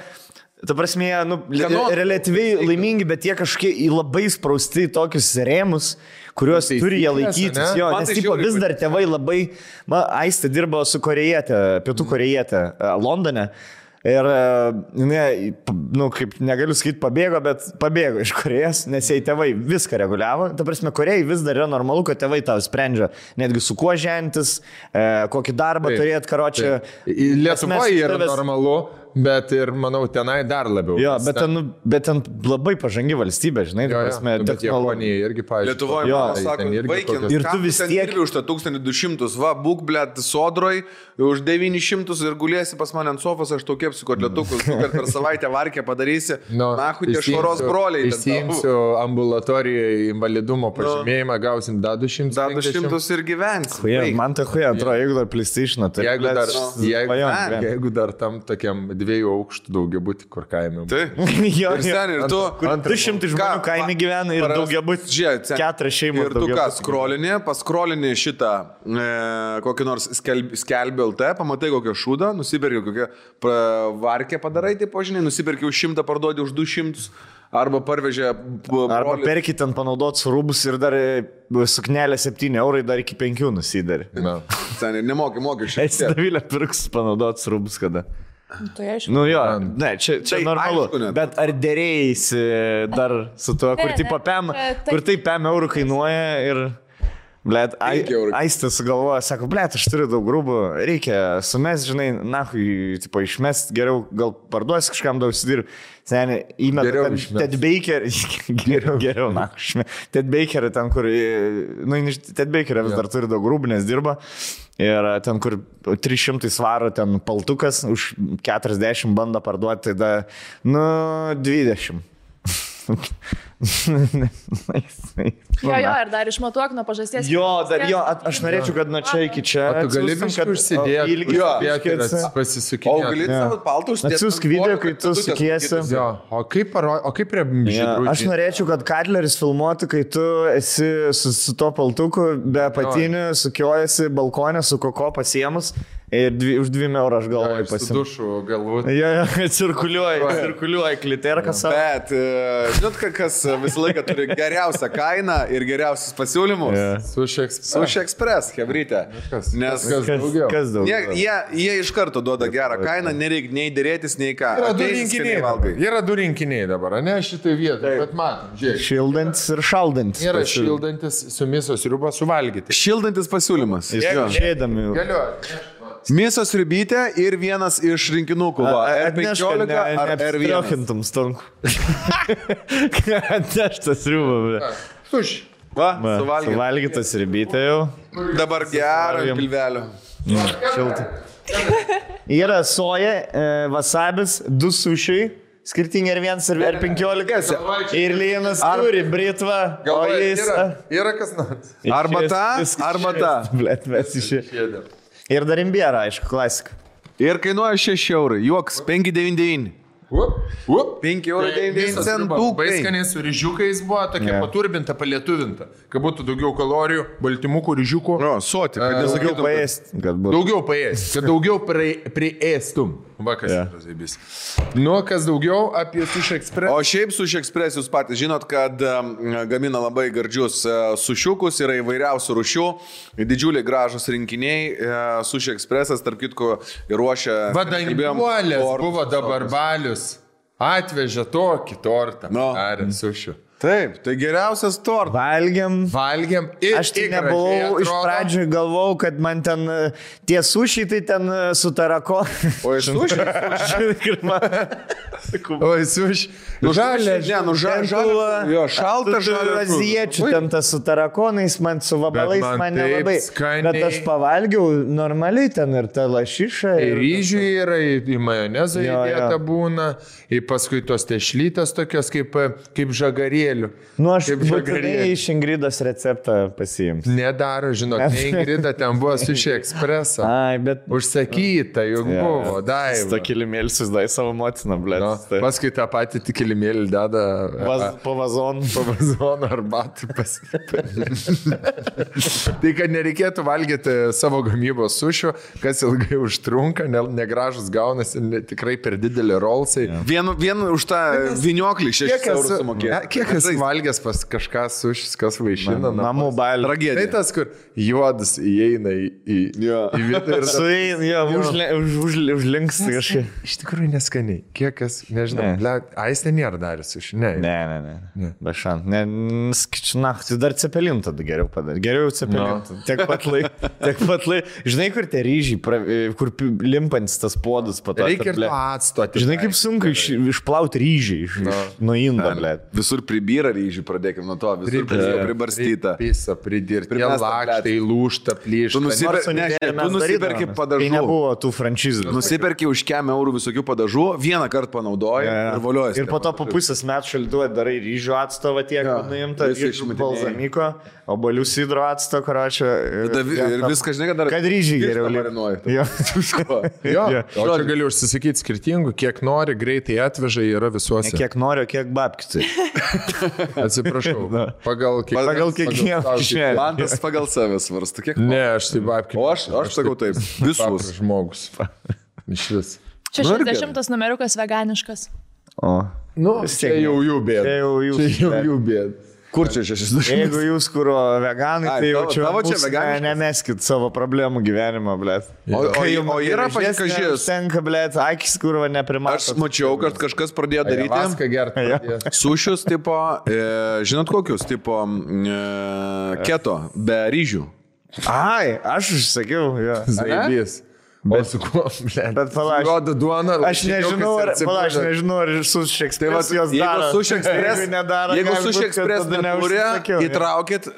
ta prasme, relatyviai laimingi, bet jie kažkokie labai sprausti į tokius rėmus, kuriuos turi jie laikytis. Jo, nes tipo, vis dar tėvai labai... Aistė dirbo su korėjietė, pietų korėjietė Londone. Ir, kaip negaliu sakyti, pabėgo iš Korėjos, nes jai tėvai viską reguliavo. Ta prasme, Korėjai vis dar yra normalu, kad tėvai tau sprendžia netgi su kuo žentis, kokį darbą turėt, karočią. Lietuvoje yra normalu, bet ir, manau, tenai dar labiau. Jo, bet ten labai pažangi valstybė, žinai, prasme, bet Japonija irgi, pavyzdžiui. Lietuvoje, sako, vaikin, ir tu vis tiek už tą 1200, va, būk, blėt, sodroj, už 900 ir gulėsi pas mane ant sofos, aš tau kepsiu kotletukus, kad per savaitę varkę padarysi, nahu, tie švaros broliai. Išsiimsiu ambulatorijoje invalidumo pažymėjimą, gausim da 200. Da 200 ir gyvensi. Man tai huja, atrodo, jeigu dar PlayStation, tai jeigu dar tam tokiam 2 aukštų daugiabutį, kur kaime. Taip. Ir tu 200 žmonių kaime gyvena ir daugiabutį 4 šeimos. Ir tu ką, paskrolinį šitą kokį nors skelbį LT, pamatai kokią šūdą, nusipirki kokią varkę padarai, tai požiniai, nusipirki už 100, parduodi už 200. Arba parvežė... Arba perkit ten panaudotus rūbus ir dar suknelė 7 eurai, dar iki 5 nusidarė. Seniai, nemoki mokesčių. Davilė pirks panaudotus rūbus kada. Tai aišku. Nu jo, ne, čia normalu. Aišku, bet ar dėrėjasi dar su tuo, kur tai 5 eurų kainuoja ir... Blet, Aistas sugalvoja, sako, blet, aš turiu daug rūbų, reikia sumest, žinai, nahui, tipo, išmest, geriau gal parduosi kažkam daug užsidirbi. Seniai, įmeta Ted Baker, geriau, nahui, Ted Baker, ten, kur, Ted Baker vis dar turi daug rūbų, nes dirba. Ir ten, kur 300 svarų, ten paltukas, už 40 bando parduoti, tada, 20. Jo, ir dar išmatuok nuo pažasties. Jo, aš norėčiau, kad nuo čia iki čia. Tu gali viską užsidėti, pasisukinėti. O gali savo paltų užsidėti. Atsiųsk video, kai tu sukiesi. O kaip prie žydrų? Aš norėčiau, kad Katleris filmuotų, kai tu esi su to paltuku, be apatinių, sukiojasi balkonė, su koko pasiemus. Ir už 2 eurų aš galvoju pasiimti. Su dušu galbūt. Cirkuliuoja kliterką savo. Bet, žinot, kas visą laiką turi geriausią kainą ir geriausius pasiūlymus? Sushi Express, hebrytė. Kas daugiau? Jie iš karto duoda gerą kainą, nereikia nei dėrėtis, nei ką. Yra 2 rinkiniai dabar, ne šitai vietai, bet matom, žiūrėk. Šildantis ir šaldantis. Yra šildantis su mėsos sriuba suvalgyti. Šildantis pasiūlymas. Žiedami. Galiu. Mėsos sriubytė ir vienas iš rinkinukų. R15 ar R1. Neapstriokintum stonku. Atneštas sriubą. Suši. Suvalgytas sriubytė jau. Dabar gerą pilvelio. Šiltai. Yra soja, wasabis, 2 sušiai. Skirtingi R1 ir R15. Ir Lienas turi britvą. Yra kas nors. Arba ta. Blet, mes išėjome. Ir dar imbierą, aišku, klasika. Ir kainuoja 6 eurai. Juoks, 5,99. 5,99 centų. Baiskaniai su ryžiukais buvo tokia paturbinta, palietuvinta. Kad būtų daugiau kalorijų, baltymukų, ryžiukų. Soti, kad daugiau paėsti. Daugiau paėsti, kad daugiau priėstum. Va, kas yra zaibys. Nu, kas daugiau apie Sushi Express. O šiaip Sushi Express jūs patys žinot, kad gamina labai gardžius sušiukus, yra įvairiausių rūšių, didžiuliai gražus rinkiniai. Sushi Expressas, tarp kitko, ruošia... Vadanguolės buvo dabar balius. Atvežė tokį tortą. Ar sušių. Taip, tai geriausias tortas. Valgiam. Aš tai nebuvau, iš pradžių galvojau, kad man ten tie sušiai, tai ten su tarako. O iš sušiai? Oi, sušiai. Jo, šalta žalia. Aziečių ten tas su tarakonais, man su vabalais, man nelabai. Bet aš pavalgiau normaliai ten ir ta lašiša. Ir ryžių yra, į majonezą įdėta būna, ir paskui tos tešlytės tokios kaip žagarėlių. Nu, aš būtinai iš Ingridos receptą pasiimsiu. Nedaro, žinok, ne Ingrida, ten buvo Sushi Expressą. Ai, bet... Užsakyta, juk buvo, Daiva. Ta kilimėlį susidai savo motiną, blėt. Paskui tą patį kilimėlį deda... Po vazonu. Po vazonu arbatį pasipė. Tai, kad nereikėtų valgyti savo gamybos sušių, kas ilgai užtrunka, negražus gaunasi, tikrai per didelį rolsai. Vien už tą vinioklį 6 eurų sumokėjo. Kiek kas valgęs pas kažką sušis, kas vaišina. Namų bailį. Tragedija. Tai tas, kur juodus įeina į vietą ir... Užlinks kažkaip. Iš tikrųjų neskaniai. Kiek kas Nežinau, aistė nėra daręs iš. Ne. Be šant. Tai dar cepelin tada geriau padarė. Geriau cepelin. No. Tiek pat laik. Žinai, kur tie ryžiai, kur limpantis tas puodus pato. Reikia ir atstoti. Žinai, kaip sunku išplauti ryžiai nuo indo, ble. Visur pribyra ryžiai, pradėkime nuo to. Visur pribarstyta. Pisa, pridirti. Jie lakštai, lūžta, plyšta. Tu nusiperki padažų. Tai nebuvo tų franšizų. Nusiperki už €100 visokių padažų, vieną kartą panaudoji ir voliojasi. Ir po to po pusės metų šalduoja darai ryžių atstovą tiek, nuimta iš balzamiko, obolių sidro atsto, karočią. Ir viską, žinai, kad ryžiai geriau marinuoji. Jo. O čia gali užsisakyti skirtingų, kiek nori, greitai atveža, yra visuose. Ne kiek nori, kiek babkitai. Atsiprašau. Pagal kiekvieną kišenę. Man tas pagal save svarsto. Ne, aš tai babkitai. O aš sakau taip. Visus žmogus. Iš vis. 60 numeriukas veganiškas. O. Čia jau jų bėda. Čia jau jų bėda. Kur čia 60? Jeigu jūs kuro veganai, tai jau čia nemeskit savo problemų gyvenimą, blėt. O yra pasikažės. Tenka, blėt, akis kurva neprimato. Aš mačiau, kad kažkas pradėjo daryti. Vaską gerti. Sušius tipo, žinot kokius, tipo keto, be ryžių. Ai, aš užsakiau, jo. Zaibys. Bet su kuo, bet palauk. Juoda duona. Aš nežinau, ar su Šekspres jos daro. Jeigu su Šekspres neturi, įtraukit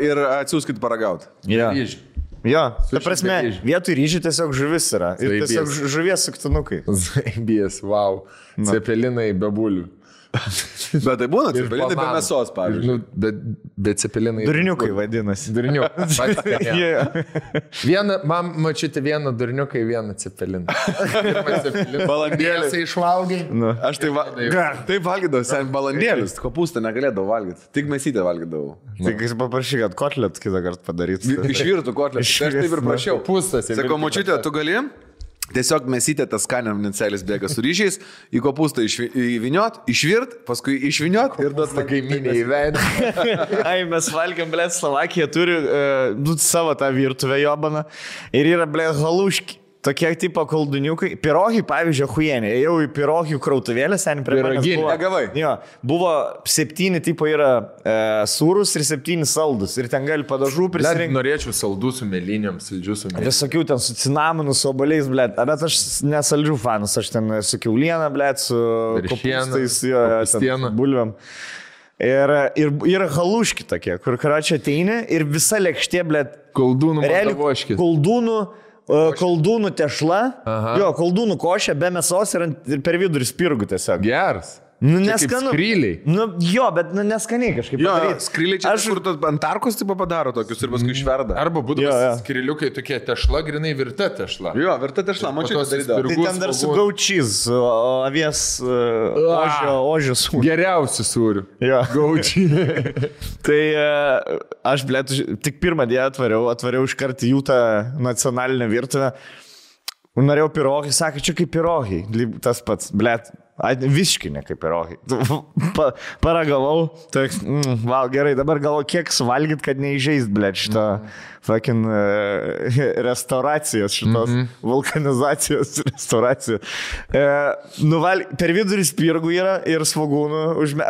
ir atsiųskit paragauti. Jo, ta prasme, vietoj ryžių tiesiog žuvis yra. Ir tiesiog žuvies suktinukai. Zaibys, wow. Cepelinai be bulių. Bet tai būna cepelinai be mėsos, pavyzdžiui. Bet cepelinai. Durniukai vadinasi. Durniukai. Man mačiute vieną durniuką, vieną cepeliną. Balandėlis išvalgai. Aš taip valgydavau, sen balandėlis, kopūstą negalėdavau valgyti. Tik mėsytę valgydavau. Tik jis paprašy, kad kotlet kitą kartą padaryti. Išvirtų kotlet. Aš taip ir prašiau. Sakau, mačiute, tu gali? Tiesiog mėsytė tas skanėmnincelis bėga su ryžiais, į kopūstą įviniot, išvirt, paskui išviniot ir duot kaiminė į veidą. Ai, mes valgiam, blėt, Slovakija turi savo tą virtuvę jobaną ir yra, blėt, haluški. Tokie tipo kolduniukai. Pirogi, pavyzdžiui, huienė. Ėjau į pirogių krautuvėlę, seniai prie manęs buvo. Negavai. Jo, buvo 7 tipo yra sūrus ir 7 saldus. Ir ten gali padažų prisirinkti. Norėčiau saldų su mėlynėm, saldžių su mėlynėm. Visokių ten su cinamonu, su oboliais, blėt. Bet aš nesaldžių fanas. Aš ten su kiaulieną, blėt, su kopūstais, bulviam. Ir yra haluški tokie, kur karačia ateini ir visa lėkštė, blėt. Koldūnų tešla, jo, koldūnų košė, be mėsos ir per vidurį spirgų tiesiog. Geras. Neskanu. Skryliai. Jo, bet neskaniai kažkaip. Jo, skryliai čia kur ant tarkos tipo padaro tokius ir paskui išverda. Arba būdavo skryliukai tokie tešla, grinai virta tešla. Jo, virta tešla, mačiau tas darydavo. Tai ten dar su gaučys, avies ožio sūriu. Geriausių sūrių. Jo. Gaučiai. Tai aš, blėt, tik pirmą dieną atvariau iškart jų tą nacionalinę virtuvę. Norėjau pirogi, sakė, čia kaip pirogi. Tas pats, blėt. Visiškai ne kaip pirogi. Paragavau, val gerai, dabar galvo, kiek suvalgyt, kad neįžeist, blėt, šitą fucking restauracijos, šitos vulkanizacijos restauracijos. Per vidurį spirgų yra ir svogūnų,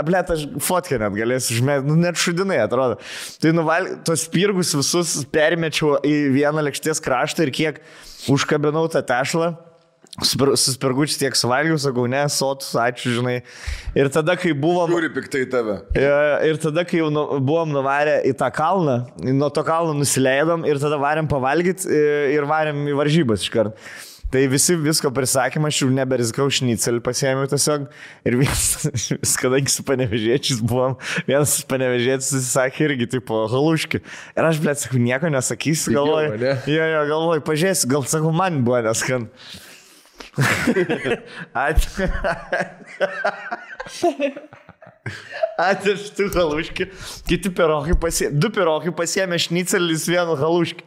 blėt, aš fotkę net galėsiu užmėti, net šudinai atrodo. Tai tos spirgus visus permečiau į vieną lėkštės kraštą ir kiek užkabinau tą tešlą. Suspirgučiai tiek suvalgiau, sakau, ne, sotus, ačiū, žinai. Ir tada, kai buvom... Žiūri piktai tave. Ir tada, kai jau buvom nuvarę į tą kalną, nuo to kalno nusileidom ir tada varėm pavalgyti ir varėm į varžybas iškart. Tai visko prisakymą, aš jau neberizikau, šnicelį pasiėmiau tiesiog. Ir kadangi su panevežėčiais buvom, vienas panevežėtis sakė irgi, tipo, haluški. Ir aš, blėt, sakau, nieko nesakysiu, galvoju. Galvoju, pažiūrėsiu, gal sakau, man buvo neskan. Atėštų haluški. Kiti pirogai pasiėmė, 2 pirogai pasiėmė šnicelis, 1 haluški.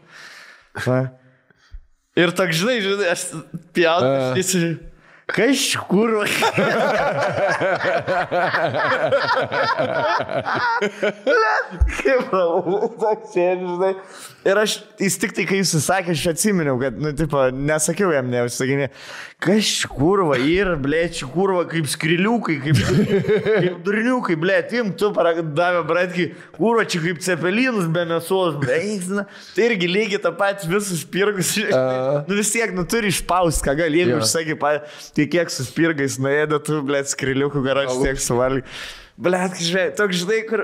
Ir toks, žinai, aš pjaut, Kažkur. Kaip toks sėdži, žinai. Ir jis tik tai, kai jis sakė, aš atsiminiau, kad, nesakiau jam, neužsakinė. Kažkur va, ir, blėt, kurva, kaip skriliukai, kaip durniukai, blėt, tu davė, bratki, kurva, čia kaip cepelinus be mėsos, blėt. Tai irgi lygiai tą patį visus spirgus. Vis tiek, turi išpaust, ką gali, jeigu užsakė, tai kiek su spirgais nuėdė, tu, blėt, skriliukų garažą tiek suvalgy. Blėt, toks, žinai, kur...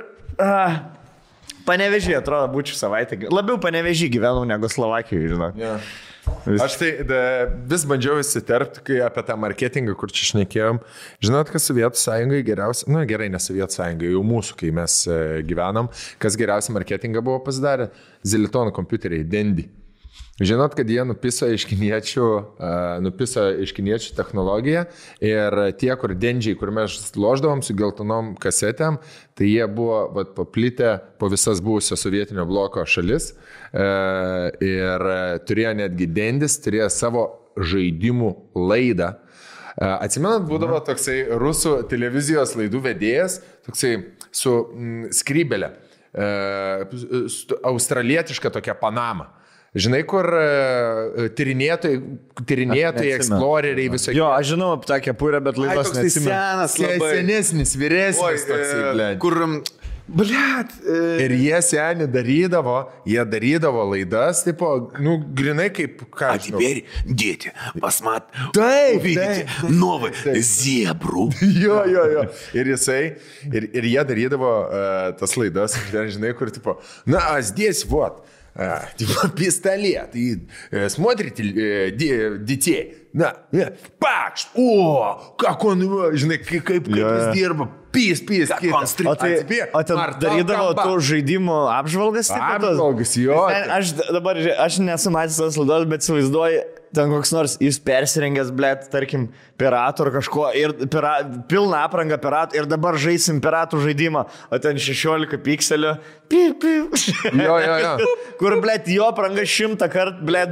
Panevežį, atrodo, būčiau savaitę. Labiau Panevežį gyvenau negu Slovakijoje, žinok. Yeah. Aš tai vis bandžiau įsiterpti, kai apie tą marketingą, kur čia šnekėjom. Žinot, kas Sovietų sąjungai geriausia, gerai, ne Sovietų sąjungai, jau mūsų, kai mes gyvenom, kas geriausia marketingą buvo pasidarę? Zilitono kompiuteriai, Dendy. Žinot, kad jie nupiso iš kiniečių technologiją ir tie, kur dendžiai, kur mes loždavom su geltonom kasetėm, tai jie buvo paplitę po visas buvusios sovietinio bloko šalis ir turėjo netgi dendis, turėjo savo žaidimų laidą. Atsimenat, būdavo toksai rusų televizijos laidų vedėjas, toksai su skrybelė, australietiška tokia Panama. Žinai, kur tyrinėtojai, eksploreriai visokie. Jo, aš žinau apie tą kepurę, bet laidos neatsimenu. Senas, labai. Senesnis, vyresnis toksai, blėt. Kur, blėt. Ir jie seni darydavo laidas, tipo, grinai kaip ką. А теперь, дети, посмотрите, Taip, увидите новый зебру. Jo. Ir jie darydavo tas лайdas, žinai, kur, tipo, здесь вот. Пистолет, и смотрите детей, пакш, как он, žinai, kaip jis dirba, pys, Как он стреляет. O ten darydavo tų žaidimų apžvalgas? Apžvalgas, jo. Aš nesu matęs tos laidos, bet įsivaizduoju, ten koks nors jis persirengęs, blėt, tarkim, piratų ar kažko, ir pilną aprangą piratų, ir dabar žaisim piratų žaidimą, o ten 16 pikselių. Jo. Kur, blėt, jo apranga 100 kartų, blėt,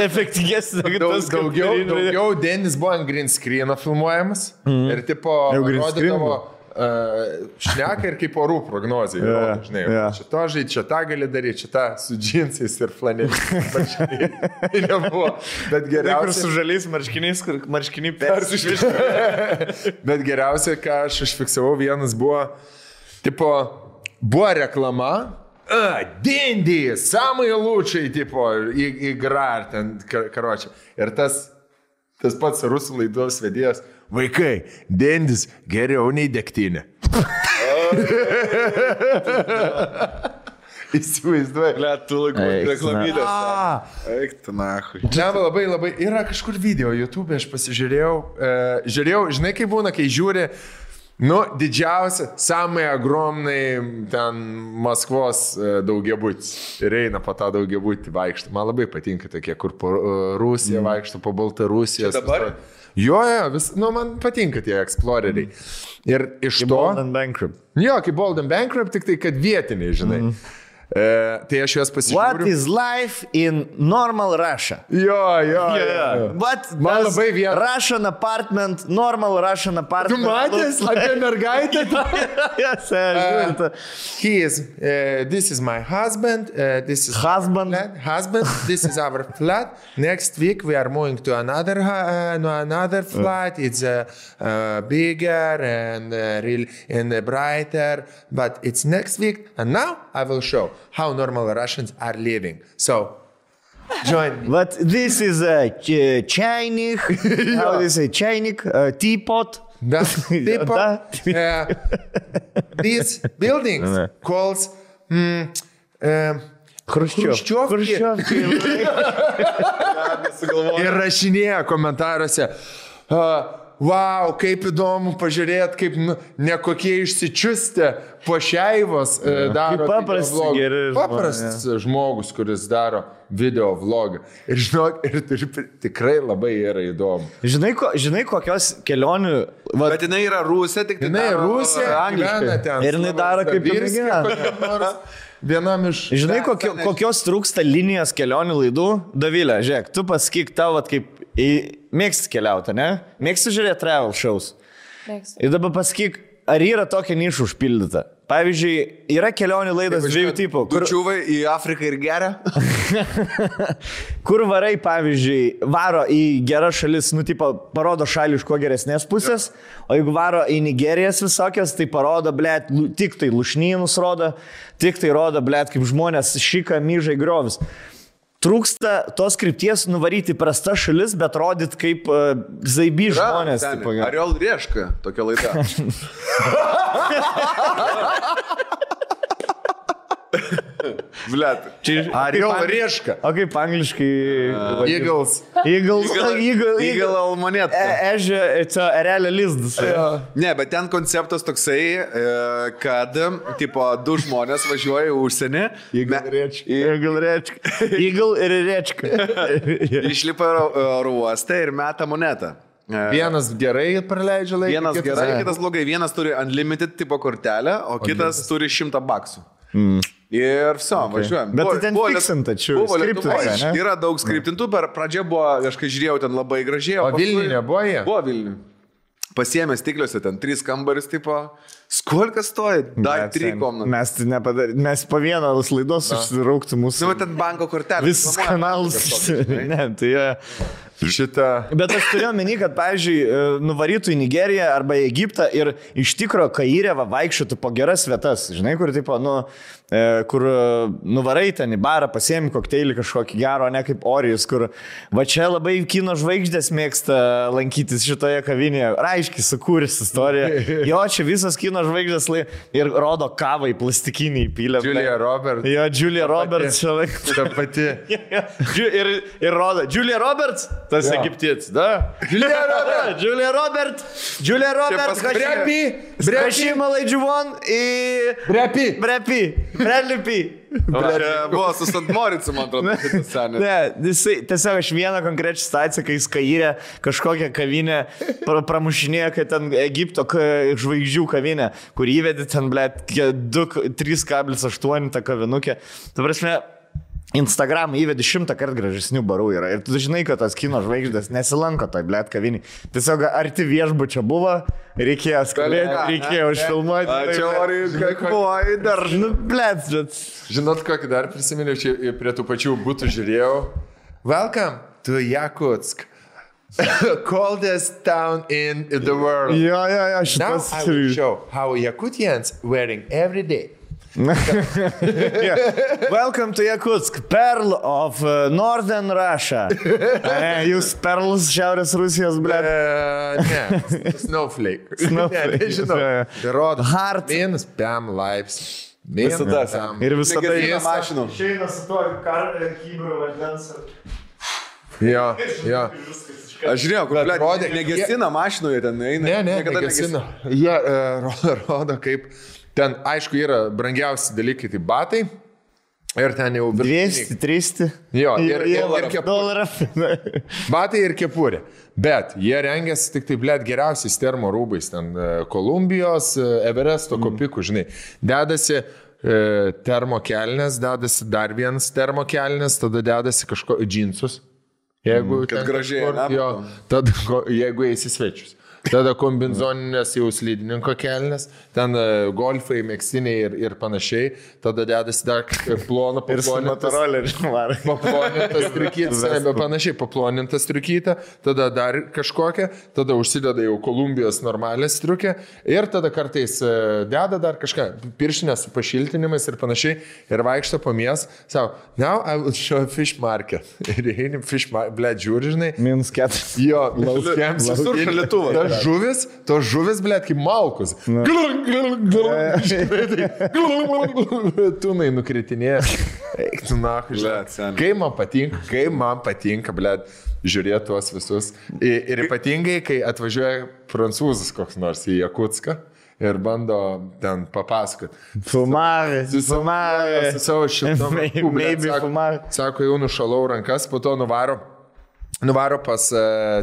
efektingesnė. Daugiau Denis buvo ant green screen'o filmuojamas ir tipo rodydavo šneka ir kaip orų prognozija. Žinai, šito žaidži, šitą gali daryti, šitą su džinsais ir flaneliais. Tai nebuvo. Bet geriausia... Su žaliais marškiniais, kur marškiniai persišvišti. Bet geriausia, ką aš užfiksavau, vienas buvo, tipo, buvo reklama, Dendy, samai lūčiai, tipo, игра, ten, karočią. Ir tas pats rusų laidos vedėjas, vaikai, Dendys geriau nei degtinė. Įsivaizduoju. Tu reklamylės. Eik, tu nahui. Čia labai, yra kažkur video YouTube, aš pasižiūrėjau, žinai, kaip būna, kai žiūri, didžiausia, samai agromnai ten Maskvos daugiabutis ir eina po tą daugiabutį vaikštą. Man labai patinka tokie, kur po Rusiją vaikšto, po Baltarusiją. Dabar? Jo, man patinka tie exploreriai. Ir iš to... Bold and Bankrupt. Jo, kaip Bold and Bankrupt, tik tai, kad vietiniai, žinai. Tai aš juos pasižiūriu. What is life in normal Russia? Jo. What Man does labai vien... Russian apartment, normal Russian apartment... Tu matęs apie mergaitę? This is my husband. This is Husband. Husband. This is our flat. Next week we are moving to another flat. It's bigger and really and brighter. But it's next week. And now I will show how normal Russians are living. So, join me. But this is a chainik, how do you say, chainik, teapot. Teapot. These buildings calls Khrushchevki. Ir rašinėja komentaruose. Wow, kaip įdomu pažiūrėti, kaip nekokie išsičiustę pošeivos daro paprastas žmogus, kuris daro video vlogą. Ir žinok, tikrai labai yra įdomu. Žinai kokios kelionių... Bet jinai yra Rusija, tik tai jinai Rusija, gyvena ten. Ir jinai daro kaip ir vienam iš... Žinai, kokios trūksta linijos kelionių laidų? Dovilė, žiūrėk, tu pasakyk tavo, kaip Mėgsti keliauti, ne? Mėgsti žiūrėti travel shows. Mėgstu. Ir dabar pasakyk, ar yra tokia niša užpildyta? Pavyzdžiui, yra kelionių laidos dviejų tipų. Čiūvai į Afriką ir geria. Kur varai, pavyzdžiui, varo į geras šalis, tipo, parodo šalį iš kuo geresnės pusės, o jeigu varo į Nigerijas visokias, tai parodo, blėt, tik tai lušnynus rodo, tik tai rodo, blėt, kaip žmonės šika, myžai, griovis. Trūksta tos krypties nuvaryti prasta šalis, bet rodyt kaip zaiby žmonės. Ariol Rieška, tokia laida. Blet. Ariol Rieška. O kaip angliškai? Eagles. Eagle almonėta. Erelio lizdas. Ne, bet ten konceptas toksai, kad, tipo, du žmonės važiuoja į užsienį. Eagle ir Rečka. Išlipa oro uostą ir meta monetą. Vienas gerai praleidžia laiką. Vienas gerai, kitas blogai. Vienas turi unlimited tipo kortelę, o kitas turi $100. Ir viso, važiuojam. Bet tai ten fiksinta, čia skriptinta. Yra daug skriptintų, per pradžią buvo, aš kai žiūrėjau, ten labai gražiai. O Vilniuje nebuvo jie? Buvo Vilniuje. Pasiėmė stikliuose, ten 3 kambaris, tipo, skolka stoja, dar 3 komnatai. Mes tai nepadarėme, mes po vieną laidos užsirauktų mūsų. Nu, ten banko kortelė. Visus kanalus. Ne, tai šitą. Bet aš turėjau menį, kad, pavyzdžiui, nuvarytų į Nigeriją arba į Egiptą ir iš tikro Kairė vaikščiotų po geras vietas. Žinai, kur, tipo, kur nuvarai ten į barą, pasiemi kokteilį kažkokį gero, ne kaip Orijus, kur va čia labai kino žvaigždės mėgsta lankytis šitoje kavinėje. Raiškiai sukūręs istoriją. Jo, čia visas kino žvaigždės ir rodo kavą į plastikinį įpylę. Julia Roberts. Jo, Julia Roberts čia laik. Ta pati. Ir rodo. Julia Roberts? Tas egiptietis, da? Julia Roberts. Brepi malaidžiuvon į... Brepi. Buvo su Sant Moricu, man atrodo. Ne, tiesiog aš vieną konkrečią situaciją, kai jis Kairė kažkokią kavinę pramušinėjo, kad ten Egipto žvaigždžių kavinę, kur įvedė ten, blėt, 3,8 tą kavinukę. Ta prasme, Instagram įvedė 100 kartų gražesnių barų yra. Ir tu žinai, kad tas kino žvaigždės nesilanko toj, blėt, kavinį. Tiesiog arti viešbučio buvo, reikėjo skambėti, reikėjo užfilmuoti. Čia Orijai, kakvoj, dar. Nu, blėt, bet... Žinot, kokį dar prisiminiau, čia prie tų pačių būtų žiūrėjau. Welcome to Yakutsk. Coldest town in the world. Jo, Now I will show how Yakutians wearing every day. Welcome to Yakutsk, pearl of northern Russia. Jūs perlus Šiaurės Rusijos, blėt. Ne, snowflake. Nežinau. Tai rodo. Hard. Minus 5 lives. Ir visada į mašiną. Išeina su tuo kybru vandens. Jo. Aš žiūrėjau, kur, blėt, negesina mašinoje ten eina. Ne, negesina. Jie rodo kaip... Ten, aišku, yra brangiausi dalykai, tai batai. Ir ten jau... 200, 300. Jo, ir $1. Batai ir kepurė. Bet jie rengiasi tik tai, blėt, geriausiais termo rūbais. Ten Kolumbijos, Everesto kopikų, žinai. Dedasi termo kelnes, dedasi dar vienas termo kelnes, tada dedasi kažko džinsus. Jeigu kad gražiai. Jo, tada jeigu eisi svečius. Tada kombinzoninės jau slidininko kelnes, ten golfai, mėgstiniai ir panašiai. Tada dedasi dar paplonintas triukytas, panašiai paplonintas triukytą, tada dar kažkokią, tada užsideda jau Kolumbijos normalę striukę ir tada kartais deda dar kažką, pirštinės su pašiltinimais ir panašiai ir vaikšto po mies, savo, now I will show fish market. Ir eini fish market, blėt, žiūri, žinai. Minus 4. Jo, laukiams. Visur šalituvas. Tos žuvis, blėt, kaip malkus. Tūnai nukritinėja. Eik, tu nahu, blėt. Kai man patinka, blėt, žiūrėti tuos visus. Ir ypatingai, kai atvažiuoja prancūzas koks nors į Jakutską ir bando ten papasakot. Fumavė. Su savo šitom. Maybe fumavė. Sako, jau nušalau rankas, po to nuvaro Nuvaro pas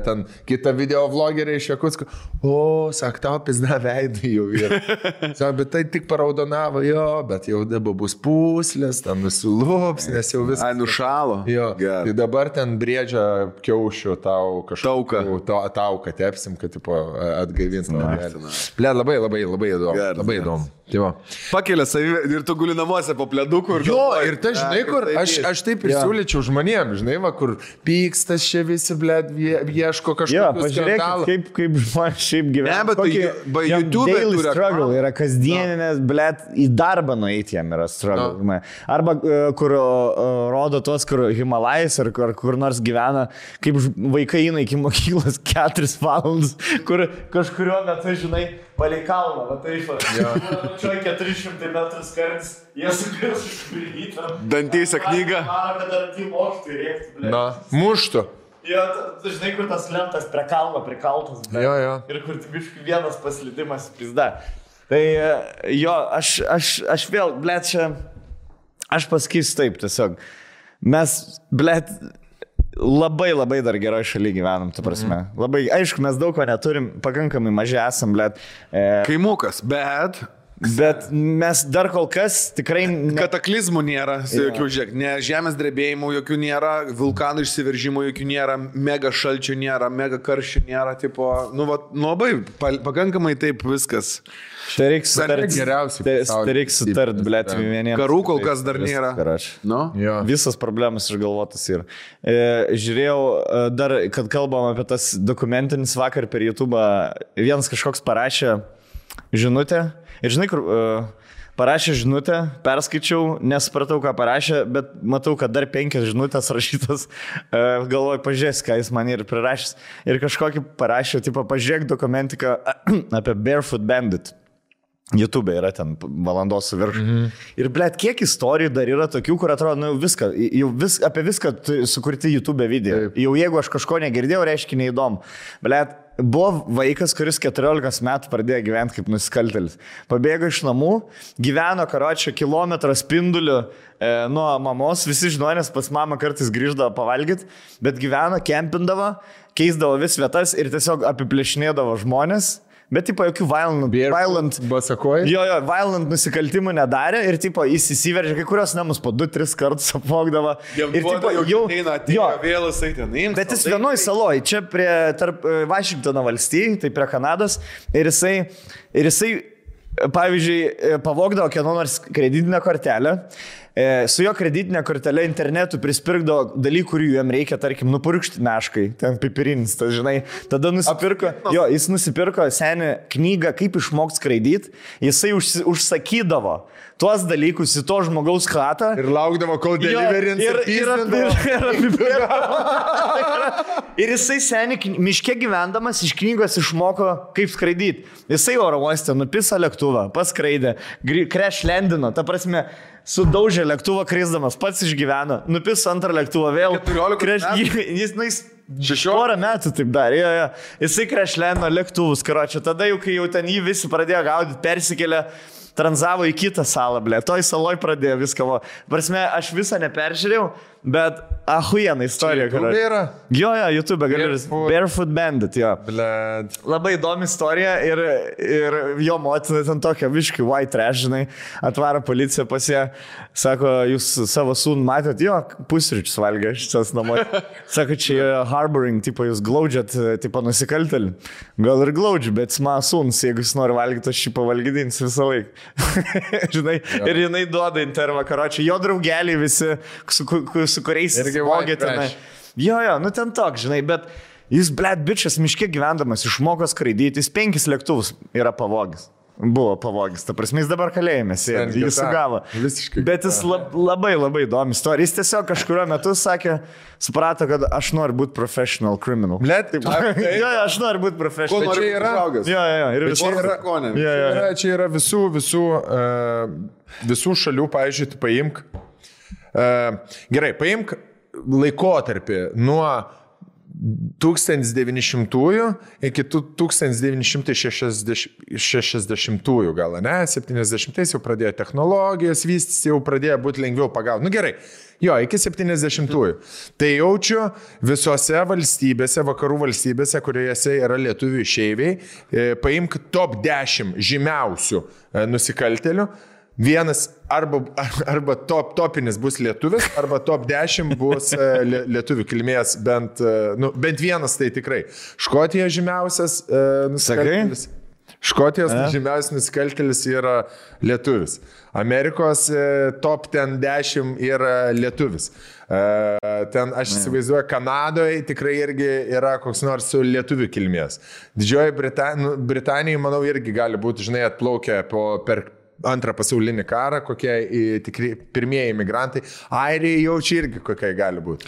ten kitą video vlogerį iš Jakutsko. Sak, tau pizda veidai jau yra. Sak, bet tai tik paraudonavo, jo, bet jau dabar bus puslės, ten nusilups, nes jau viskas. Ai, nušalo. Jo, tai dabar ten briedžia kiaušių tau kažkokiu. Tauką tepsim, kad tipo atgaivins. Ble, labai įdomu. Labai įdomu. Pakelia savį ir tu guli namuose po pleduku. Jo, ir tai žinai, kur aš taip ir siūlyčiau žmonėm, žinai, va, kur pykstas čia visi, blėt, ieško kažkokio skandalo. Kaip žmonės šiaip gyvena. Ne, bet YouTube daily struggle yra kasdieninės, blėt, į darbą nueiti jam yra struggle. Arba kur rodo tos, kur Himalajais ar kur nors gyvena, kaip vaikai eina iki mokyklos 4 valandas, kur kažkurio metu, žinai, palei kalną, va taip, čia 400 metrų skartis, jie sukris išpildytą. Dantyse knygą. Mano, kad dantį mokytų rėkti. Na, muštų. Jo, tu žinai, kur tas lentas prie kalno prikaltas. Jo. Ir kur biškai vienas paslydimas pizda. Tai jo, aš vėl, blėt, čia, aš pasakysiu taip tiesiog. Mes, blėt, labai dar geroj šaly gyvenam, tu prasme. Labai, aišku, mes daug ko neturim, pakankamai maži esam, blėt. Kaimukas, bet mes dar kol kas tikrai... Kataklizmų nėra, jokių žiūrėk, ne žemės drebėjimų jokių nėra, vulkanų išsiveržimų jokių nėra, mega šalčių nėra, mega karščių nėra, tipo, labai, pakankamai taip viskas. Tai reiks sutart, blėt, vieniems. Karų kol kas dar nėra. Visas problemas išgalvotas yra. Žiūrėjau dar, kad kalbam apie tas dokumentinis vakar per YouTube, vienas kažkoks parašė žinutę. Ir žinai, kur parašė žinutę, perskaičiau, nesupratau, ką parašė, bet matau, kad dar 5 žinutės rašytas, galvoju, pažiūrės, ką jis man ir prirašęs. Ir kažkokį parašė, tipo, pažiūrėk dokumentiką apie Barefoot Bandit. YouTube yra ten valandos su virš. Ir, blėt, kiek istorijų dar yra tokių, kur atrodo, apie viską sukurti YouTube video. Jau jeigu aš kažko negirdėjau, reiškia neįdomu. Blėt, buvo vaikas, kuris 14 metų pradėjo gyventi kaip nusikaltelis. Pabėgo iš namų, gyveno karočio kilometro spinduliu nuo mamos, visi žmonės pas mamą kartais grįždavo pavalgyti, bet gyveno, kempindavo, keisdavo vis vietas ir tiesiog apiplėšinėdavo žmonės. Bet, tipo, jokių violent nusikaltimų nedarė ir, tipo, jis įsiveržė, kai kurios namus po 2-3 kartus apvogdavo. Ir, tipo, bet jis vienoj saloj, čia tarp Vašingtono valstijai, tai prie Kanados, ir jisai, pavyzdžiui, pavogdavo kieno nors kreditinę kortelę. Su jo kreditinė kortelė internetu prispirkdavo dalykų, kurių jam reikia, tarkim, nupurkšti meškai, ten pipirinis, tas, žinai. Tada jis nusipirko senį knygą, kaip išmokti skraidyti, jisai užsakydavo tuos dalykus į to žmogaus chatą. Ir laukdavo, kol deliverins ir jisai senį miške gyvendamas iš knygos išmoko, kaip skraidyti. Jisai oro uoste nupisa lėktuvą, paskraidė, crash landino, ta prasme, sudaužė lėktuvą krisdamas, pats išgyveno, nupis antrą lėktuvą vėl. 14 jis porą metų taip darė. Jisai krešleno lėktuvus, karočią. Tada jau, kai jau ten jį visi pradėjo gaudyti, persikėlė, tranzavo į kitą salą, blė. Toj saloj pradėjo viską. Prasme, aš visą neperžiūrėjau, bet ahuiena istorija. YouTube yra? Jo, YouTube, Barefoot Bandit, jo. Blėd. Labai įdomi istorija ir jo motina ten tokia viškai white trash, žinai, atvaro policija pas ją, sako, jūs savo sūnų matėt, jo, pusryčius valgė šitas namoje. Sako, čia harboring, tipo, jūs glaudžiat, tipo, nusikaltelį. Gal ir glaudžiu, bet mano sūnus, jeigu jis nori valgyti, aš šį pavalgydinsiu visą laiką. Žinai, ir jinai duoda intervą, karočią, jo draugeliai visi, su kuriais vogė tenai. Jo, nu ten toks, žinai, bet jis, blėt, bičias, miške gyvendamas, išmoko skraidyti, jis 5 lėktuvus yra pavogęs. Buvo pavogęs, ta prasme, jis dabar kalėjime sėdi, jis sugavo. Bet jis labai įdomi istorija. Jis tiesiog kažkurio metu sakė, suprato, kad aš noriu būti professional criminal. Blėt, taip. Jo, aš noriu būti professional. Ko nori užaugęs? Jo. Ir čia yra visų šalių, pavyzdžiui, paimk. Gerai, paimk laikotarpį nuo 1900-ųjų iki 1960-ųjų gal, ne? 70-ais jau pradėjo technologijos vystys, jau pradėjo būti lengviau pagauti. Nu gerai, jo, iki 70-ųjų. Tai jaučiu visose valstybėse, vakarų valstybėse, kuriuose yra lietuvių išeiviai, paimk top 10 žymiausių nusikaltelių. Vienas arba topinis bus lietuvis, arba top 10 bus lietuvių kilmės, bent vienas tai tikrai. Škotijos žymiausias nusikaltėlis. Škotijos žymiausias nusikaltėlis yra lietuvis. Amerikos top 10 yra lietuvis. Ten aš įsivaizduoju, Kanadoje tikrai irgi yra koks nors su lietuvių kilmės. Didžioji Britanija, manau, irgi gali būti, žinai, atplaukę per Antrą pasaulinį karą, kokie tikri pirmieji imigrantai. Airija jaučia irgi kokie gali būti.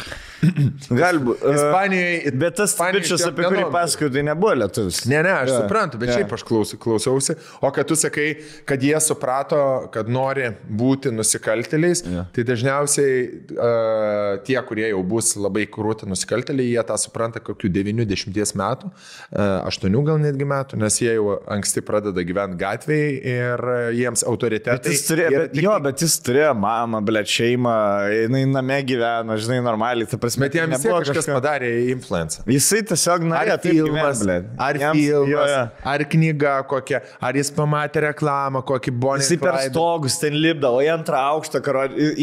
Gali būti. Ispanijoje. Bet tas bičias, apie kurį pasakoju, tai nebuvo lietuvis. Ne, aš suprantu, bet šiaip aš klausiausi. O kad tu sakai, kad jie suprato, kad nori būti nusikaltėliais, tai dažniausiai tie, kurie jau bus labai krūti nusikaltėliai, jie tą supranta kokių 90 metų, 8 gal netgi metų, nes jie jau anksti pradeda gyventi gatvėje ir jiems autoritetai. Bet jis turėjo mamą, šeimą, jinai name gyveno, žinai, normaliai. Bet jam vis tiek kažkas padarė influencą. Jisai tiesiog norėjo taip gyventi. Ar filmas, ar knyga kokia, ar jis pamatė reklamą, kokį Bonnie. Jisai per stogus ten lipdavo, į antrą aukštą,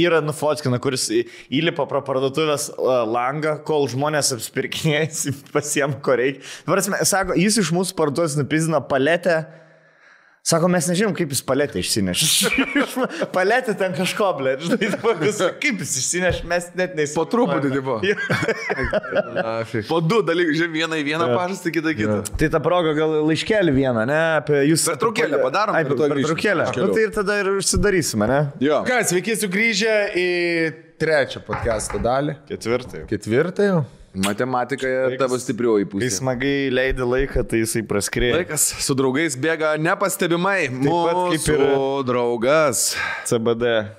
yra nufotkina, kuris įlipa pro parduotuvės langą, kol žmonės apsipirkinėjasi, pasiema ko reikia. Sako, jis iš mūsų parduotuvės nupizdino paletę. Sako, mes nežinom, kaip jis paletę išsinešė. Paletė ten kažko, blė. Kaip jis išsinešė, mes net neįsivaizduojame. Po truputį tipo. Po du dalykus, žiūrėjom, vieną į vieną pažastą, kitą. Tai ta proga gal laiškelį vieną, ne? Pertraukėlę padarom. Pertraukėlę. Tai ir tada ir užsidarysime, ne? Jo. Ką, sveiki sugrįžę į trečią podcast'o dalį. Ketvirtą jau. Matematikoje tavo stiprioji pusė. Kai smagai leidi laiką, tai jisai praskrėjo. Laikas su draugais bėga nepastebimai. Mūsų draugas. CBD.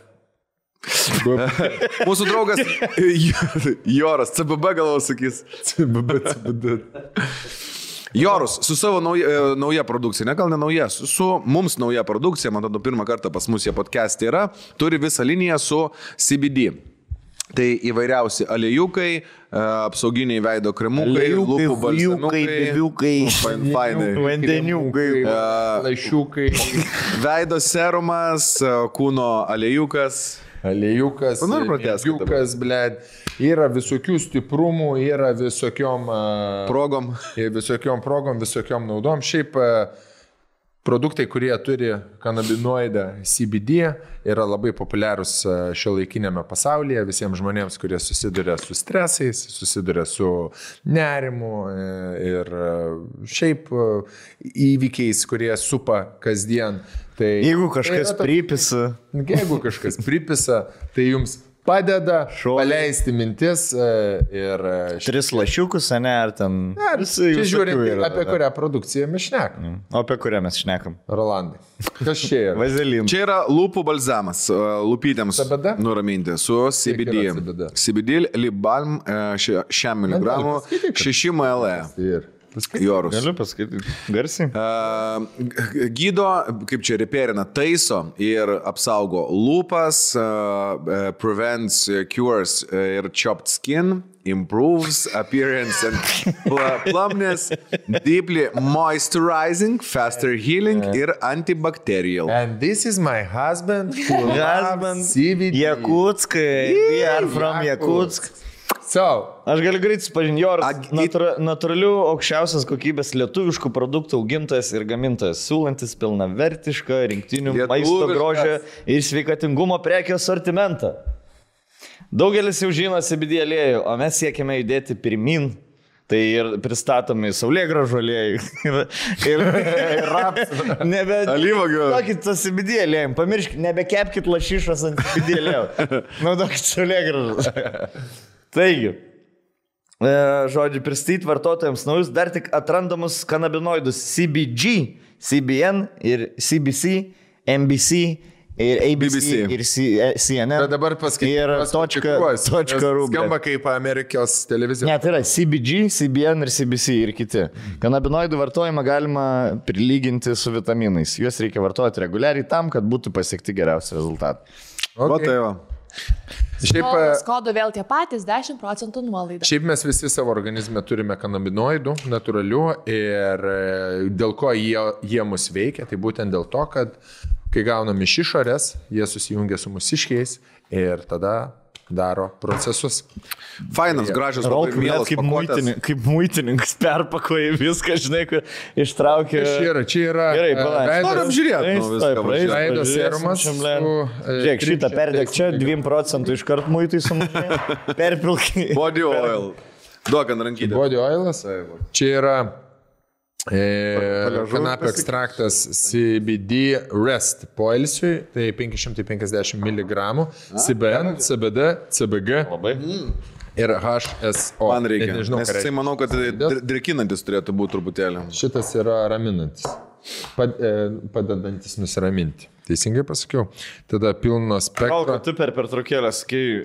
Mūsų draugas Joras. CBB galvo sakys. CBD. Jorus su savo nauja produkcija, ne gal ne nauja, su mums nauja produkcija, man atrodo, pirmą kartą pas mus jie podcast'e yra, turi visą liniją su CBD. Tai įvairiausi aliejukai, apsauginiai veido kremukai, lūpų balsamiukai, vandeniukai, laišiukai, veido serumas, kūno aliejukas. Aliejukas, blėd. Yra visokių stiprumų, yra visokiom progom, visokiom naudom. Šiaip produktai, kurie turi kanabinoidą CBD, yra labai populiarūs šiuolaikinėme pasaulyje visiems žmonėms, kurie susiduria su stresais, susiduria su nerimu ir šiaip įvykiais, kurie supa kasdien. Tai, jeigu kažkas pripisa, tai jums padeda paleisti mintis ir... 3 lašiukus, ne, ar ten... Čia žiūrint, apie kurią produkciją mes šnekam. O apie kurią mes šnekam? Rolandai. Kas čia yra? Vazelin. Čia yra lūpų balzamas, lūpytėms nuraminti su CBD. CBD lip balm 6 mg, 6 ml. Jorus. Galiu pasakyti garsiai. Gydo, kaip čia reperina, taiso ir apsaugo lūpas, prevents, cures ir chopped skin, improves appearance and plumpness, deeply moisturizing, faster healing ir antibacterial. And this is my husband who loves CBD. Jakutskai. We are from Jakutsk. Aš galiu greitai supažinti, Joras natūralių aukščiausios kokybės lietuviškų produktų augintojas ir gamintojas, siūlantis pilnavertišką rinktinių maisto grožio ir sveikatingumo prekių asortimentą. Daugelis jau žino CBD aliejų, o mes siekime judėti pirmin. Tai ir pristatomi saulėgrąžų aliejai ir rapsų. Alyvuogių. Naudokit tą CBD aliejų, pamirškit, nebekepkit lašišos ant CBD aliejų. Naudokit saulėgrąžus. Taigi, žodžiu, pristatyti vartotojams naujus dar tik atrandamus kanabinoidus CBG, CBN ir CBC, MBC ir ABC, BBC. ir CNN. Bet dabar paskaitysiu. Ir .ru. Skamba kaip Amerikos televizija. Ne, tai yra CBG, CBN ir CBC ir kiti. Kanabinoidų vartojimą galima prilyginti su vitaminais. Juos reikia vartoti reguliariai tam, kad būtų pasiekti geriausi rezultatai. O tai va. Šiaip, Kodo vėl tie patys 10% nuolaida. šiaip mes visi savo organizme turime kanabinoidų, natūralių ir dėl ko jie mus veikia, tai būtent dėl to, kad kai gaunam iš išorės, jie susijungia su mūsiškiais ir tada daro procesus. Fainas, gražus, labai mielas pakuotės. Kaip muitininkas perpakoja viską, žinai, kur ištraukia. Čia yra Gerai, palauk. Noriu apžiūrėti. veido serumas. Žiūrėk, šitą perdėk čia 2% iškart muitai sumažėjo. Perpilkai. Body oil. Duok ant rankytę. Body oilas. Čia yra kanapio ekstraktas CBD rest poilsiui, tai 550 mg, CBN, CBD, CBG ir HSO. Man reikia. Nežinau, Nes jisai manau, kad drėkinantis turėtų būti truputėlį. Šitas yra raminantis, padedantis nusiraminti. Teisingai pasakiau. Tada pilno spektro. Gal, tu per pertraukėlę sakai,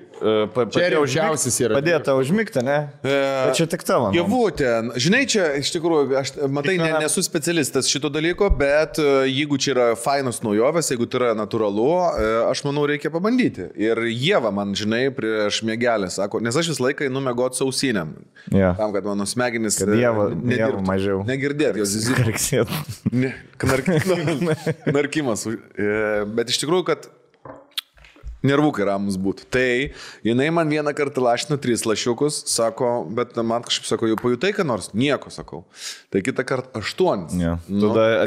Čia didžiausias yra. Padėta užmigti, ne? Bet čia tik tavo. Javutė, žinai, čia iš tikrųjų, aš matai, nesu specialistas šito dalyko, bet jeigu čia yra fainos naujovės, jeigu tai yra natūralu, aš manau, reikia pabandyti. Ir Ieva man, žinai, prieš mėgelę sako, nes aš visą laiką einu mėgoti sausinėm. Yeah. Tam, kad mano smegenys Dieva mažiau. Negirdėt, jos Karksėt. narkimas. Bet iš tikrųjų, kad nervukai ramus būtų. Tai jinai man vieną kartą lašino 3 lašiukus, sako, bet man kažkaip sako, jau pajutai, ką nors? Nieko, sakau. Tai kitą kartą 8. Ja. Tada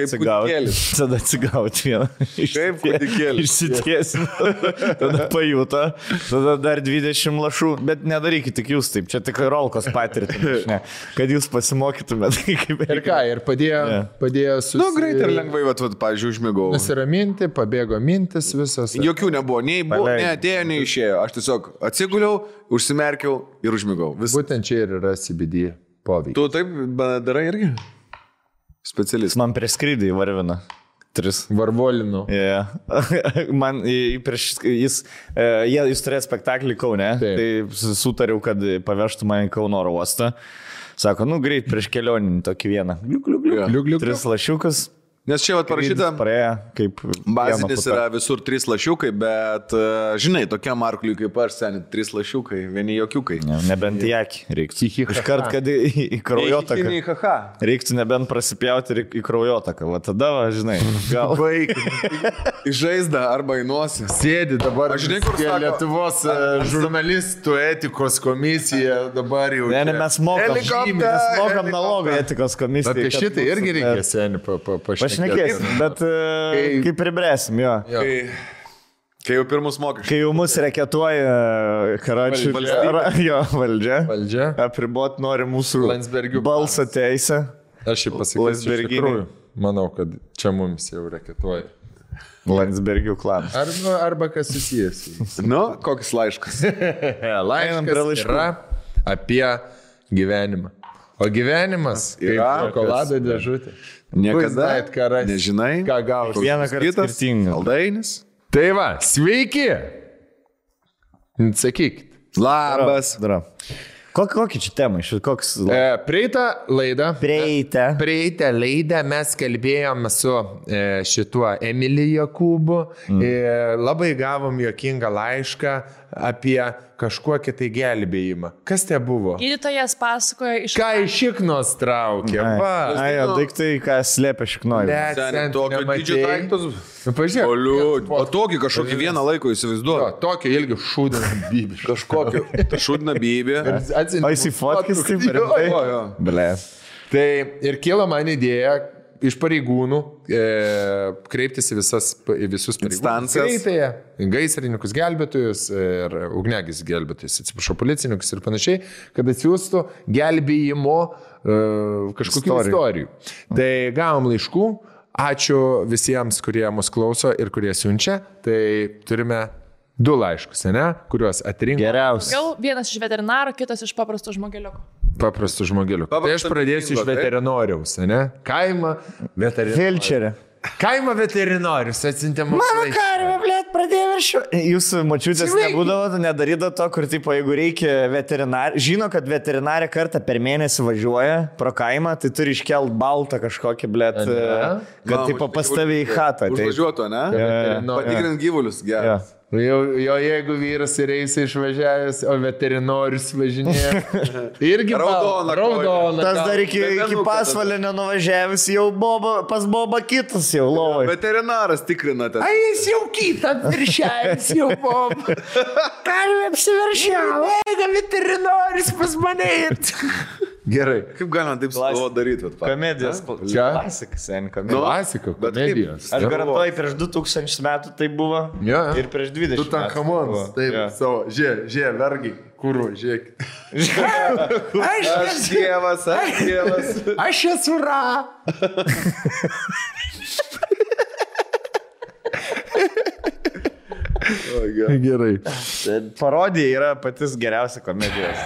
atsigauti vieną. Kaip kūdikėlis. Išsitiesim. Tada pajuto. Tada dar 20 lašų. Bet nedarykit tik jūs taip. Čia tik rolkos patirti. Kad jūs pasimokytumėte. Ir ką, ir padėjo Nu, greitai ir lengvai, pavyzdžiui, užmigau. nusiraminti, pabėgo mintis visas. Jokių nebuvo, nei atėjo, nei išėjo. Aš tiesiog atsiguliau, užsimerkiau ir užmigau. Būtent čia ir yra CBD poveikis. Tu taip darai irgi? Specialistas. Man prie skrydį įvarvina. 3. Varvolinu. Yeah. Man jis turėjo spektaklį Kaune, tai sutariau, kad pavežtų mane į Kauno oro uostą. Sako, greit prieš kelioninį tokį vieną. Liuk. 3 lašiukus. Nes čia parašyta, bazinis yra visur 3 lašiukai, bet, žinai, tokiam arkliui kaip aš, seniai, 3 lašiukai, vieni jokiukai. Nebent į akį reiktų. Iškart, kad į kraujotaką. Reiktų nebent prasipjauti į kraujotaką. Va tada, žinai, gal. Į žaizdą arba į nosį. Sėdi dabar, aš žinai, kur sako, Lietuvos žurnalistų etikos komisija dabar jau. Ne, mes mokam nalogą etikos komisiją. Apie šitą irgi reikia seniai pašnekėti. Pašnekėsim, bet kaip pribrėsim, jo. Kai jau pirmus mokesčius. Kai jau mus reketuoja Karačių valdžia. Apribot nori mūsų balso teisę. Aš jį pasakysiu iš tikrųjų. Manau, kad čia mums jau reketuoja. Landsbergių klanas. Arba kas susijęs. Koks laiškas? Laiškas yra apie gyvenimą. O gyvenimas kaip šokolado dėžutė. Niekada nežinai, ką gausi. Vieną kartą skirtingas. Aldainis. Tai va, sveiki. Sakykit. Labas. Kokį čia temą? Prieitą laidą mes kalbėjom su šituo Emiliju Jokūbu. Labai gavom juokingą laišką apie kažkokį tai gelbėjimą. Kas tai buvo? Gydytojas pasakoja iš... Ką iš šiknos traukė? Daiktai, ką slėpia šiknoji. Tokio didžio daiktus. Pažiūrėk. O tokį kažkokį vieną laiko įsivaizduoju. Tokio ilgi šūdina bybį. Kažkokio. Šūdina bybį. O jis į fotkis taip rimtai? Ble. Tai ir kilo man idėja iš pareigūnų kreiptis į visus instancijas. Gaisrininkus gelbėtojus ir ugnegis gelbėtojus, atsiprašau, policininkus ir panašiai, kad atsiųstų gelbėjimo kažkokių istorijų. Tai gavom laiškų, ačiū visiems, kurie mus klauso ir kurie siunčia, tai turime 2 laiškus, kuriuos atrinko. Geriausias. Gal vienas iš veterinaro, kitas iš paprasto žmogeliuko. Paprastų žmogelių. Tai aš pradėsiu iš veterinoriaus, Kaimą, veterinorių. Kaimo veterinorius atsintė mums. Mano karvė, blėt, pradėjo viršiu. Jūsų močiutės nebūdavo, nedarydavo to, kur, tipo, jeigu reikia veterinarį, žino, kad veterinarė kartą per mėnesį važiuoja pro kaimą, tai turi iškelt baltą kažkokį, blėt, kad, tipo, pastavė į chatą. Užvažiuoto, ne? Patikrint gyvulius, geras. Jo, jeigu vyras ir eisi išvažiavęs, o veterinorius važinėja. Irgi raudona. Tas dar iki pasvalio nenuvažiavęs, jau pas Boba kitas jau lovai. Veterinaras tikrinate. Ai, jis jau kitą viršėjęs, jau Boba. Karvė apsiveršiavo, eiga veterinorius pas mane. Gerai. Kaip galima taip daryti? Komedijos. Klasika, sen komedijos. Klasika, komedijos. Aš garantuoju, prieš 2000 metų tai buvo. Ir prieš 20 metų. Tu ten kamons. Taip, savo. Žiūrė, vergi. Kurvo, žiūrėk. Aš dievas. Aš esu ra. Gerai. Parodija yra patys geriausia komedijos.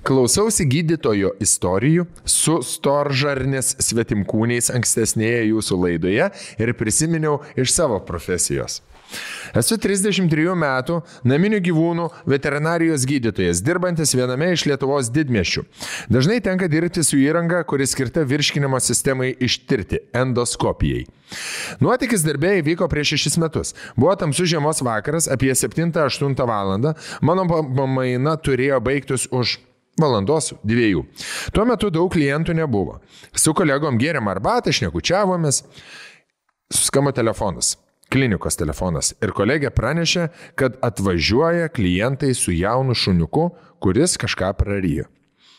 Klausiausi gydytojo istorijų su storžarnės svetimkūniais ankstesnėje jūsų laidoje ir prisiminiau iš savo profesijos. Esu 33 metų naminių gyvūnų veterinarijos gydytojas, dirbantis viename iš Lietuvos didmiesčių. Dažnai tenka dirbti su įranga, kuri skirta virškinimo sistemai ištirti – endoskopijai. Nuotykis darbė įvyko prieš 6 metus. Buvo tamsus žiemos vakaras, apie 7-8 valandą. Mano pamaina turėjo baigtis už valandos 2. Tuo metu daug klientų nebuvo. Su kolegom gėrėm arbatą, šnekučiavomės. Suskamba telefonas. Klinikos telefonas. Ir kolegė pranešė, kad atvažiuoja klientai su jaunu šuniuku, kuris kažką prarijo.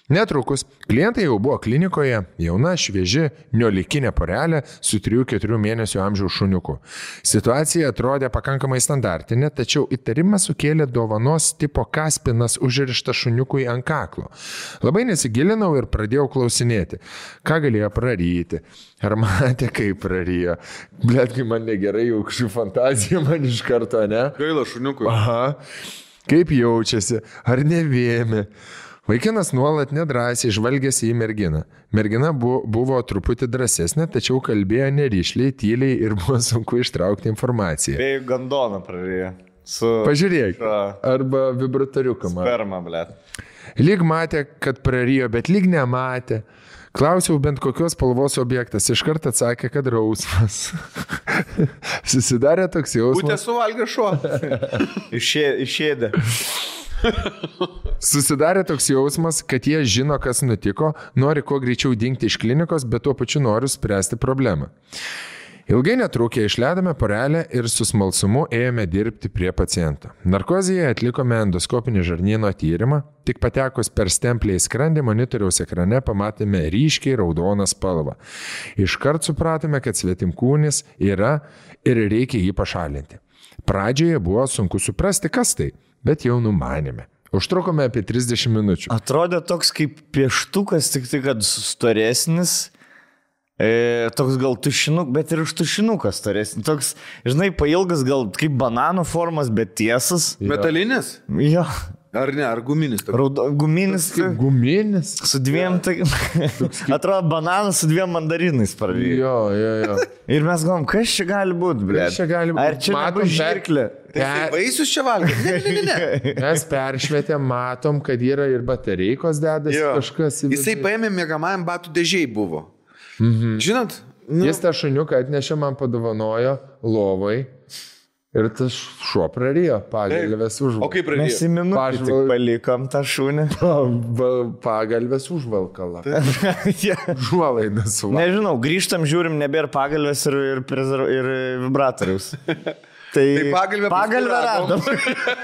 Netrukus klientai jau buvo klinikoje, jauna, švieži, niolikinė porelė su 3-4 mėnesių amžiaus šuniuku. Situacija atrodė pakankamai standartinė, tačiau įtarimą sukėlė dovanos tipo kaspinas užrištas šuniukui ant kaklo. Labai nesigilinau ir pradėjau klausinėti, ką galėjo praryti. Ar matė, kaip prarijo? Bletkai man negerai, jau kažkaip fantazija man iš karto, ne? Gaila šuniukui. Aha. Kaip jaučiasi? Ar nevėmė? Vaikinas nuolat nedrąsiai žvalgėsi į merginą. Mergina buvo truputį drąsesnė, tačiau kalbėjo neryšliai, tyliai ir buvo sunku ištraukti informaciją. Bei gandoną prarijo. Pažiūrėk. Arba vibratoriuką. Sperma, blėt. Lyg matė, kad prarijo, bet lyg nematė. Klausiau bent kokios spalvos objektas. Iškart atsakė, kad rausvas. Susidarė toks jausmas. Būtė suvalgė šuo. Išėdė. Susidarė toks jausmas, kad jie žino, kas nutiko, nori kuo greičiau dingti iš klinikos, bet tuo pačiu nori spręsti problemą. Ilgai netrukę išleidome porelę ir su smalsumu ėjome dirbti prie paciento. Narkozėje atlikome endoskopinį žarnyno tyrimą, tik patekus per stemplę į skrandį monitoriaus ekrane pamatėme ryškiai raudoną spalvą. Iškart supratome, kad svetimkūnis yra ir reikia jį pašalinti. Pradžioje buvo sunku suprasti, kas tai, bet jau numanėme. Užtrukome apie 30 minučių. Atrodė toks kaip pieštukas, tik tai, kad storesnis. Toks gal tušinukas, bet ir už tušinukas storesnis. Toks, žinai, pailgas gal kaip banano formas, bet tiesas. Metalinis? Jo. Ar ne, ar guminis? Guminis. Guminis? Su 2, atrodo, bananas su 2 mandarinais parvyko. Jo. Ir mes galvom, kas čia gali būti, blėt? Ar čia nebus žirklė? Vaisius čia valgė? Ne. Mes peršvietėm, matom, kad yra ir batareikos dedasi kažkas. Jisai paėmė miegamajam batų dėžiai buvo. Žinot? Jis tą šuniuką atnešė, man padovanojo lovai. Ir tas šuo prarijo, pagalvės užvalkalą. O kaip prarijo? Mes į minutę tik palikom tą šunį. Pagalvės užvalkalą. Žuolaida suvalkalą. Nežinau, grįžtam, žiūrim, nebėra pagalvės ir vibratoriaus. Tai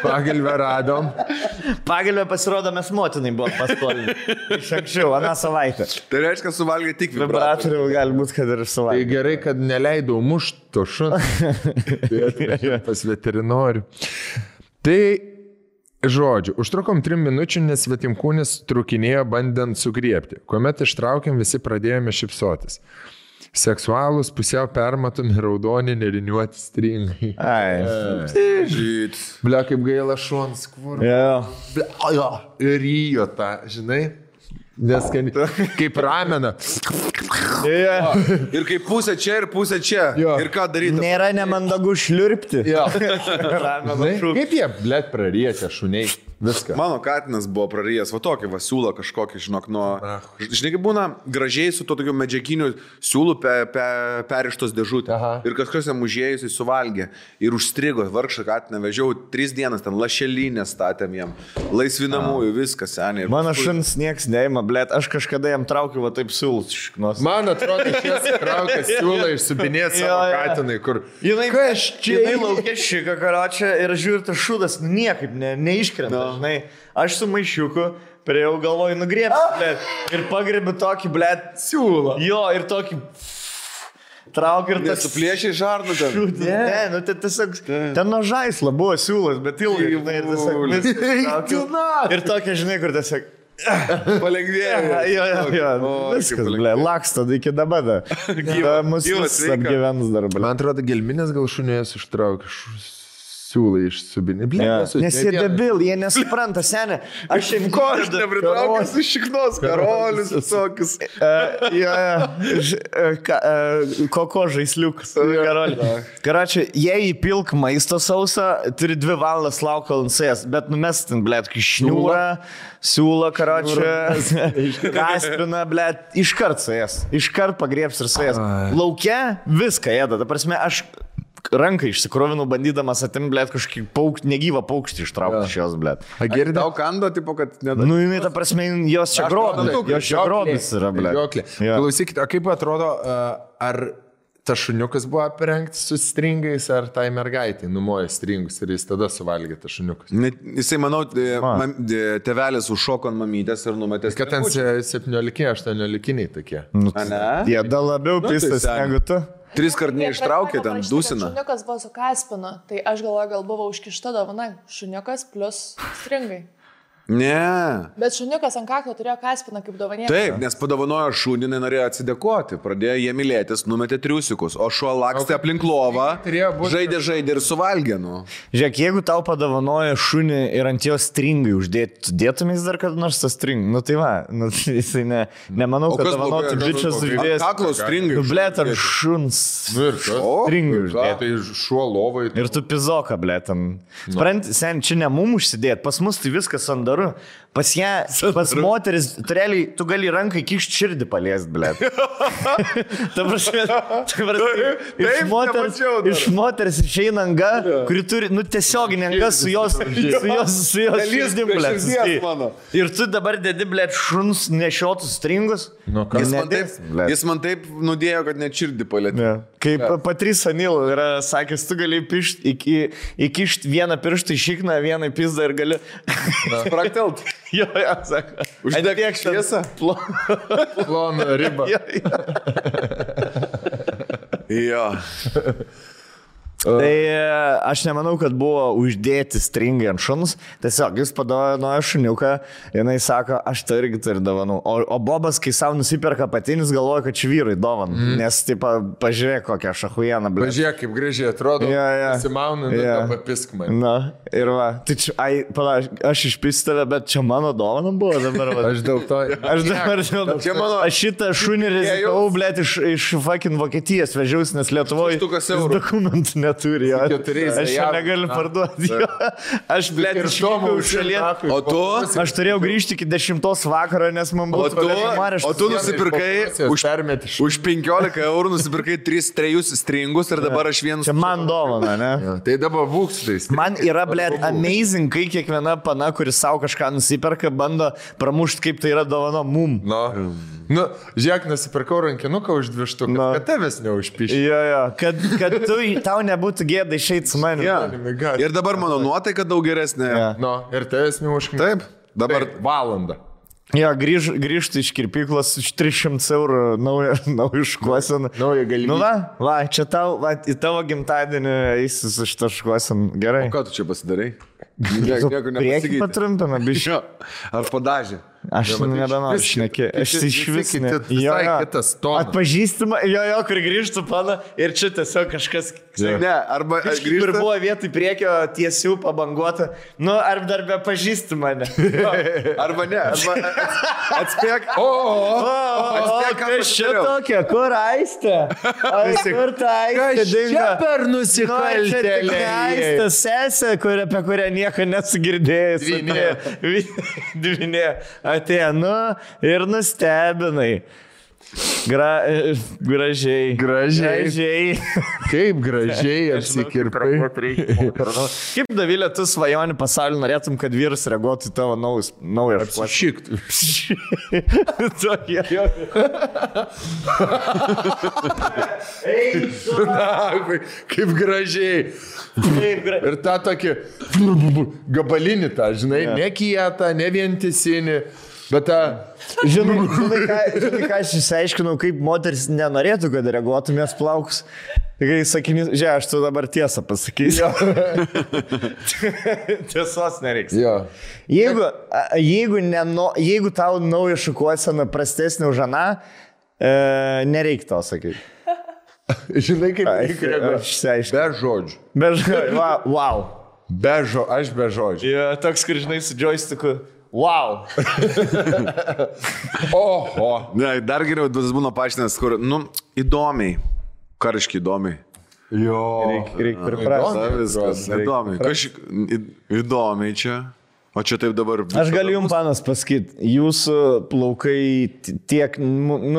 pagalvę radom. Pagalvę pasirodo, mes motinai buvo paskolinti. Iš anksčiau, aną savaitę. Tai reiškia, suvalgė tik vibratorių. Gali būti, kad ir suvalgė. Tai gerai, kad neleidau mušto šunį. Tai atvežė pas veterinorių. Tai, žodžiu, užtrukom 3 minučių, nes svetimkūnis trukinėjo bandant sugriebti. Kuomet ištraukėm, visi pradėjome šypsotis. Seksualūs, pusiau permatomi, raudoni, neriniuoti stringai. Žyt. Blia, kaip gaila šuons, kur. Ir rijo tą, žinai? Nes kaip ramena. Ir kaip pusė čia ir pusė čia. Jo. Ir ką daryti? Nėra nemandagu šliurpti. Jo. Kaip jie, blėt, prariečia šuniai. Viską. Mano katinas buvo prarijęs, va tokį va siūlą kažkokį, žinok, nuo... Žinai, kaip būna gražiai su to tokiu medžiaginiu siūlu perištos dėžutė. Ir kažkas jam užėjusiai suvalgė. Ir užstrigo, vargšą katiną vežiau 3 dienas, ten lašelinę statėm jam. Laisvinamųjų, viskas, seniai. Mano šuns nieks neima, blėt, aš kažkada jam traukiu va taip siūlus iš šiknos. Man atrodo, šis traukia siūlą išsubinėti savo katinai, kur... Jinai laukia šika karočią ir žiūri, tas šūdas niekaip neiškrenta. Žinai, aš su maišiuku priejau galvoju nugriebsiu, blėt, ir pagrebiu tokį, blėt, siūlą. Jo, ir tokį traukiu ir tas... Nesuplėšiai žarnu ten. Ne, nu tai tiesiog, ten nuo žaislo buvo siūlas, bet ilgai, žinai, ir tiesiog viskas traukiu. Ir tokia, žinai, kur tiesiog... Palengvėjo. Jo, viskas, blėt, laksta iki dabar. Mūsų apgyvens dar, blėt. Man atrodo, gelminės gal šunės ištraukia siūlai išsubinė. Nes jie debil, jie nesupranta, senė. Aš šiandien... Ko aš nepritraukiu su šiknos, karolius visokius. Koko žaisliukas. Karočią, jei įpilk maisto sausą, turi 2 valandas lauko lansės, bet numestin, blėt, šniūrą, siūlą, karočią, kaspiną, blėt, iškart suės. Iškart pagriebs ir suės. Lauke viską ėda. Ta prasme, aš ranką išsikrovinau, bandydamas atim, blėt, kažkokį negyvą paukštį ištraukti iš jos, blėt. Girdi, tau kando, tipo, kad nedavė. Nu, jinai, ta prasme, jos čia grobis yra, blėt. Klausykite, o kaip atrodo, ar tas šuniukas buvo aprengtas su stringais, ar tai mergaitai numoja stringus ir jis tada suvalgė tas šuniukas? Jisai, manau, tėvelis užšoko ant mamytės ir numetės. Kad ten 17-18 tokie. Jie dar labiau pistas negu tu. 3 kart neištraukė, ten dusina. Šuniukas buvo su kaspinu, tai aš galvoju, gal buvo užkišta dovana. Šuniukas plus stringai. Ne. Bet šuniukas ant kaklo turėjo kaspiną kaip dovanėlį. Taip, nes padovanojo šunį, norėjo atsidėkoti. Pradėjo jie mylėtis, numetė triusikus, o šuo lakstė aplink lovą, žaidė ir suvalgė. Nu. Žiūrėk, jeigu tau padovanojo šunį ir ant jo stringai uždėti, dėtumės dar kad nors tas string. Nu tai va, nu, jisai nemanau, kad dovanotų bičias uždėjęs. Kaklo stringai. Nu blėt, ar šuns stringai uždėti. Tai šuo lovai. Ir tu pizoką, blėt. Sprant, sen, čia ne mum užsidėti, pas mus tai viskas ant pas ją, pas moteris, realiai, tu gali rankai kišti širdį paliest, blėt. Ta prasme, iš moters išeina anga, kuri turi, nu, tiesioginį anga su jos širdim, blėt. Ir tu dabar dedi, blėt, šuns nešiotus stringus. Jis man taip nudėjo, kad net širdį palėtė. Kaip Patrys Anil yra sakęs, tu gali įkišti vieną pirštą į šikną, vieną į pizdą ir gali... Praktelt. Jo, sako. Uždėk šviesą. Ploną ribą. Jo. Tai aš nemanau, kad buvo uždėti stringai ant šuns. Tiesiog jis padovanojo šuniuką, jinai sako, aš tai irgi turiu dovanų. O Bobas, kai savo nusiperka patinis, galvoja, kad čia vyrai dovanų. Nes, taip, pažiūrėk, kokią šachujeną, blė. Pažiūrėk, kaip gražiai atrodo. Pasimaunu, papisk man. Na, ir va. Tai čia, aš išpistave, bet čia mano dovana buvo dabar. Aš dėl to. Aš šitą šunį rizikavau, blė, iš fucking Vokietijos vežiausi, nes Lietuvoje dokumentų net. Turi, aš čia negaliu parduoti. Aš, blėt, išvykau iš šalies. O tu? Aš turėjau grįžti iki 10 vakaro, nes man buvo... O tu nusipirkai už 15 eurų, nusipirkai 3 stringus ir dabar aš vienas... Čia man dovana, ne? Tai dabar būkstais. Man yra, blėt, amazing, kai kiekviena pana, kuris savo kažką nusiperka, bando pramušti, kaip tai yra dovana mum. Nu, žiūrėk, nusipirkau rankinuką už 2 štukas, kad tavęs neužpišė. Jo, kad tau nebūtų gėda išeiti su manim. Ir dabar mano nuotaika daug geresnė. Ir tavęs neužkniu. Taip, dabar valandą. Jo, grįžti iš kirpyklos už 300 eurų naują šukuoseną. Naują galimybę. Nu va, čia į tavo gimtadienį eisi su šitą šukuoseną. Gerai. O ką tu čia pasidarai? Priekį patrumpina, bišio. Ar padažė? Aš nebenoriu šnekėti. Aš iš vis visai kitas tonas. Atpažįstama, jo, kur grįžtų pana ir čia tiesiog kažkas... Ne, arba grįžtų. Ir buvo vietoj priekio tiesių pabanguota. Nu, ar dar be pažįsti mane. Arba ne, arba atspėk. Kas čia tokia? Kur Aistė? Kur ta Aistė dingo? Čia per nusikaltėlį. Aistė sesė, apie kurią nieko nesugirdėjęs. Dvinė. Atėjo, ir nustebinai. Gražiai. Kaip gražiai apsikirpai. Kaip, Davilė, tu svajoni pasaulį norėtum, kad vyras reaguotų į tavo naują Apsišiktų. Kaip gražiai. Ir tą tokį gabalinį tą, žinai, ne kietą, ne vientisinį. Bet žinai, ką aš išsiaiškinau, kaip moteris nenorėtų, kad reaguotumės plaukus. Kai sakinys, žiūrėk, aš tu dabar tiesą pasakysiu. Tiesos nereiks. Jeigu tau nauja šukuosena prastesnė už aną, nereik to sakyti. Žinai, kaip reikia reaguoti. Be žodžių. Be žodžių, wow. Aš be žodžių. Toks, kur žinai, su joysticku. Wow. Oho. Ne, dar geriau, tas būna paaiškinęs, kur, įdomiai. Kariškai įdomiai. Jo. Reikia priprasti. Viskas. Įdomiai čia. O čia taip dabar... Aš galiu jums, panas, pasakyti, jūsų plaukai tiek,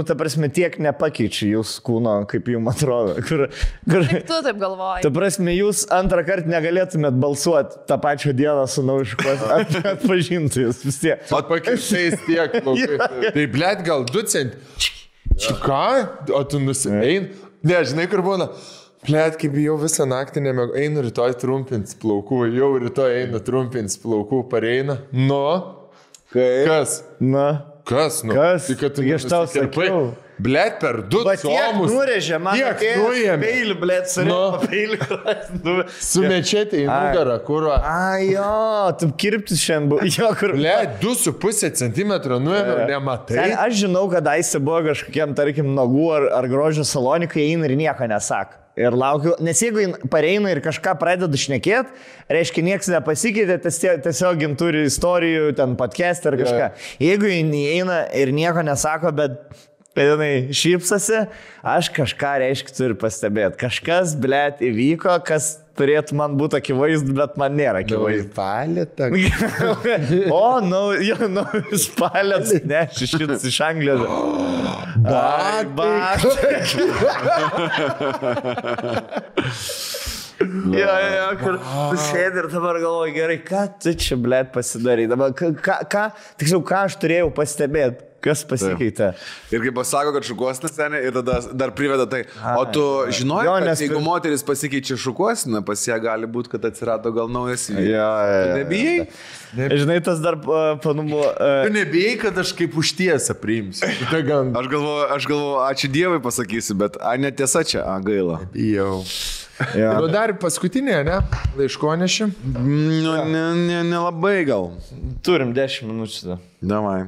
ta prasme, tiek nepakeičia jūsų kūno, kaip jums atrodo. Kaip tu taip galvoji? Ta prasme, jūs antrą kartą negalėtumėt balsuoti tą pačią dieną su naujiškos, atpažintų jūs vis tiek. Pakeičiais tiek plaukai. Tai, blėt, gal 2 cent. Ką? O tu nusimein? Ne, žinai, kur būna... Plėt, kaip jau visą naktį nemėgau, einu rytoj trumpins plaukų, jau rytoj einu trumpins plaukų, pareina. Nu? Kas? Kas? Tai kad tu aš tau sakiau. Blėt, per 2 comus. Tiek nurėžė, man peilį, blėt, surėmė peilį. Sumečėti į nugarą, kur... Jo, tu kirptis šiandien buvo. Blėt, 2,5 cm nuėmė, nematai. Aš žinau, kad Aistė buvo kažkokiam, tarkim, nagų ar grožio salonikai, eina ir nieko nesako. Ir laukiu, nes jeigu pareina ir kažką pradeda šnekėti, reiškia, niekas nepasikeitė, tiesiog turi istorijų, ten podcast ar kažką. Jeigu eina ir nieko nesako, bet jinai šypsasi, aš kažką, reiškia, turiu pastebėti. Kažkas, blėt, įvyko, kas turėtų man būti akivaizdu, bet man nėra akivaizdu. Palėtą. Naujus palėts, ne, šitas iš Anglijos. Kur tu sėdi ir dabar galvoji, gerai, ką tu čia, blėt, pasidarai. Dabar, tiksliau, ką aš turėjau pastebėti. Kas pasikeitė? Ir kaip pasako, kad šukuosina senė ir tada dar priveda tai. O tu žinojai, kad jeigu moteris pasikeičia šukuosina, pas ją gali būti, kad atsirado gal naujas vyras. Nebijai? Žinai, tas dar panumo... Tu nebijai, kad aš kaip užtiesą priimsiu. Aš galvoju, ačiū Dievui pasakysiu, bet netiesa čia, gaila. Bijau. Nu dar paskutinė, ne? Laiškonešį? Nelabai gal. Turim 10 minučių. Davai.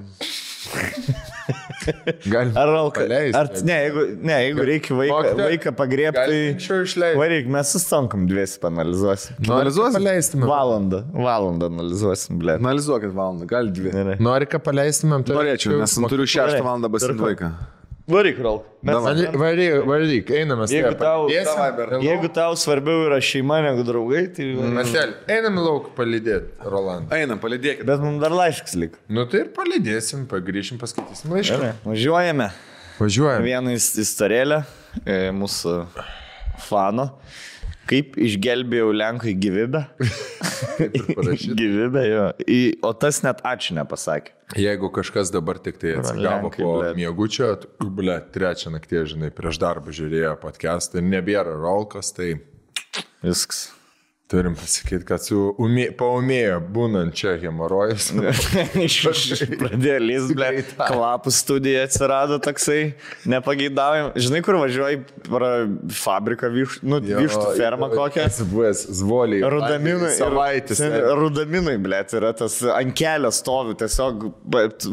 Ar paleisti? Jeigu reikia vaiką pagriebti, tai varyk, mes sustankam 2 panalizuosim. Analizuosim? Valandą analizuosim, blė. Analizuokit valandą, gal 2. Nori, ką paleistumėm? Norėčiau, nes turiu 6 valandą basinti vaiką. Varyk, Ralk. Varyk, einame. Jeigu tau svarbiau yra šeima negu draugai, tai... Marcel, einam lauk palydėti, Roland. Einam, palydėkit. Bet mums dar laiškas lik. Nu tai ir palydėsim, pagrįšim, paskaitysim laišką. Važiuojame. Vieną istorėlę mūsų fano. Kaip išgelbėjau Lenkui gyvybę. Gyvybę, jo. O tas net ačiū nepasakė. Jeigu kažkas dabar tik tai atsigavo po miegučio, blė, 3 nakties, žinai, prieš darbą žiūrėjo podcastą ir nebėra Rolkas, tai... Viskas. Turim pasakyti, kad paumėjo būnant čia hemorojus. Pradėjo lys, ble, kvapų studija atsirado toksai, nepageidaujam. Žinai, kur važiuoji fabriką, vištų fermą kokią? Buvęs Zvoliai. Rudaminai. Savaitės. Rudaminai, ble, yra tas ant kelio stovi, tiesiog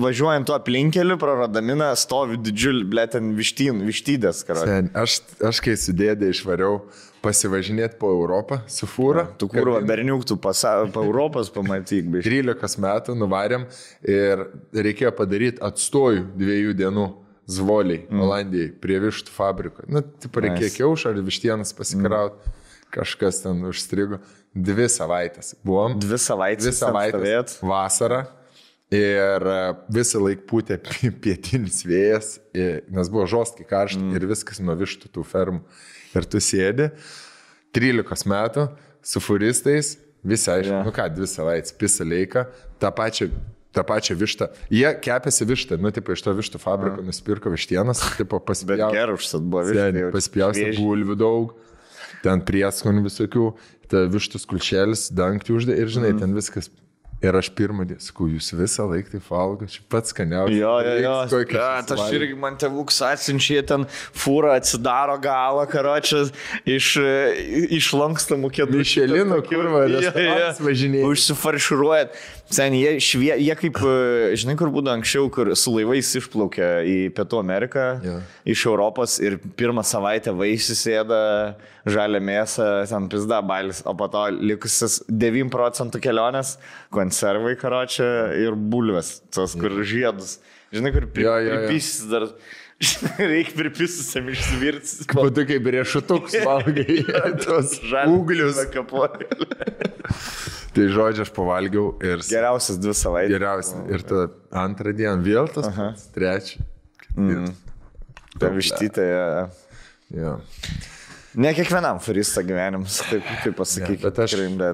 važiuojant tuo aplinkeliu, pro Rudaminą stovi didžiulį, ble, ten vištydės. Aš kai su dėdė išvariau pasivažinėti po Europą su fūra. Tu kurva, berniuk, tu po Europos pamatyk. 13 metų nuvarėm ir reikėjo padaryti atstojų 2 dienų Zvoliai, Olandijai, prie vištų fabriko. Reikėjo kiaušą ar vištienas pasikrauti. Kažkas ten užstrigo. 2 savaitės. Buvom. 2 savaitės. 2 savaitės. Vasarą. Ir visą laiką pūtė pietinis vėjas, nes buvo žostkai karšta ir viskas nuo vištų tų fermų. Ir tu sėdi 13 metų su furistais, visi aišku, 2 savaitės, pisa leika, tą pačią vištą. Jie kepėsi vištą, iš to vištų fabriko nusipirko vištienas, pasipjausi bulvių daug, ten prieskonių visokių, ta vištų skulčelis, dangtį uždė ir žinai, ten viskas. Ir aš pirmą dieną, sakau, jūs visą laiką taip valgo, čia pats skaniausias. Jo. Aš irgi man tėvuks atsinčia, ten fūra atsidaro galą, karočias, iš lankstamų kėdų. Mišelino, kurva, restoranas važinėja. Užsifarširuojat. Sen, jie kaip, žinai, kur būdavo anksčiau, kur su laivais išplaukė į Pietų Ameriką, iš Europos ir pirmą savaitę vaisisėda žalia mėsą, ten pizda bailis, o po to likusis 9% kelionės, konservai karočią ir bulves, tos kur žiedus. Žinai, kur pripisis dar, reikia pripisusam išsivirtis. Po to kaip riešutuks valgai, tos ūglius. Tai žodžiu, aš pavalgiau ir... Geriausias 2 savaitės. Geriausias. Ir tada 2 dieną vėl tas, 3. Ta vištytė. Jo. Ne kiekvienam furista gyvenimas, taip pasakykime.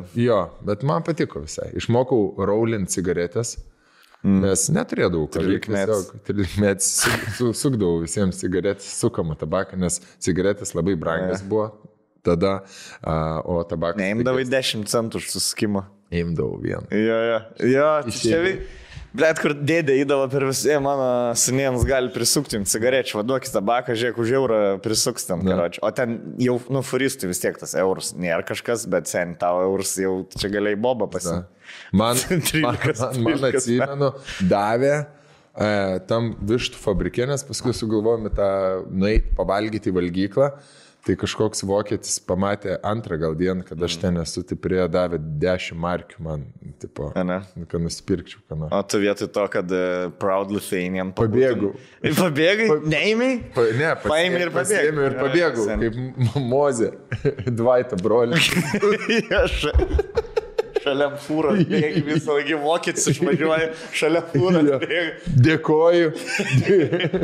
Bet man patiko visai. Išmokau roulint cigaretės, nes neturėdavau kažkaip. 13 sukdavau visiems cigaretės, sukamą tabaką, nes cigaretės labai brangias buvo. Tada, o tabakas... Neimdavai 10 centų už suskimą. Imdavau vieną. Jo, čia blet, kur dėdė įdavo per visą, mano seniems gali prisukti jums cigarečių, vaduokis tabaką, žiūrėk, už eurą prisuks ten, karočią. O ten jau, furistų vis tiek tas eurus nėra kažkas, bet sen tavo eurus jau čia galėjai bobą pasimti. Man atsimenu, davė tam vištų fabrikėnės, paskui sugalvojome tą nueiti pavalgyti į valgyklą. Tai kažkoks vokietis pamatė 2 gal dieną, kad aš ten esu, tai prie davė 10 markių man, tipo, kad nusipirkčiau. O tu vietoj to, kad Proud Lithuanian pabėgau. Pabėgai? Neėmei? Ne, paėmė ir pabėgau. Ir pabėgau, kaip Mozė, Dvaitą brolį. Šalia fūros bėgi, visą laikį vokietis išvažiuoja, šalia fūros bėgi. Dėkoju.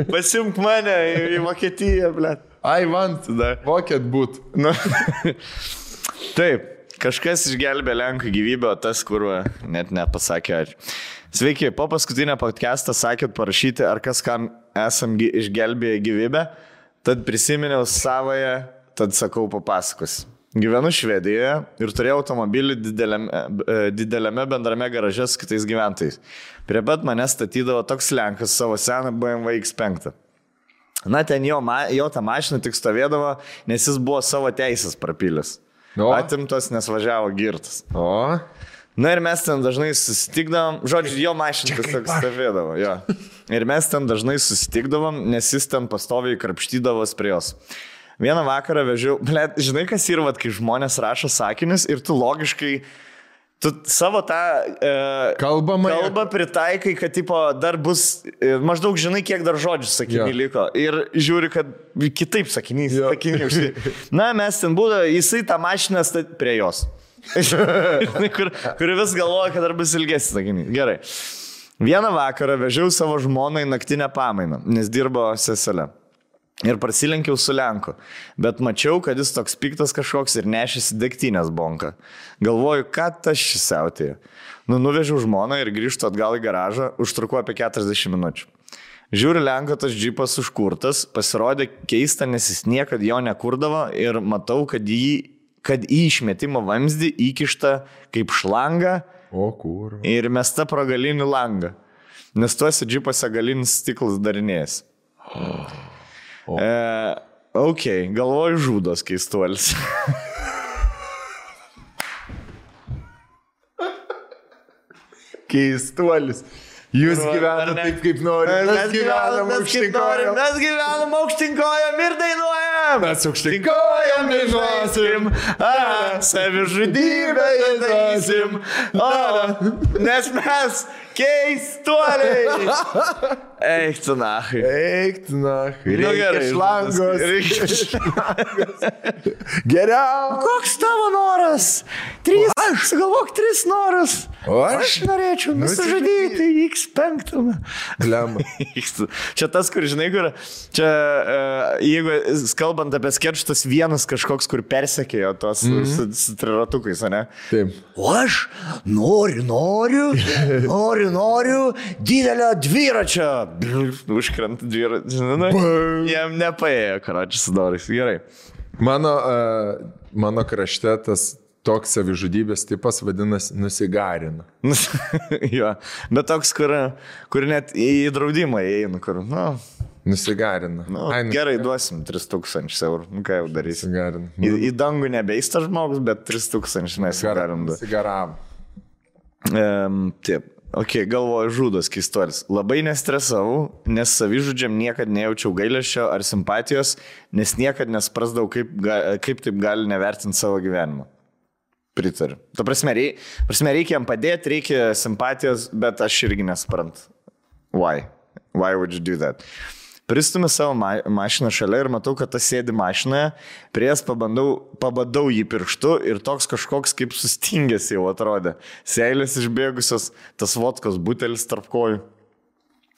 Pasimk mane į Vokietiją, blėt. I want vokiet būt. Taip, kažkas išgelbė Lenkų gyvybę, o tas, kur net nepasakė ačiū. Sveiki, po paskutinę podcastą sakėt parašyti, ar kas kam esam išgelbėję gyvybę, tad prisiminiau savoje, tad sakau papasakos. Gyvenu Švedijoje ir turėjau automobilį dideliame bendrame garaže su kitais gyventojais. Prie pat mane statydavo toks Lenkas savo seną BMW X5. Na, ten jo ta mašina tik stovėdavo, nes jis buvo savo teisės prapylęs. Atimtas, nes važiavo girtas. Na ir mes ten dažnai susitikdavom, žodžiu, jo mašina tiesiog stovėdavo. Jo. Ir mes ten dažnai susitikdavom, nes jis ten pastoviai krapštydavos prie jos. Vieną vakarą vežiau, žinai, kas yra, kai žmonės rašo sakinius ir tu logiškai, tu savo tą kalbą pritaikai, kad tipo, dar bus, maždaug žinai, kiek dar žodžių sakiniai liko. Ir žiūri, kad kitaip sakiniai. Na, mes ten būdavo, jisai tą mašiną prie jos. kur vis galvoja, kad dar bus ilgesnis sakiniai. Gerai. Vieną vakarą vežiau savo žmoną į naktinę pamainą, nes dirbo seselė. Ir prasilenkiau su Lenku, bet mačiau, kad jis toks piktas kažkoks ir nešėsi degtinės bonką. Galvoju, ką tas šis siautėjo. Nuvežiau žmoną ir grįžtu atgal į garažą, užtruko apie 40 minučių. Žiūri, Lenko tas džipas užkurtas, pasirodė keista, nes jis niekad jo nekurdavo ir matau, kad kad į išmetimo vamzdį įkišta kaip šlanga O, kur. ir mesta pro galinį langą. Nes tuose džipose galinis stiklas darinės. Ok, galvoju žudos keistuolis. Keistuolis. Jūs gyvenate taip, kaip norite. Mes gyvenam aukštinkojom. Mes gyvenam aukštinkojom ir dainuojam. Mes aukštinkojom dainuosim. Savižudybę dainuosim. Nes mes keistuoliai. Eik tu nachai. Eik, na, Nu, gerai, šlangos. Geriau. Koks tavo noras? 3. Sugalvok 3 norus. O aš? Norėčiau nusižudyti X5. Lemba. Čia tas, kur žinai, kur čia, jeigu kalbant apie sketch, tas vienas kažkoks, kur persekėjo tos su triratukais, ne? Taip. O aš noriu didelio dviračio. Užkrenta dviračio. Jam nepaėjo, karočiui, sudarais. Gerai. Mano krašte tas toks savižudybės tipas vadinasi nusigarina. Jo, bet toks, kur net į draudimą įeina, kur, Nusigarina. gerai, duosim 3000 eurų. Nu, ką jau darysim? Nusigarina. Į dangų nebeista žmogus, bet 3000 mes galim duoti. Nusigaram. Taip. Ok, galvoju žudos keistuolis. Labai nestresavau, nes savižudžiam niekad nejaučiau gailesčio ar simpatijos, nes niekad nesprasdavau, kaip taip gali nevertinti savo gyvenimą. Pritariu. Ta prasme, reikia jam padėti, reikia simpatijos, bet aš irgi nesprantu. Why? Why would you do that? Pristumi savo mašiną šalia ir matau, kad tas sėdi mašinoje, prie jas pabadau jį pirštu ir toks kažkoks kaip sustingęs jau atrodė. Seilės išbėgusios, tas vodkos butelis tarp kojų.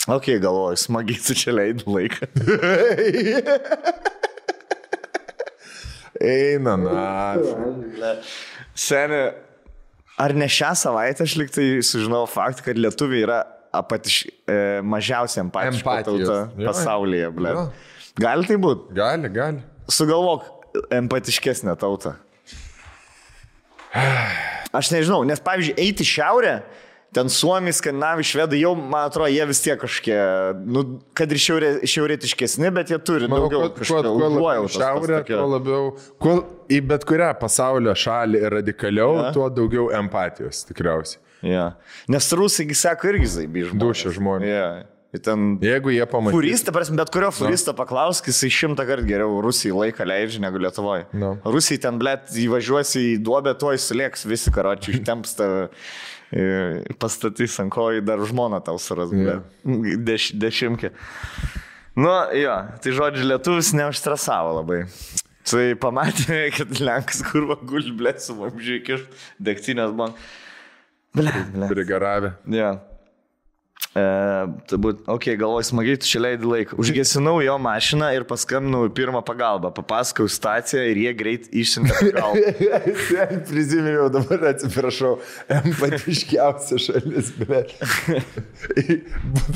Ok, galvoju, smagiai tu čia leidai laiką. Eina, na. Seni, ar ne šią savaitę aš liktai sužinau faktą, kad lietuviai yra mažiausiai empatiška tauta pasaulyje, ble. Gali tai būti? Gali. Sugalvok empatiškesnę tautą. Aš nežinau, nes pavyzdžiui, eiti šiaurę, ten Suomi, Skandinavai, Švedai, jau, man atrodo, jie vis tiek kažkiek, kad ir šiaurėtiškesni, bet jie turi daugiau kažkokio užuojautos. Šiaurė, tuo labiau, į bet kurią pasaulio šalį radikaliau, tuo daugiau empatijos, tikriausiai. Ja. Nes rusai, sako, irgi zaibi žmonės. Dušia žmonės. Ja. Ten... Jeigu jie pamatys. Furistą, bet kurio furistą paklausk, jisai 100 kartų geriau Rusijai laiką leidžia negu Lietuvoje. No. Rusijai ten, blėt, įvažiuosi į duobę, tuoj sulėks visi, karočiui, ištemps tave, pastatys ant kojų, dar žmoną tau suras, blėt. Dešimkė. Nu, jo, tai žodžiu, lietuvis neužstresavo labai. Tai pamatė, kad Lenkas kurva guli, blėt, su vamžiai kišt, degtinės man. Prigaravę. Ja. Ok, galvoju, smagiai tu čia leidai laiką. Užgesinau jo mašiną ir paskambinau į pirmą pagalbą. Papasakau situaciją ir jie greit išsiuntė pagalbą. Prisiminiau, dabar atsiprašau, empatiškiausia šalis, bet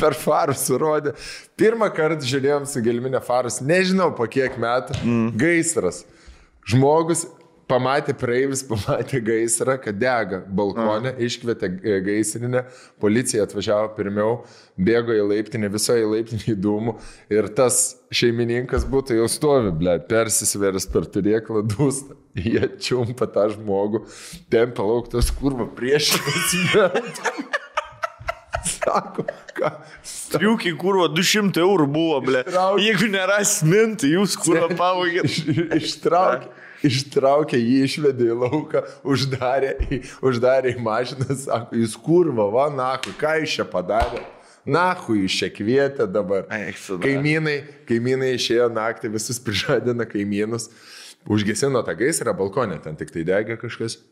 per farus surodė. Pirmą kartą žiūrėjom su gelminė farus, nežinau po kiek metų, gaisras. Žmogus pamatė praeivis, pamatė gaisrą, kad dega balkonė, iškvietė gaisrinę, policija atvažiavo pirmiau, bėgo į laiptinę, visoje laiptinėje dūmų ir tas šeimininkas būtų jau stovi, blėt, persisvėręs per turėklą dūstą. Jie čiumpa tą žmogų, tempia lauktas kurva priešinas metų. Sako, ką? Striukiai kurva 200 eurų buvo, blėt. Jeigu neras minti, jūs kurva pavogėt. Ištraukė jį, išvedė į lauką, uždarė į mašiną, sako, jūs kurva, va, nahu, ką jūs čia padarė? Nahu, jūs čia kvietė dabar. Kaimynai išėjo naktį, visus prižadina kaimynus, užgesino tą gaisrą balkonę, ten tik tai degė kažkas.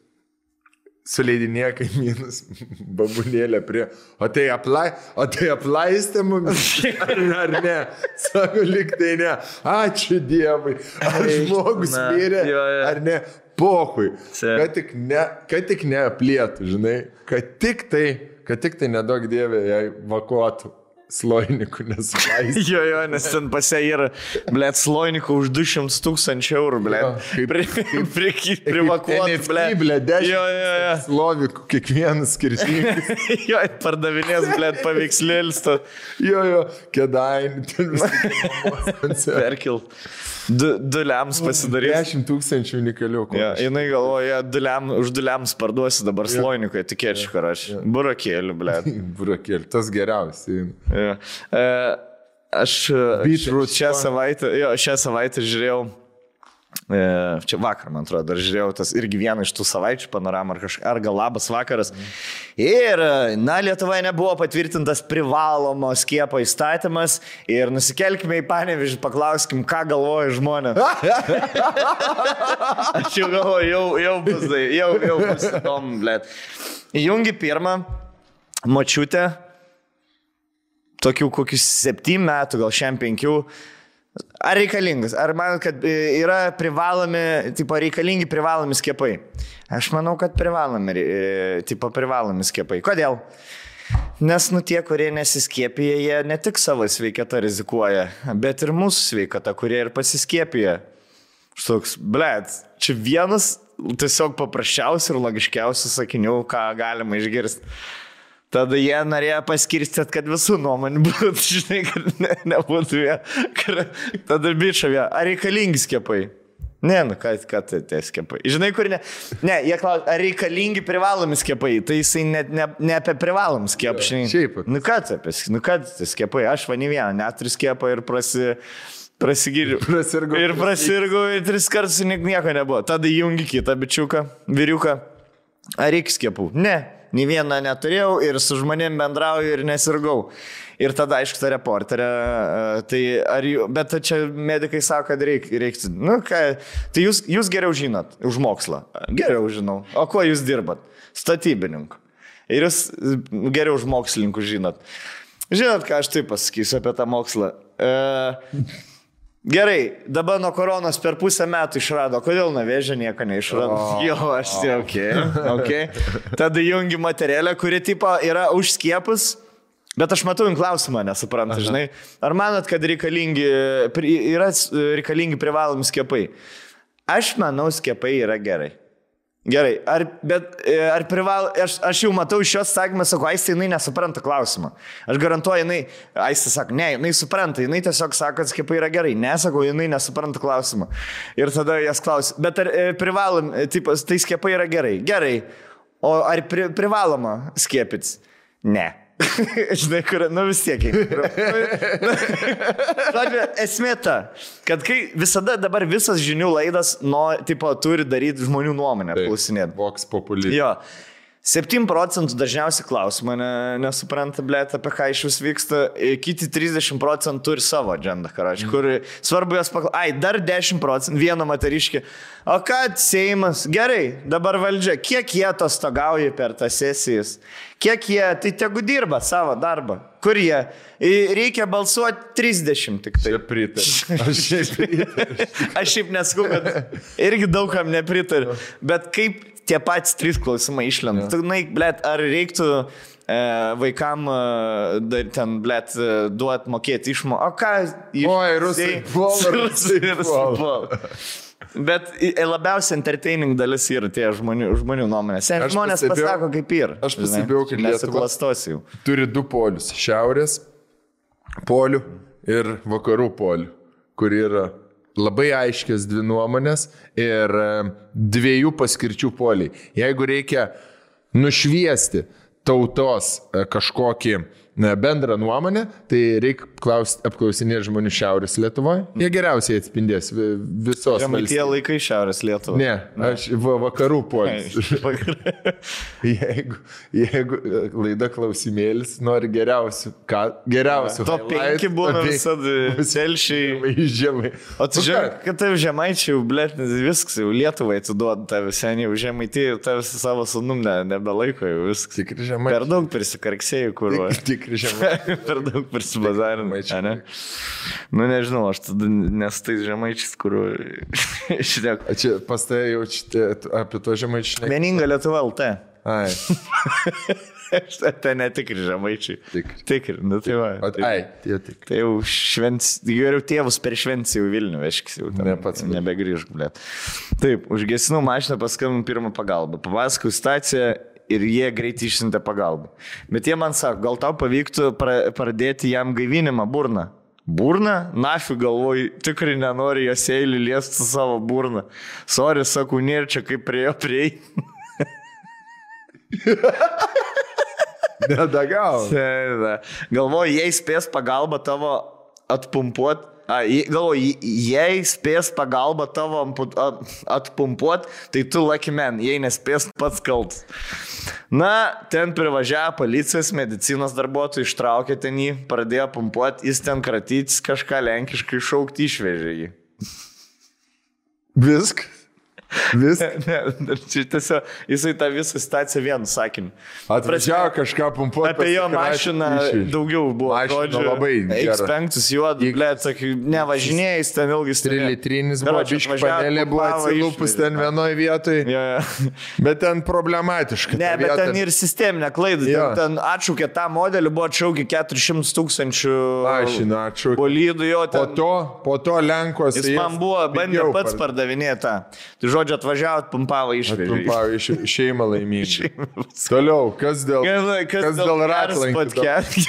Suleidinėja kaimynus, babulėlė prie, o tai aplaistė mumis, ar ne? Sako, lyg tai ne. Ačiū Dievui. Ar žmogus mirė, ar ne? Pohui. Kad tik neaplėtų, žinai. Kad tik tai nedaug Dievė jai vakuotų. sloinikų nesuleisti. Jo, nes ten pasia yra, blėt, sloinikų už 200 000 eurų, blėt. Privakuoti, blėt, 10 slovikų, kiekvienas skirtingas. Jo, pardavinės, blėt, paveikslėlis. Jo, Kėdainių, ten visą perkilt. Du lems pasidarys. 10 000 unikalių. Ja, jinai galvoja, už 2 lems parduosi dabar sloinikoje, tikėčiau, karaš. Burakėlių, blėt. Burakėlių, tas geriausiai. Ja. Aš šią savaitę žiūrėjau, čia vakar, man atrodo, dar žiūrėjau tas irgi vieną iš tų savaičių panoramą ar gal labas vakaras. Ir, Lietuvoje nebuvo patvirtintas privalomo skiepo įstatymas ir nusikelkime į Panevėžį, paklauskim, ką galvoja žmonės. Aš jau galvoju, jau bus įdomu, blėt. Įjungi pirmą močiutę, tokių kokius 7 metų, gal šiam 5. Ar reikalingas? Ar manot, kad yra reikalingi privalomi skiepai? Aš manau, kad privalomi skiepai. Kodėl? Nes tie, kurie nesiskiepija, jie ne tik savo sveikatą rizikuoja, bet ir mūsų sveikatą, kurie ir pasiskiepija. Štoks, blėt, čia vienas tiesiog paprasčiausių ir logiškiausių sakinių, ką galima išgirsti. Tada jie norėjo paskirstyti, kad visų nuomonių būtų, žinai, kad nebūtų jie. Tada bičiavė, ar reikalingi skiepai? Ne, ką tai skiepai? Žinai, kur ne? Ne, jie klausia, ar reikalingi privalomi skiepai? Tai jisai ne apie privalom skiepą, žinai. Šiaip. Ką tai skiepai? Aš va ne vieną, net 3 skiepą ir prasigiriu. Ir prasirgau ir 3 kartus nieko nebuvo. Tada jungi kitą bičiuką, vyriuką. Ar reikia skiepų? Ne. Nį vieną neturėjau ir su žmonėm bendrauju ir nesirgau. Ir tada, aišku, ta reporterė, bet čia medikai sako, kad reiktų. Tai jūs geriau žinot už mokslą. Geriau žinau. O kuo jūs dirbat? Statybininku. Ir jūs geriau už mokslininkų žinot. Žinot, ką aš taip pasakysiu apie tą mokslą? Gerai, dabar nuo koronos per pusę metų išrado. Kodėl nuo vėžio nieko neišrado? Jo, aš tai okay. Tada jungi materialę, kuri tipo yra už skiepus, bet aš matau klausimą, nesuprantu, žinai. Ar manot, kad yra reikalingi privalomi skiepai? Aš manau, skiepai yra gerai. Gerai, aš jau matau iš šios sakymą, sako, Aistė, jinai nesupranta klausimą. Aš garantuoju, Aistė sako, ne, jinai supranta, jinai tiesiog sako, kad skiepai yra gerai. Nesako, jinai nesupranta klausimą. Ir tada jas klausia, bet ar privalom, tai skiepai yra gerai? Gerai. O ar privaloma skiepytis? Ne. Žinai, kur, vis tiek. Esmė ta, kad kai visada dabar visas žinių laidas turi daryti žmonių nuomonę, klausinėti. Vox populi. Jo. 7% dažniausiai klausimą nesupranta, blėt, apie ką iš vis vyksta, kiti 30% turi savo agendą, karač, kur svarbu jos paklausyti, dar 10%, vieno moteriškį, o kad Seimas, gerai, dabar valdžia, kiek jie atostogauja per tas sesijas, kiek jie, tai tegu dirba savo darbą, kur jie, reikia balsuoti 30 tik tai. Aš šiaip nesakau, kad irgi daugam nepritariu, bet kaip tie patys 3 klausimai išlenda. Tu, blėt, ar reiktų vaikam ten, blėt, duot mokėti išmo? O ką? Oi, rusai puol. Bet labiausiai entertaining dalis yra tie žmonių nuomonės. Žmonės pasako, kaip yra. Aš pasibėjau, kad Lietuva turi 2 polius. Šiaurės polių ir vakarų polių, kur yra labai aiškios 2 nuomonės ir 2 paskirčių poliai. Jeigu reikia nušviesti tautos kažkokį bendrą nuomonę, tai reikia apklausinėti žmonių Šiaurės Lietuvoje. Jie geriausiai atspindės visos valstybės. Tie laikai Šiaurės Lietuvoje. Ne, aš vakarų polis. Jeigu laida klausimėlis nori geriausių. Top 5 būna visada telšiai. Žemai. O tu žinai, kad tai žemaičiai, blėt, viskas jau Lietuvai atiduoda tave seniai, žemaitį tave savo sunum nebelaiko jau viskas. Tikri žemaičiai. Per daug prisikarksėjai, kur. Per daug prisibazarinai. Nežinau, aš tada nestais žemaičiais, kur išdėk. Čia pas tai jau apie to žemaičiai. Vieninga Lietuva LT. Ai. Ten netikri žemaičiai. Tikri, nu tai va. Ai, tie tikri. Tai jau geriau tėvus per šventį jau Vilnių veškis, jau ten nebegrįžk, blėt. Taip, užgesinau mašiną, paskambinau pirmą pagalbą. Papasakau situaciją ir jie greitai išsiuntė pagalbą. Bet jie man sako, gal tau pavyktų pradėti jam gaivinimą burną. Burną? Nafiu galvoju, tikrai nenori jos eilį liesti savo burną. Sorry, sakau, nėra čia kaip prie. Nedagau. Galvoju, jei spės pagalbą tavo atpumpuot, galvoju, jei spės pagalbą tavo atpumpuot, tai tu lucky man, jei nespės pats kaltas. Na, ten privažiavo policijos, medicinos darbuotojai, ištraukė ten jį, pradėjo pumpuot, jis ten kratytis kažką lenkiškai šaukti, išvežė jį. Viskas? Ne, čia tiesiog jisai tą visą situaciją vienu sakiniu. Atvažiavo kažką pumpuoti. Apie jo mašiną daugiau buvo. Mašina labai gera. X5 juodų, blėt, sakai, nevažinėjai, ten ilgai 3 litrinis buvo, biški panelė buvo atsilupus ten vienoje vietoje. Bet ten problematiška. Ne, bet ten ir sisteminė klaida. Ten atšaukė tą modelį, buvo atšaukė 400,000 mašiną atšaukė. Bolydų jo ten. Po to Lenkos. Jis man buvo, bandė pats pardavinėti. Tai žodžiu, atvažiavo, pumpavo išvežė. Pumpavo šeimą laimingą. Toliau, kas dėl ratlankių?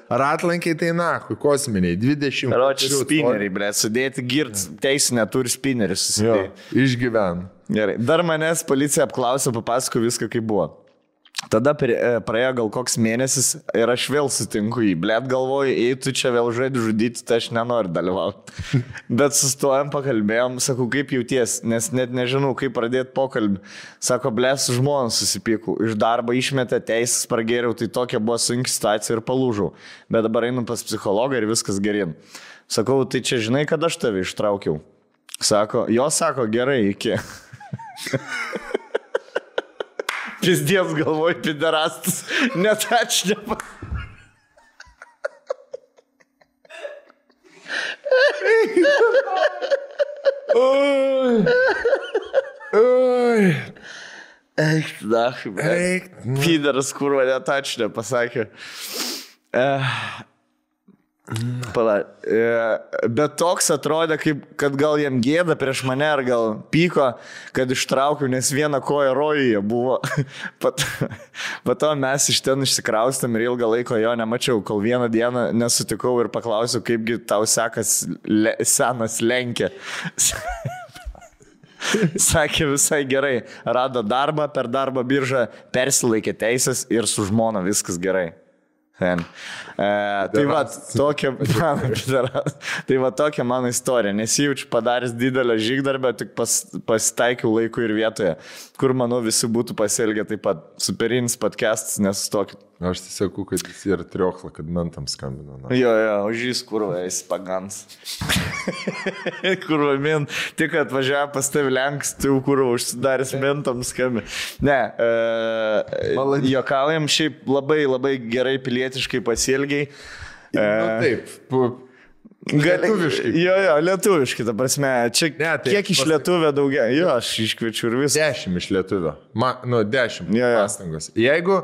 Ratlankiai tai nahui, kosminiai, 20. Ročiai spineriai, ble, sudėti girt, teisinę turi spinerius susidėti. Išgyven. Gerai, dar manęs policija apklausė, papasako viską, kaip buvo. Tada praėjo gal koks mėnesis ir aš vėl sutinku jį. Blet galvoju, jei tu čia vėl žaidži žudyti, tai aš nenoriu dalyvauti. Bet sustojom, pakalbėjom, sakau, kaip jauties, nes net nežinau, kaip pradėti pokalbį. Sako, blet, su žmona susipykau. Iš darbo išmetė teisės, pragėriau, tai tokia buvo sunki situacija ir palūžau. Bet dabar einu pas psichologą ir viskas gerin. Sakau, tai čia žinai, kad aš tave ištraukiau. Sako, gerai, iki. Pizdės galvoj, piderastas, net aš nepa. Eik, pideras, kurva, net aš nepasakė. Bet toks atrodė, kad gal jam gėda prieš mane, ar gal pyko, kad ištraukiau, nes viena koja rojuje buvo. Po to mes iš ten išsikraustėm ir ilgą laiko jo nemačiau, kol vieną dieną nesutikau ir paklausiau, kaipgi tau sekas senas Lenkė. Sakė visai gerai, rado darbą, per darbo biržą persilaikė teisės ir su žmona viskas gerai. Tai va tokia mano istorija, nesijaučiu padaręs didelę žygdarbę, tik pasitaikiau laiku ir vietoje, kur manau visi būtų pasielgę taip pat. Superinis podcastas, nesustokit. Aš tai sakau, kad jis yra triokla, kad mentam skambino. Jo, užžys kurva, jis pagans. Kurva min, tik atvažiavo pas tavi Lenks, tai kurva užsidaręs mentam skambino. Ne, juokaujam, šiaip labai, labai gerai pilietiškai pasielgiai. Taip, lietuviškai. Jo, lietuviškai, ta prasme. Čia kiek iš lietuvio daugia? Jo, aš iškviečiu ir visą. 10 iš lietuvio. 10 pastangos. Jeigu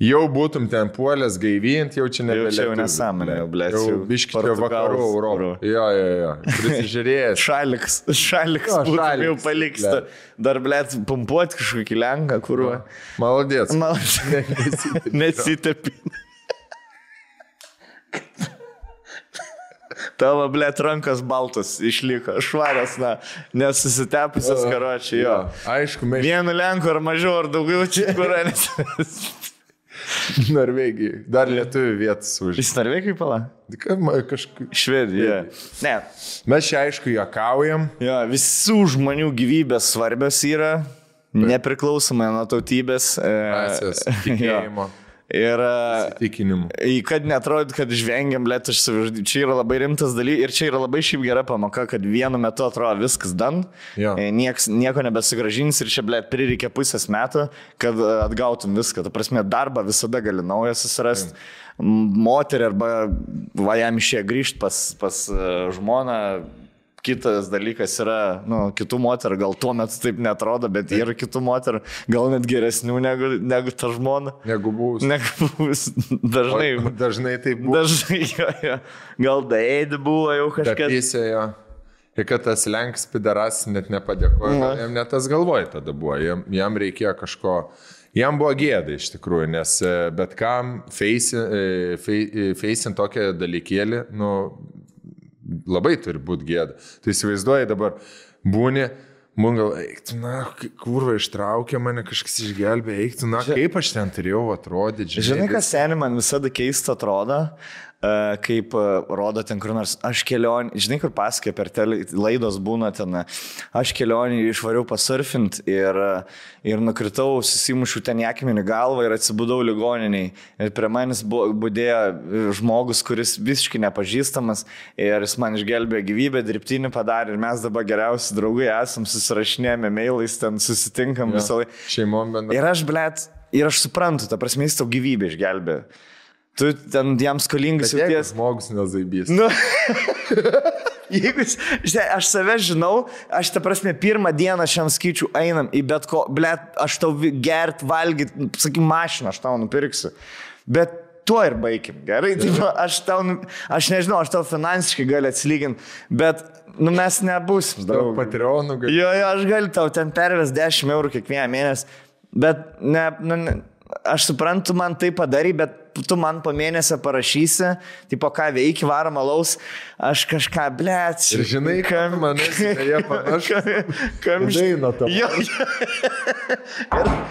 jau būtum ten puolęs gaivint, jau čia nebelietuvių. Jau čia nesąmonė, jau blėt. Jau biški čia vakarų Europą. Jo. Prisižiūrėjęs. Šaliks būtum jau paliksta. Dar blėt pumpuoti kažkokį Lenką, kurva. Maladėts. Nesitepin. Tavo, blėt, rankas baltas išliko, švarias, nesusitepusios karočiai, jo. Aišku, vienu Lenku ar mažiau, ar daugiau čia, kur Norvegijai. Dar lietuvių vietas už. Jis Norvegijai pala? Kažkaip. Švedija. Ne. Mes čia aišku juokaujam. Jo, visų žmonių gyvybės svarbios yra, nepriklausomai nuo tautybės. Rasės, tikėjimo. Ir įsitikinimų. Kad netrodyt, kad žvengiam, blėt, čia yra labai rimtas dalykas ir čia yra labai šiaip gera pamoka, kad vienu metu atrodo viskas dan, nieko nebesugražins ir čia, blėt, prireikia pusės metų, kad atgautum viską. Ta prasme, darbą visada gali naują susirasti. Moterį arba jam išėjo grįžti pas žmoną, kitas dalykas yra, kitų moterų, gal tuo metu taip netrodo, bet yra kitų moterų, gal net geresnių negu ta žmona. Negu buvus. Dažnai. Dažnai taip buvo. Dažnai, jo. Gal daėdį buvo jau kažkas. Tapysė jo. Ir kad tas lenks pidaras net nepadėkojo, jam net tas galvoj tada buvo. Jam reikėjo kažko. Jam buvo gėda iš tikrųjų, nes bet kam feisint tokią dalykėlį, labai turi būti gėda. Tu įsivaizduoji dabar, būni, gal, eiktų, kurva ištraukė mane, kažkas išgelbė, eiktų, kaip aš ten turėjau atrodyti. Žinai, kas seniai man visada keista atrodo, kaip rodo ten kur nors, aš kelionį, žinai, kur pasakė per laidos būna ten, aš kelionį išvariau pasurfint ir nukritau, susimušiu ten į akmenį galvą ir atsibudau ligoniniai. Ir prie manęs budėjo žmogus, kuris visiškai nepažįstamas ir jis man išgelbėjo gyvybę, dirbtinį padarė ir mes dabar geriausi draugai esam, susirašinėjame mailais, ten susitinkam visą laiką. Šeimom bendra. Ir aš suprantu, ta prasme, jis tau gyvybę išgelbėjo. Tu ten jam skolingas jauties. Žmogus nezaibys. Jeigu, aš save žinau, aš ta prasme pirmą dieną šiam skaičiu einam į bet ko, aš tau gert, valgyt, sakyk, mašiną, aš tau nupirksiu. Bet tuo ir baigim, gerai? Aš nežinau, aš tau finansiškai galiu atsilyginti, bet mes nebūsim. Patreonų gali. Jo, aš galiu tau ten perves 10 eurų kiekvieną mėnesį, bet aš suprantu, man tai padarai, bet tu man po mėnesio parašysi, tipo, ką veiki, varom alaus, aš kažką, blėt. Ir žinai, kam manęs, jie panašu. Daina tavo.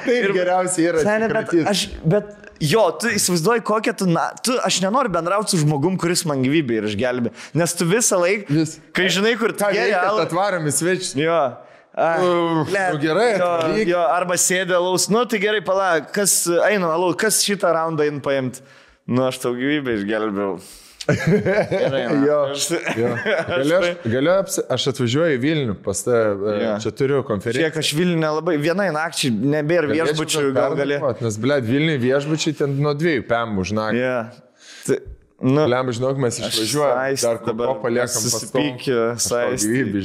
Taip geriausiai yra. Bet jo, tu įsivaizduoji, kokią aš nenoriu bendrauti su žmogum, kuris man gyvybę ir išgelbė, nes tu visą laiką, kai žinai, kur tu gerai, atvarom į svečius. Jo. Gerai, jo, arba sėdė alaus, tai gerai, palauk, kas eina alaus, kas šitą raundą eina paimti, aš tau gyvybę išgelbėjau. Aš atvažiuoju į Vilnių, pas čia turiu konferenciją. Šiek, aš Vilnių nelabai, vienai nakčiai, nebėra viešbučių, gal galėtų. Nes, Vilnių viešbučiai ten nuo 2 PM už naktį. Lem, žinok, mes išvažiuojame, dar ko paliekam susipykį, gyvybį.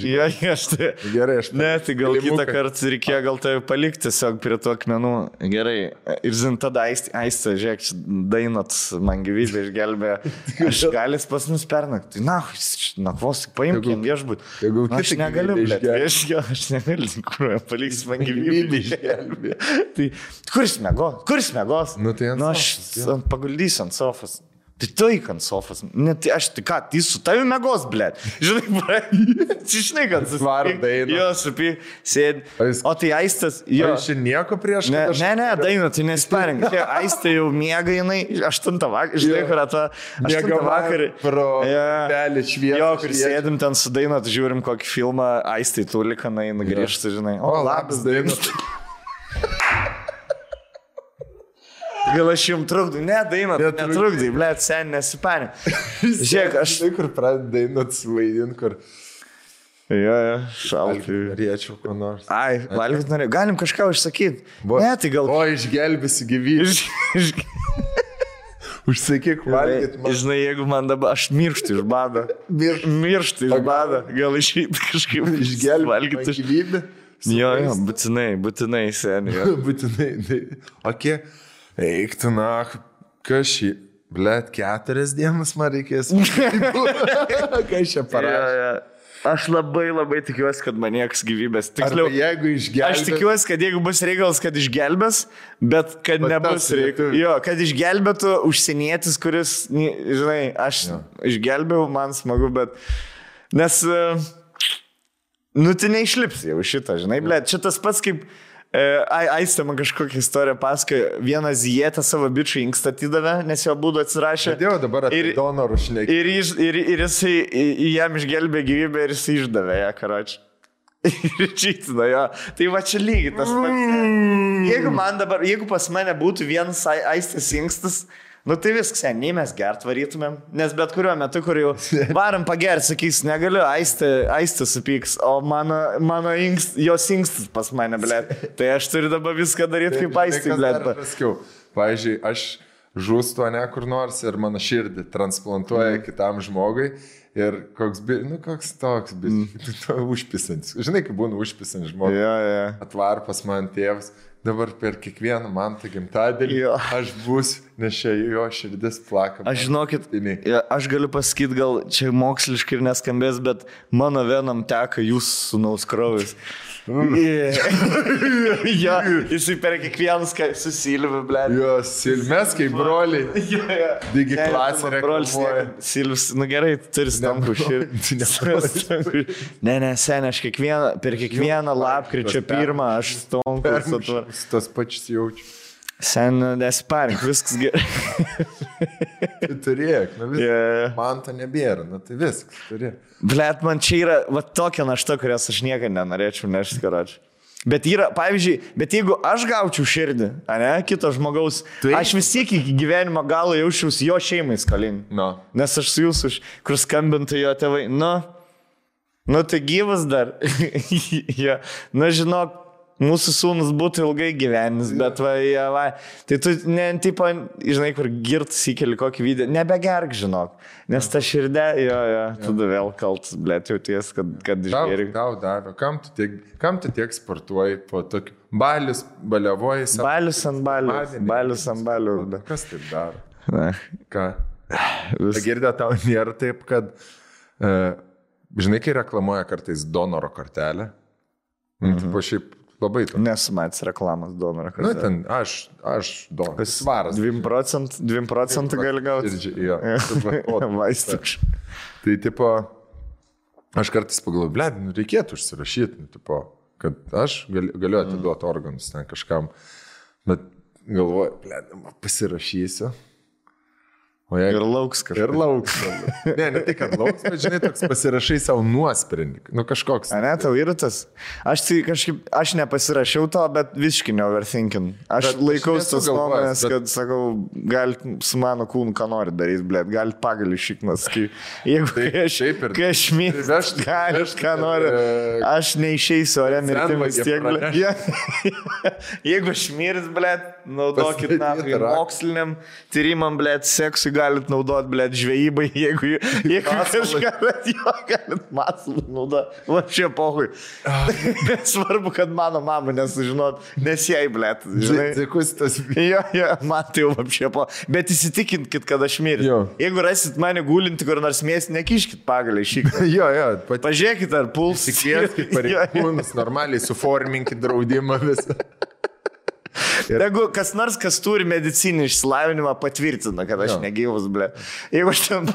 Gerai, aš ne, tai gal kitą kartą reikėjo gal tai palikti tiesiog prie tų akmenų. Gerai, ir žin, tada aistė, žiūrėk, Dainot man gyvybę išgelbėjo. Aš galis pas mus pernakti. Nakvos, paimkim viešbutį. Aš negaliu, aš negaliu, kur paliks man gyvybę išgelbėjo. Tai kuris mėgos? Aš paguldysiu ant sofos. Tai tu įk ant sofas. Tai aš, tai ką, tai su tavimi mėgos, blėt. Žinai, kad susvarom Dainą. Jo, supy, sėdi. O tai Aistas, jo. Aš nieko prieš. Ne, Daina, tai nesparink. Aistė jau miega jinai 8 vakarą. Žinai, kur ta 8 vakarą. Pro pelį šviesą. Jo, kur sėdim ten su Daina, tai žiūrim kokį filmą, Aistai tulika, nugrįžta, žinai. O, labas, Daina. Gal aš jums trukdau? Ne, Daina, netrukdai, blėt, sen nesipanė. Žiūrėk, aš... Žinai, kur pradeda Dainot suvaidint, kur... Jo, šaltai. Norėčiau ko nors. Ai, valgyt norėjau. Galim kažką užsakyti. Ne, tai gal... O, išgelbėsi gyvybę. Užsakyk valgyt man. Žinai, jeigu man dabar... Aš mirštu iš bado. Mirštu iš bado. Gal išeiti kažkaip išgelbėti gyvybę. Jo, būtinai, seniai. Būtinai. Ok. Eik tu, kas šį, blėt, 4 dienas man reikės. Kas čia parašė? Aš labai tikiuosi, kad man nieks gyvybės. Tiksliau, jeigu išgelbės. Aš tikiuosi, kad jeigu bus reikalas, kad išgelbės, bet kad nebus reikalas. Jo, kad išgelbėtų užsienietis, kuris, žinai, aš išgelbėjau, man smagu, bet... Nes, tai neišlips jau šitą, žinai, blėt, čia tas pats kaip... Aistė man kažkokią istoriją pasakojo, vieną zietą savo bičių inkstą atidavė, nes jo būdų atsirašė. Dėl dabar apie donorų šnekį. Ir jisai jam išgelbė gyvybę ir jisai išdavė ją, karočią. Ir čytino jo. Tai va čia lygiai tas pats. Jeigu pas mane būtų vienas Aistės inkstas, tai viskas, nei mes gert varytumėm, nes bet kuriuo metu, kur jau varam pagert, sakys, negaliu, Aistė supyks, o mano jos inkstas pas mane, blėt. Tai aš turiu dabar viską daryti kaip Aistė, blėt. Pavyzdžiui, aš žūstu, ne kur nors ir mano širdį transplantuoja kitam žmogui ir koks toks, užpisantis. Žinai, kaip būna užpisantis žmogus. Atvar pas man tėvas. Dabar per kiekvieną man tą gimtadienį aš būsiu, nes čia jo širdis plaka. Aš žinokit, aš galiu pasakyti, gal čia moksliškai ir neskambės, bet mano venam teka jūsų sūnaus kraujas. Jisai per kiekvienas su Silviu, blėt. Mes kaip broliai. Digi klasė reklamuoja. Silvis, gerai, turi stankų širdį. Ne, seniai, aš per kiekvieną lapkričio 1 aš stonkus atvar. Tas pačius jaučiu. Sen, nesiparink, viskas gerai. Tai turėk, man to nebėra, tai viskas turėk. Blet, man čia yra tokia našta, kurios aš niekada nenorėčiau nešti, karočiui. Bet yra, pavyzdžiui, jeigu aš gaučiau širdį, kito žmogaus, aš vis tiek iki gyvenimo galo jaučiausi jo šeimai skolinį. Nes aš su jūsų, kur skambintų jo tėvai, tai gyvas dar. Žinok, mūsų sūnus būtų ilgai gyvenis, bet tai tu, žinai, kur girtas įkeli kokį video, nebegerk, žinok, nes ta širdė, tada vėl kaltas, blėt, jau ties, kad išgėri. Tau davė, kam tu tiek sportuoji po tokiu, baliavoji. Balius ant balių. Kas taip daro? Ką? Girdė, tau nėra taip, kad, žinai, kai reklamuoja kartais donoro kortelę, tipo šiaip, labai to. Nesu matęs reklamas donoro. Ten aš donoras. Svaras. 2% gali gauti. Vaistuk. Tai tipo, aš kartais pagalvoju, blėd, reikėtų užsirašyti, tipo, kad aš galiu atiduoti organus ten kažkam, bet galvoju, blėd, pasirašysiu. Ir lauks kažkas. Ir lauks. Ne tai, kad lauks, bet žinai, toks pasirašai savo nuosprendį. Kažkoks. Ne, tau yra tas. Aš nepasirašiau to, bet visiškai neoverthinking. Aš laikaus tos nuomonės, kad, sakau, galit su mano kūnu ką nori daryti, blėt, galit pagalį šiknas. Jeigu kai aš mirsiu, galit ką nori. Aš neišeisiu ore mirtimais tiek, blėt. Jeigu aš mirsiu, blėt, naudokit moksliniam tyrimam, blėt, seksui galit naudoti, blėt, žvejybai, jeigu kažką galit masalą naudoti. Va čia pohui. Svarbu, kad mano mama nesužinot, nes jai, blėt, žinai. Dėkus tas. Man tai jau apšė po. Bet įsitikinkit, kad aš mirsiu. Jeigu rasit mane gulinti kur nors mėsį, nekiškit pagalį šį. Pažiūrėkit, ar puls. Tikėkit pareigūnus, normaliai suforminkit draudimą visą. Jeigu kas nors, kas turi medicinį išsilavinimą, patvirtina, kad aš negyvus, blė. Jeigu aš ten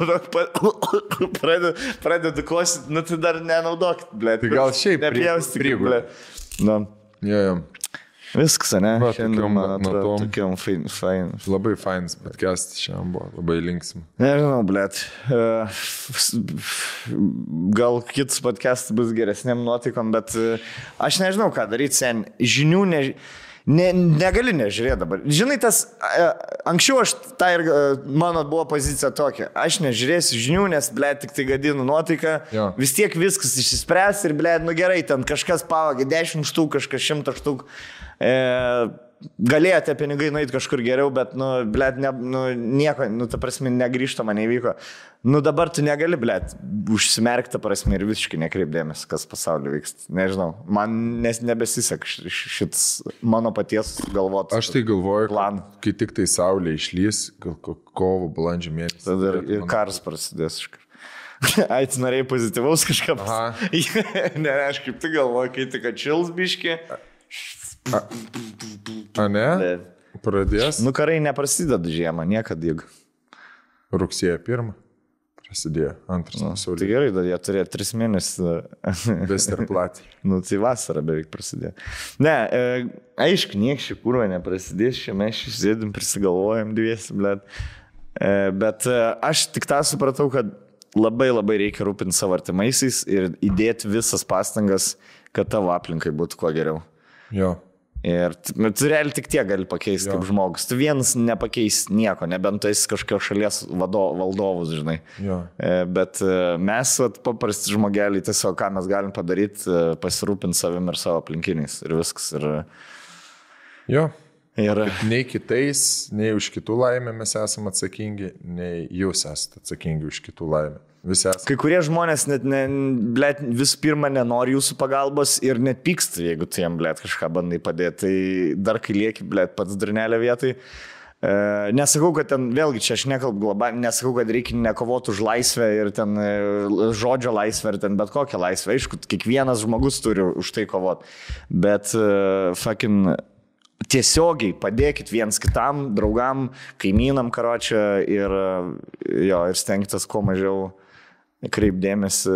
pradedu kosyti, tai dar nenaudokit, blė. Tai gal šiaip nepjaustikit, blė. Viskas, ne? Šiandien, man atrodo, tokiam fain. Labai fainas podcastas šiandien buvo, labai linksmi. Nežinau, blėt. Gal kitas podcastas bus geresniam nuotaikom, bet aš nežinau, ką daryti, sen. Žinių negali nežiūrėti dabar. Žinai, anksčiau mano buvo pozicija tokia. Aš nežiūrėsiu žinių, nes, blėt, tik tai gadinu nuotaiką. Vis tiek viskas išsispręs ir, blėt, gerai, ten kažkas pavagė 10 štuk, kažkas 100 štuk. Galėjo tie pinigai nueiti kažkur geriau, bet, blėt, nieko, ta prasme, negrįžtama neįvyko. Dabar tu negali, blėt, užsimerkti, prasme, ir visiškai nekreipdėmės, kas pasaulyje vyksta. Nežinau, man nebesisek šitas mano paties galvoti. Aš tai galvoju, kai tik tai saulė išlys, kovo, balandžio mėnesį. Tada ir karas prasidės iškart. Ai, tu norėjai pozityvaus kažką. Ne, aš kaip tu galvoju, kai tik atšils biški. Ne? Pradės? Karai neprasideda žiemą, niekada juk. Rugsėjo 1 prasidėjo, 2 pasaulyje. Tai gerai, jie turėjo 3 mėnesius. Vesterplatį. Tai vasara beveik prasidėjo. Ne, aišku, niekščiai kurva neprasidės, čia mes sėdim, prisigalvojam dviesi, blėt. Bet aš tik tą supratau, kad labai labai reikia rūpinti savo artimaisiais ir įdėti visas pastangas, kad tavo aplinkai būtų kuo geriau. Ir tu realiai tik tiek gali pakeisti kaip žmogus. Tu vienas nepakeis nieko, nebent tu esi kažkokios šalies valdovus, žinai. Bet mes, paprasti žmogeliai, tiesiog ką mes galim padaryti, pasirūpinti savim ir savo aplinkiniais. Ir viskas. Ir Nei kitais, nei už kitų laimę mes esame atsakingi, nei jūs esate atsakingi už kitų laimę. Visi esame. kai kurie žmonės net vis pirma nenori jūsų pagalbos ir net pyksta, jeigu tu jam, blėt, kažką bandai padėti. Tai dar kai lieki, blėt, pats durnelė vietai. Nesakau, kad ten, vėlgi, čia aš nekalbu globaliai, nesakau, kad reikia nekovoti už laisvę ir ten žodžio laisvę ir ten bet kokią laisvę. Aišku, kiekvienas žmogus turi už tai kovoti. Bet tiesiogiai padėkit viens kitam, draugam, kaimynam, karočią ir stengtis kuo mažiau kreipdėmėsi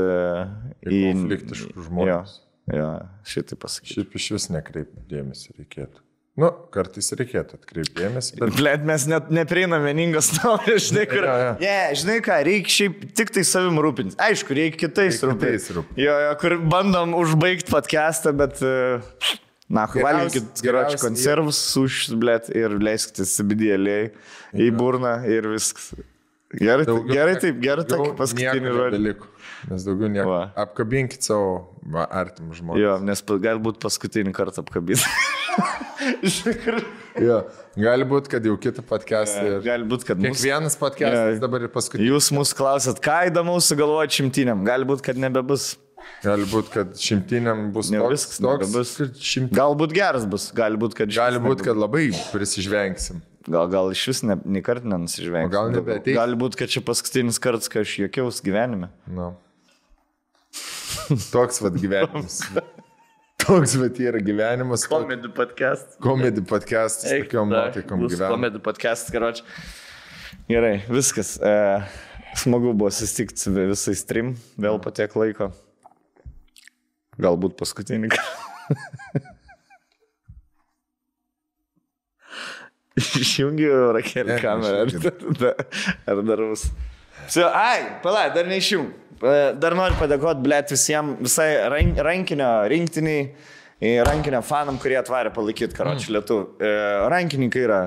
į konfliktiškus žmonės. Jo, šitai pasakyti. Šiaip iš vis nekreipdėmėsi reikėtų. Nu, kartais reikėtų atkreipdėmėsi. Bet... Blet, mes net neprieinam vieningos nuomonės, žinai, kur... žinai ką, reikia šiaip tik tai savim rūpintis. Aišku, reikia kitais rūpintis. Kur bandom užbaigti podcastą, bet... valgykit geročių konservus, sušis, blėt, ir leiskite CBD-aliai į burną ir viskas. Gerai taip, paskutinį žodį. Nes daugiau nieko. Apkabinkit savo artimų žmonės. Jo, nes galbūt paskutinį kartą apkabinti. Jo, gali būti, kad jau kitą podcastą. Gali būti, kad kiekvienas podcastas dabar ir paskutinis. Jūs mūsų klausat, ką įdomaus sugalvoti 100. Gali būti, kad nebebus. Gali būti, kad 100 bus toks. Galbūt geras bus, gali būti, kad labai prisižvengsim. Gal iš vis nei kartą nenusižvengsim. Gal nebeateis. Gali būti, kad čia paskutinis kartas, kai aš juokiaus gyvenime. No. Toks vat gyvenimas. Toks vat yra gyvenimas. Comedy podcast. Comedy podcast. Tokiom nuotaikom gyvenimas. Comedy podcast, karoči. Gerai, viskas. Smagu buvo susitikti su visais trim. Vėl po tiek laiko. Galbūt paskutinį. Išjungiu Rakelį kamerą. Ar dar bus? Dar neišjung. Dar noriu padėkoti, blėt, visai rankinio rinktiniai, rankinio fanam, kurie atvarė palaikyti, karoči, lietuvių. Rankininkai yra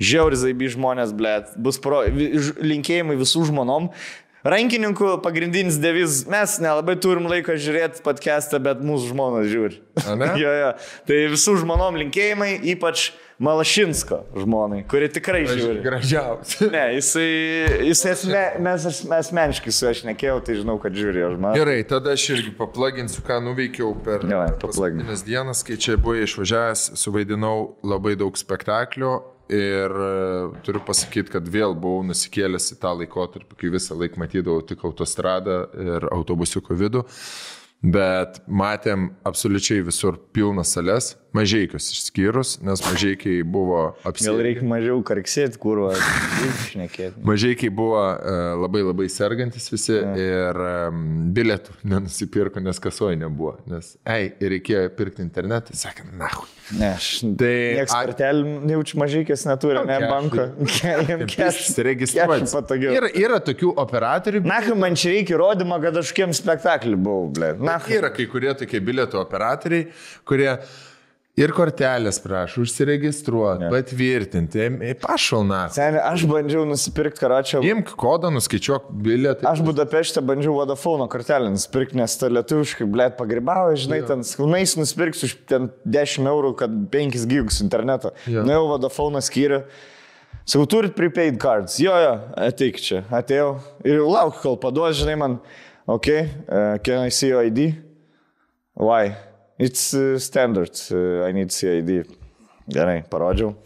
žiauri zaibi žmonės, blėt. Bus linkėjimai visų žmonom. Rankininkų pagrindinis deviz, mes nelabai turim laiko žiūrėti podcastą, bet mūsų žmonos žiūri. Jo. Tai visų žmonom linkėjimai, ypač Malašinsko žmonai, kuri tikrai žiūri. Gražiausia. Ne, mes asmeniškai su aš nekėjau, tai žinau, kad žiūri jo žmonai. Gerai, tada aš irgi paplaginsiu, ką nuveikiau per paskutinės dienas, kai čia buvau išvažiavęs, suvaidinau labai daug spektaklių. Ir turiu pasakyti, kad vėl buvau nusikėlęs į tą laikotarpį, kai visą laiką matydavau tik autostradą ir autobusiuko vidų. Bet matėm absoliučiai visur pilnas sales, Mažeikius išskyrus, nes Mažeikiai buvo apsėdę. Gal reikia mažiau karksėti, kurva, šnekėti. Mažeikiai buvo labai sergantis visi ir bilietų nenusipirko, nes kasoje nebuvo. Nes, reikėjo pirkti internetą, sakė, nahu. Ne, nieks kartelį jaučiu Mažeikės neturi, ne banko. Registruoti. Yra tokių operatorių. Nahu, man čia reikia įrodymą, kad aš kiem spektaklį buvau, ble. Yra kai kurie tokie bilietų operatoriai, kurie ir kortelės prašo, užsiregistruoti, patvirtinti, pašalna. Seniai, aš bandžiau nusipirkti, karočią. Imk kodą, nuskaičiuok bilietą. Aš Budapešte bandžiau Vodafone kortelę nusipirkti, nes ta lietuviškai, blėt, pagribavo, žinai, ten skunais nusipirksiu už 10 eurų, kad 5 gigus interneto. Nuėjau Vodafone skyrių. Sakau, turit prepaid cards. Jo, ateik čia. Atėjau ir lauk, kol paduos, žinai, man, can I see your ID? Why? It's standard. I need CID. Gerai, parodžiau.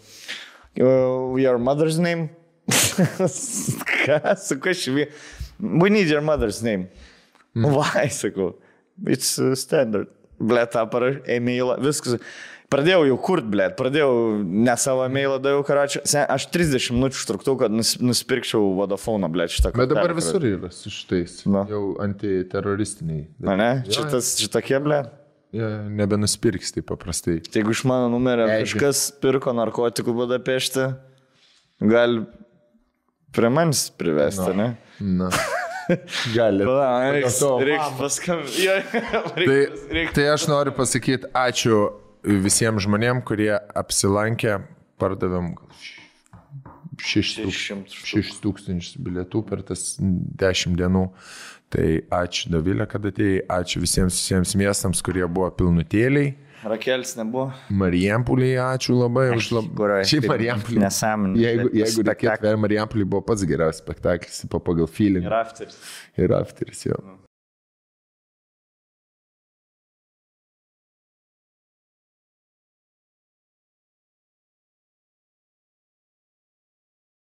Your mother's name? Ką? Sakau, we need your mother's name. Why? Sakau. It's standard. Blet, parašau, e-mailą, viskas. Pradėjau jau kurt, blėt, ne savo e-mailą daviau, karočią. Aš 30 minučių užtruktau, kad nusipirkčiau Vodafone, blėt, šitą kortelę. Bet dabar visur yra su šitais, jau antiteroristiniai. Ne? Šitokie, blėt? Nebenusipirks taip paprastai. Tai jeigu iš mano numerio kažkas pirko narkotikų Budapešte, gali prie manis privesti, ne? Na. Gali. Reikia paskambinti. Tai aš noriu pasakyti ačiū visiems žmonėms, kurie apsilankė, pardavėm 6,000 bilietų per tas 10 dienų. Tai ačiū Dovilė, kad atėjai, ačiū visiems miestams, kurie buvo pilnutėliai. Rakelis nebuvo. Marijampolį, ačiū labai už Kurioje? Šiaip Marijampolį. Nesąmonė. Jeigu reikėtų, Marijampolį buvo pats geriausias spektaklis pagal feeling. Ir afteris. Ir afteris, jo.